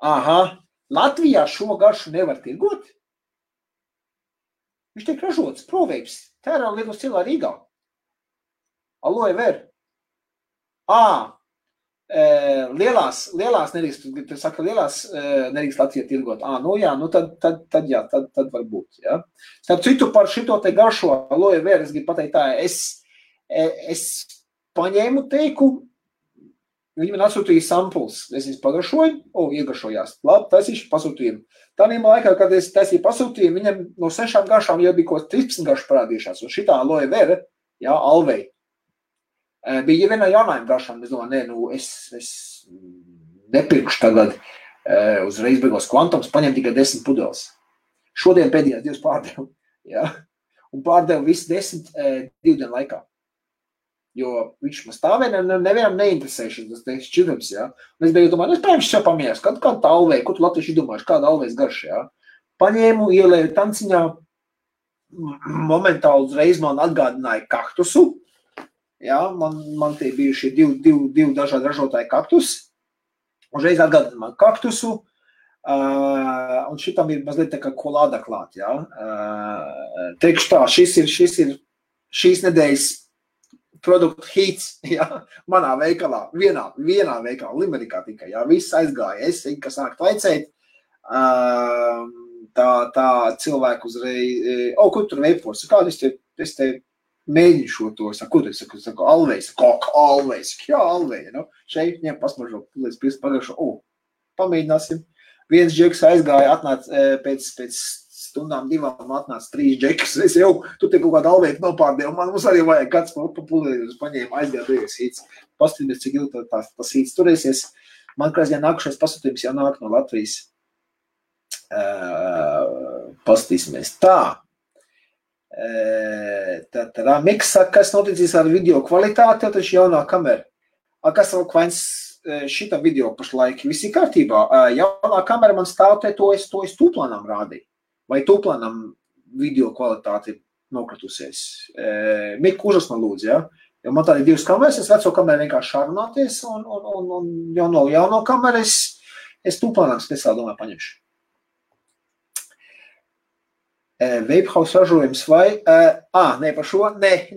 aha, Latvijā šo garšu nevar tirgot? Viņš tiek ražots, proveips, tērā Lietuvas cilā Rīgā. Aloe vera. Lielās nedrīkst, tu saka, lielās nedrīkst Latvijā tirgot. Nu jā, nu tad jā, tad var būt, jā. Starp citu par šito te garšo aloe vera, es gribu pateikt tā, es paņēmu teiku, viņi man atsūtīja samples, es viņus pagaršoju, iegaršojās, labi, taisīšu pasūtījumu. Tādiem laikā, kad es taisīju pasūtījumu, viņam no 6 garšām jau bija kaut 13 garšu parādījušās, un šitā aloe vera, jā, alvei. Bija vienā jaunājuma garšām, es domāju, es nepirkšu tagad uzreiz beigos kvantums, paņem tikai 10 pudeles. Šodien pēdējās 2 pārdevu, jā, un pārdevu visu 10 2 dienu laikā. Jo viņš man stāvēja, nevienam neinteresējuši tas šķirums, jā. Un es beigu domāju, es paņemšu sev pamieras, kāda tā alvei, ko tu latvieši domājuši, kāda alvejas garša, jā. Paņēmu, ielēju tanciņā, momentāli uzreiz man atgādināja kaktusu. Jā, man tie bijuši divi dažādi ražotāji kaktus. Uzreiz atgādina man kaktusu. Un šitam ir mazliet tā kā kolāda klāt, jā. Teikšu tā, šis ir šīs nedēļas produktu hits, jā, manā veikalā, vienā veikalā, Limerikā tikai, jā, viss aizgāja. Es, kas sāk tvaicēt, tā cilvēku uzreiz, kur tur veipos, kādu es te mēģinu šo to, ko tu saku, alvejs, alvejs, jā, alvejs, nu, šeit ņem pasmažo, līdz pagājušo, pamēģināsim. Viens džeks aizgāja, atnāc pēc stundām 2 atnāca 3 džekus, es jau, tu te kaut kādu alveitu nopārdēju, mums arī vajag kāds papulēļus paņēma, aizgāja beigas hīts, paskatīties, cik ilgi tas hīts turēsies. Man krāsdien nākušais pasūtījums jau nāk no Latvijas. Paskatīsimies tā. Miks saka, kas noticīs ar video kvalitāti, taču jaunā kamera. Kas vēl kvains šita video pašlaik? Visi kārtībā. Jaunā kamera man stāv te, to es tūplānam rādīju. Vai tūplānam video kvalitāti nokratusies. Miku, uzras man lūdzu, ja? Jo man tādi 2 kameras, es veco kameru vienkārši šarunāties, un jauno kameru es tūplānāk speciāli domāju paņemšu. Vapehouse ražojums vai? Nē, par šo? Nē,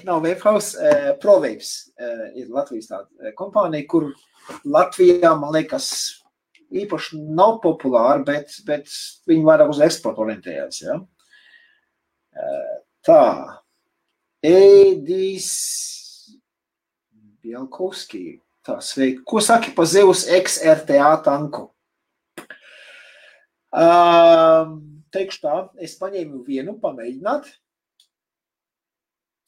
nav Vapehouse. ProVapes ir Latvijas tāda kompānija, kur Latvijā, man liekas, īpaši nav populāri, bet viņi vairāk uz eksportu orientējās, ja? Tā. Edijs Bielkovski. Tā, sveiki. Ko saki pa Zeus XRTA tanku? Teikšu tā, es paņēmu vienu pamēģināt,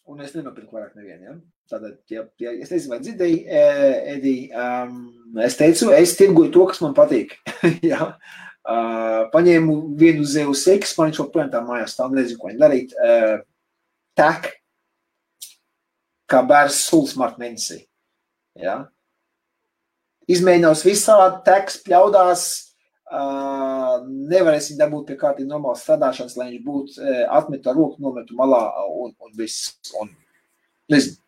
un es nenopirku vairāk nevienu, ja? Tātad, ja es nezinu, vai dzirdēju, Edi, es teicu, es tirgoju to, kas man patīk, ja? Paņēmu vienu Zeus X, man viņš joprojām tā mājās stāv, nezinu, ko viņi darīt, tak, kā bērns sulas marta mēnesī, ja? Izmēģinās visādi, teks pļaudās, nevarēsim dabūt pie kārtīgi normālas strādāšanas, lai viņš būtu atmetu ar roku, nometu malā un viss. Un, nezinu.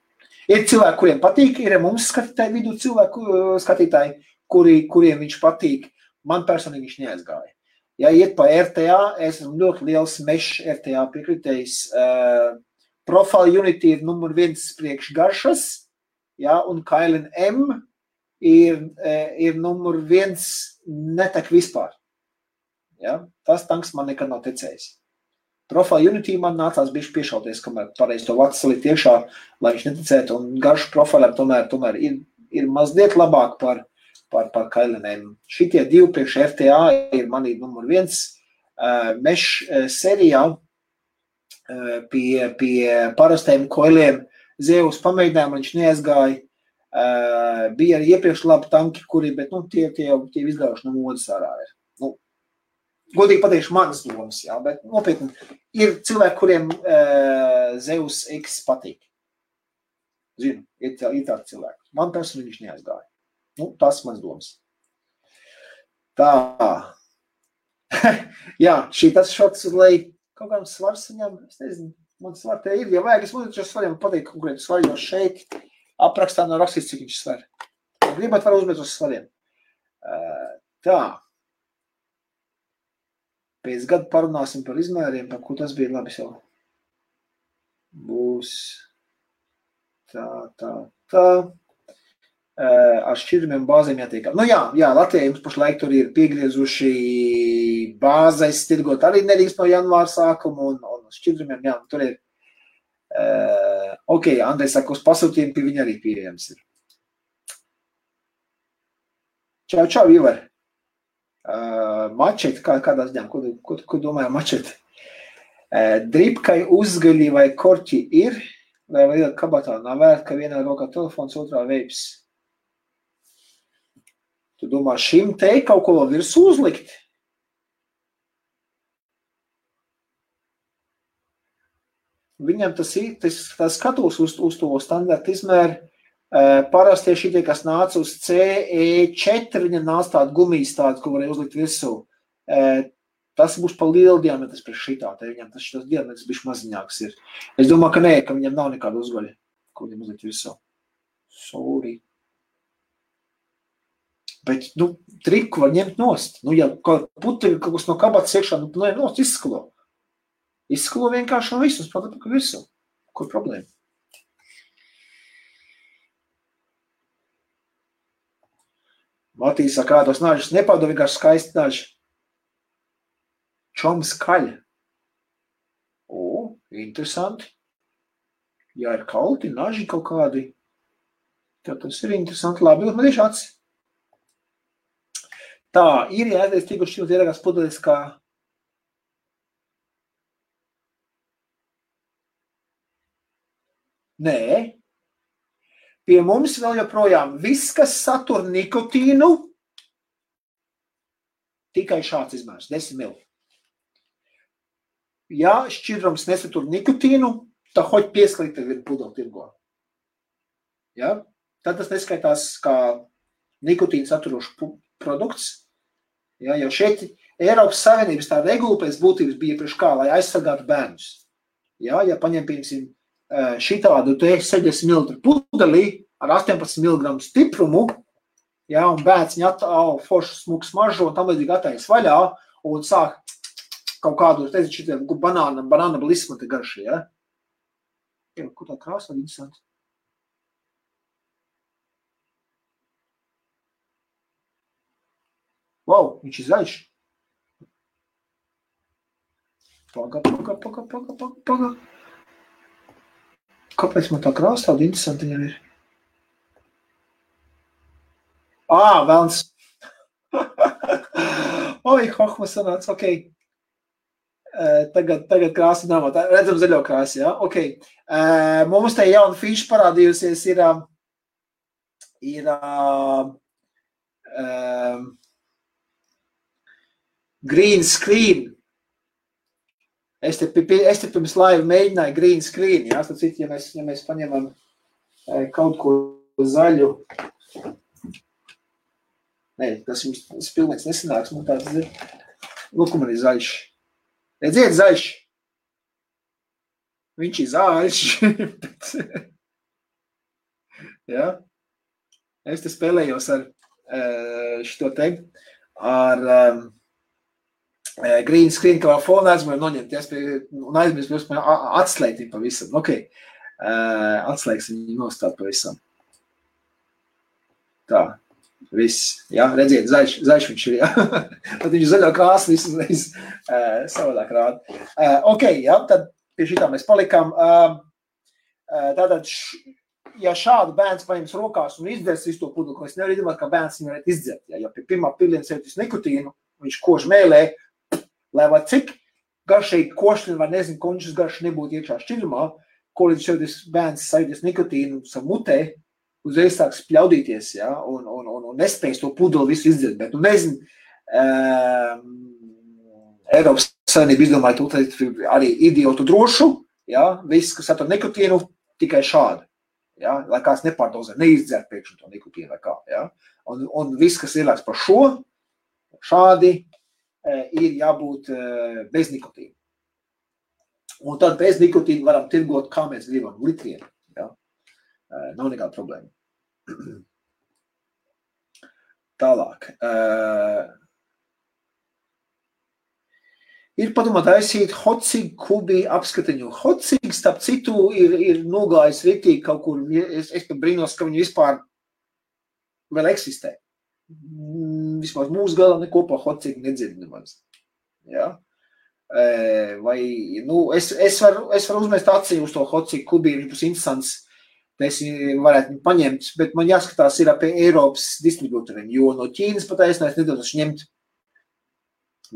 Ir cilvēki, kuriem patīk, ir mums skatītāji vidū skatītāji, kuriem viņš patīk. Man personīgi viņš neaizgāja. Ja iet pa RTA, es esmu ļoti liels mesh RTA piekritējis. Profile Unity ir numur 1 priekš garšas, ja, un Kailin M ir numur 1 netek vispār. Ja? Tas tanks man nekad nav tecējis. Profile Unity man nācās bišķi piešauties, kamēr pareizi to vats salikt iekšā, lai viņš netecētu, un garšu profilēm tomēr ir mazliet labāk par Kailinēm. Šitie 2 priekš FTA ir manī numur 1. Mesh serijā pie parastajiem koiliem Zeus pamēģinājumu, viņš neaizgāja. Bija arī iepriekš labi tanki, kuri, bet tie izgājuši no modas ārā ir. Godīgi pateikšu manas domas, jā, bet nopietni ir cilvēki, kuriem Zeus X patīk. Zinu, ir tādi cilvēki. Man personīgi viņš neaizgāja. Tas mans domas. Tā. Jā, tas šots, lai kaut kādam svars viņam, es nezinu, man svar te ir, ja vajag, es mūdzu šo svariem pateikt konkrēti svari, jo šeit aprakstā nav rakstīts, cik viņš svar. Gribat var uzmēt uz svariem. Tā. Pēc gada parunāsim par izmēriem, par ko tas bija labi jau. Būs tā. Ar šķidrumiem bāzēm jātiek. Jā, Latvijā jums pašlaik tur ir piegriezuši bāzais tirgot arī nedrīkst no janvāra sākuma un šķidrumiem, jā, tur ir. Ok, Andrei saka, uz pasūtījumu pie viņa arī pieejams ir. Čau, Ivar. Mačeti, kādās ģēm, ko domāju mačeti? Dripkai uzgaļi vai korķi ir, vai vēl kabatā nav vērt, ka vienā rokā telefons, otrā veips. Tu domā, šim te kaut ko vēl virsū uzlikt? Viņam tas skatos uz to standarta izmēru. Parasti šitie, kas nāca uz CE4, viņam nāca tāda gumijas tāda, ko varēja uzlikt virsū. Tas būs pa lielu diametrs priekš šitā, te viņam tas diametrs bišķi maziņāks ir. Es domāju, ka nē, ka viņam nav nekāda uzgaļa, ko viņam uzlikt virsū. Sorry. Bet, triku var ņemt nost. Ja puteļi kaut kas no kabatas iekšā, nost izskalo. Izskalo vienkārši no visus, protams, ka virsū. Kur problēma? Matīs saka, tos nažas nepauda vienkārši skaisti naži. Čom skaļa. Interesanti. Ja ir kalti, naži kaut kādi, tad tas ir interesanti. Labi, man tieši acis. Tā, ir jāies tīku šķilt ieragās pudelis kā Nē. Pie mums vēl joprojām viss, kas satur nikotīnu, tikai šāds izmērs, 10 ml. Ja šķidrums nesatur nikotīnu, tad hoķi piesklīt tev ir pudeli tirgo. Ja? Tad tas neskaitās kā nikotīnu saturošs produkts. Ja? Jo šeit Eiropas Savienības tā regula pēc būtības bija priekš kā, lai aizsargātu bērnus. Ja, ja paņem, piemēram, šitādu 70 ml pudelī ar 18 mg stiprumu, ja, un bērns viņa foršu smuku smaržo un tam līdzīgi atais vaļā un sāk kaut kādu, šitiem banāna blisma te garši, ja. Kur tā krāsa var interesanti? Wow, viņš ir zaļš. Paga. Kāpēc man tā krāsa tāda interesanta viņam ir? Velns. Oi, hohma sanāca, ok. Tagad krāsa nav, redzam zaļo krāsu, ja? Ok. Mums te jauna fīša parādījusies ir green screen. Es te pirms laiva mēģināju green screen, ja? Tad citi, ja mēs paņemam kaut ko zaļu, tas pilnīgs nesanāks, man tāds ir. Lūk, man ir zaļš. Redziet, zaļš. Viņš ir zaļš. Ja? Es te spēlējos ar šito te, ar green screen, kā fona aizmēju noņemt, un aizmēs atslēgt viņu pavisam. Ok, atslēgsim viņu nostāt pavisam. Tā. Viss, jā, redziet, zaļš viņš ir, jā. Tad viņš zaļo krāsu visu savādāk rāda. Ok, jā, tad pie šitā mēs palikām. Tātad, ja šādu bērns paņems rokās un izdzers visu to pudeli, ko es nevaru iedomāt, ka bērns viņu varētu izdzert. Ja pie pirmā piliena sevitis nikotīnu, viņš kož mēlē, lai var cik garšīgi košļi vai nezinu, končus garši nebūtu iekšā šķidrumā, ko līdz sevitis bērns sevitis nikotīnu savu mutē, uzreiz sāks pļaudīties, ja, un nespējas to pudeli visu izdzert, bet, nezinu, Eiropas Savienība izdomāja to arī idiotu drošu, ja, viss, kas satur nikotīnu, tikai šādi, ja, lai kāds nepārdozē, neizdzert pēkšņi to nikotīnu vai kā, ja, un viss, kas ielāks par šo, šādi, ir jābūt bez nikotīna. Un tad bez nikotīna varam tirgot, kā mēs gribam, litriem, ja, nav nekāda problēma. Tālāk. Ir padomā taisīt hotcig kubi apskatiņu. Hotcig, starp citu, ir nogājis riktīgi kaut kur. Es pat brīnos, ka viņi vispār vēl eksistē. Vismaz mūsu galā nekopā hotcig nedzird nemaz. Ja? Vai, es varu uzmest acī uz to hotcig kubi, viņš būs interesants. Mēs varētu viņu paņemt, bet man jāskatās ir pie Eiropas distributoriem, jo no Ķīnas pataisnēs nedodašu ņemt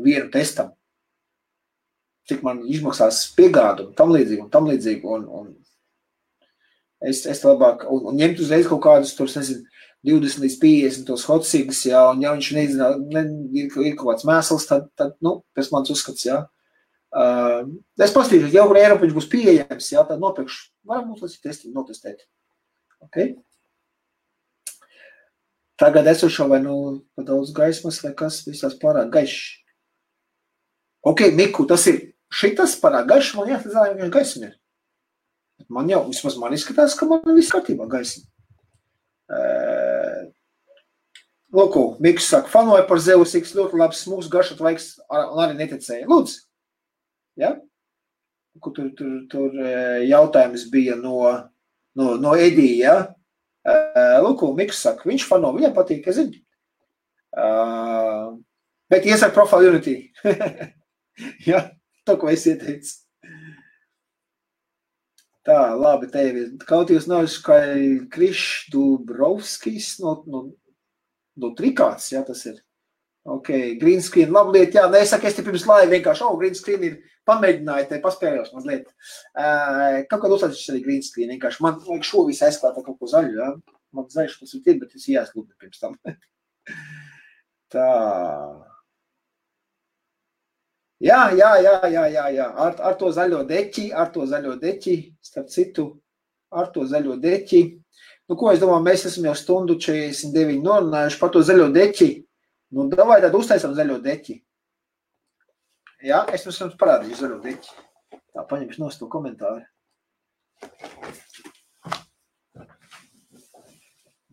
vienu testam. Cik man izmaksās piegādu un tam līdzīgi, un es labāk, un ņemt uzreiz kaut kādus, tur, nezinu, 20 līdz 50 tos hotcigas, jā, un ja viņš nezina, ir kaut kāds mēsls, tad pēc mans uzskats, jā. Es pastīšu, ja kur Eiropa viņš būs pieejams, jā, tad nopirkšu. Varam mums līdz notestēt. Ok? Tagad esošo vai pa daudz gaismas vai kas visās pārāk gaišs. Ok, Miku, tas ir šitas pārāk gaišs, man jāsadzāja vienkārši gaismi ir. Man jau, vismaz man izskatās, ka man viss kārtībā gaismi. Lūku, Miks saka, fanoja par Zeus X ļoti labs smūgs garšot laiks un arī neticēja. Lūdzu. Ja? Kur tur jautājums bija no Edija, ja? Lūk, Miks saka, viņš fano, viņam patīk, es zinu. Bet iesaka Profile Unity. Ja, to, ko es ieteicu. Tā, labi, tevi. Kaut jūs nav kā Krišs Dubrovskis no Trikāts, ja, tas ir. Ok, green screen, labi lieta, jā, nesaku, es te pirms laiva vienkārši, green screen ir pamēģināju, te paspēļos mazliet. Kaut kādā uzsācis arī green screen, vienkārši man vajag šo visu aizklāt kaut ko zaļu, jā. Man zaļš tas ir, bet es jāsklūdni pirms tam. Tā. Jā, ar to zaļo deķi, starp citu, ar to zaļo deķi. Ko es domāju, mēs esam jau stundu 49 norunājuši par to zaļo deķi. Davai tad uztaisam zaļo deķi. Jā, es jums parādīju zaļo deķi. Tā, paņemšu nost to komentāru.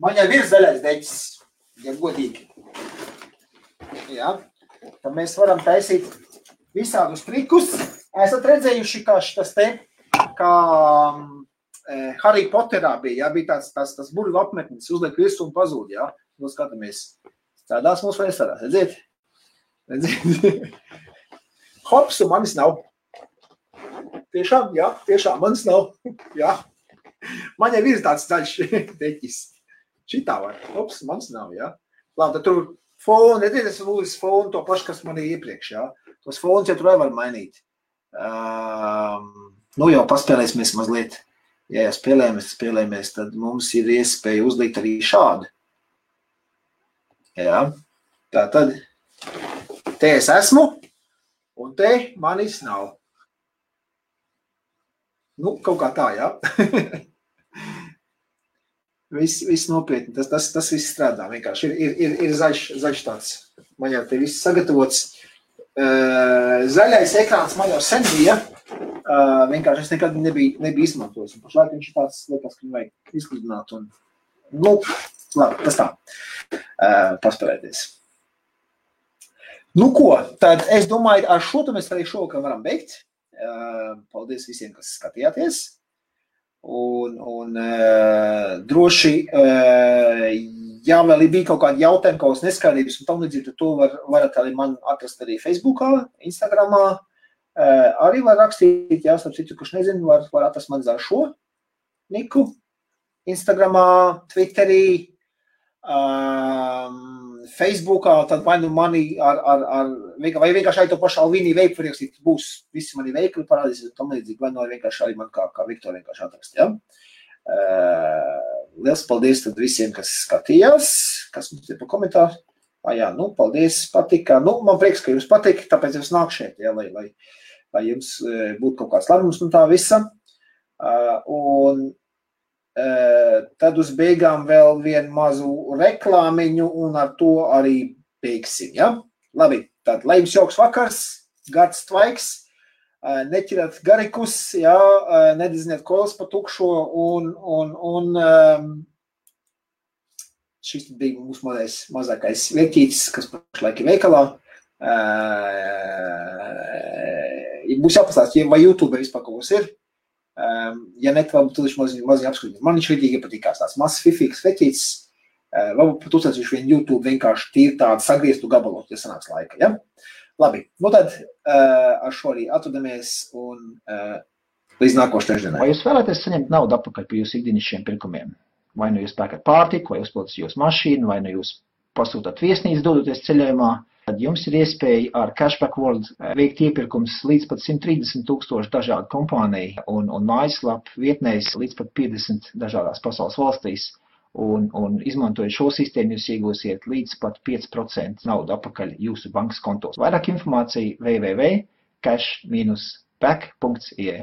Man jau ir zaļais deķis, ja godīgi. Jā, tad mēs varam taisīt visādus trikus. Esat redzējuši, kā šitas te, kā Harry Potterā bija, jā, bija tas burvu apmetnis, uzliek visu un pazūd, jā. Nu, skatāmies, strādās mums vai nestrādās, redziet? Hops, un manis nav. Tiešām, jā, tiešām, manis nav. Jā. Man jau ir tāds zaļš deķis. Šitā var. Hops, manis nav, jā. Labi, tad tur fonu, redziet, es lūdzu fonu to pašu, kas man ir iepriekš, jā. Tos fonus jau tur var mainīt. Nu jau paspēlēsimies mazliet. Ja jau spēlējamies, tad mums ir iespēja uzlikt arī šādu. Jā. Tā tad te es esmu, un te manis nav. Nu, kaut kā tā, jā. Viss nopietni, tas viss strādā vienkārši. Ir zaļš tāds. Man jau te viss sagatavots. Zaļais ekrāns man jau sen bija. Vienkārši es nekad nebija izmantojis. Un pašlaik viņš ir tāds, liekas, ka viņu vajag izgludināt. Un, nu, labi, tas tā. Paspēlēties. Nu ko, tad es domāju, ar šo mēs arī šovakar varam beigt. Paldies visiem, kas skatījāties. Un droši, ja vēl bija kaut kādi jautājumi, kaut kādas neskaidrības un tam līdzīgi, tad to varat arī man atrast arī Facebookā, Instagramā. Arī var rakstīt, jā, starp citu, kurš nezinu, var atrast man zār šo niku. Instagramā, Twitterī, Facebookā, tad vai nu mani vai vienkārši arī to pašu Alvīnī veiku var ierakstīt, būs visi mani veikli parādīsies un tam līdzīgi, vai nu vienkārši arī man kā Viktor vienkārši atrast, jā. Liels paldies tad visiem, kas skatījās, kas mums ir pa komentāru. Jā, nu, paldies, patika. Nu, man prieks, ka jums patika, tāpēc es nāku šeit, jā, lai jums būtu kaut kāds labums no tā visa. Un tad uz beigām vēl vienu mazu reklāmiņu un ar to arī beigsim, ja? Labi, tad lai jums jauks vakars, gards tvaiks, neķirat garikus, ja? Nedizniet kolas pa tukšo un šis bija mūsu mazākais vietītis, kas pašlaik ir veikalā. Būs jāpastāst, vai YouTube vispār kaut kas ir. Ja ne, varbūt tu viņš maziņ apskatīt. Man viņš vidīgi patīkās tāds mazs fifīgs veķīts. Varbūt pat uztaisīšu vienu YouTube vienkārši tīri tādu sagrieztu gabalot, ja sanāks laika, ja? Labi, nu tad ar šo arī atvadamies un līdz nākošu trešdienai. Vai jūs vēlaties saņemt naudu atpakaļ par jūsu ikdienišķiem pirkumiem? Vai nu jūs pērkat pārtiku, vai uzpildat jūsu mašīnu, vai nu jūs pasūtat viesnīcu dodoties ceļojumā, tad jums ir iespēja ar Cashback World veikt iepirkums līdz pat 130,000 dažādu kompāniju un mājaslapu vietnēs līdz pat 50 dažādās pasaules valstīs. Un izmantojot šo sistēmu, jūs iegūsiet līdz pat 5% naudu atpakaļ jūsu bankas kontos. Vairāk informācija www.cash-back.ie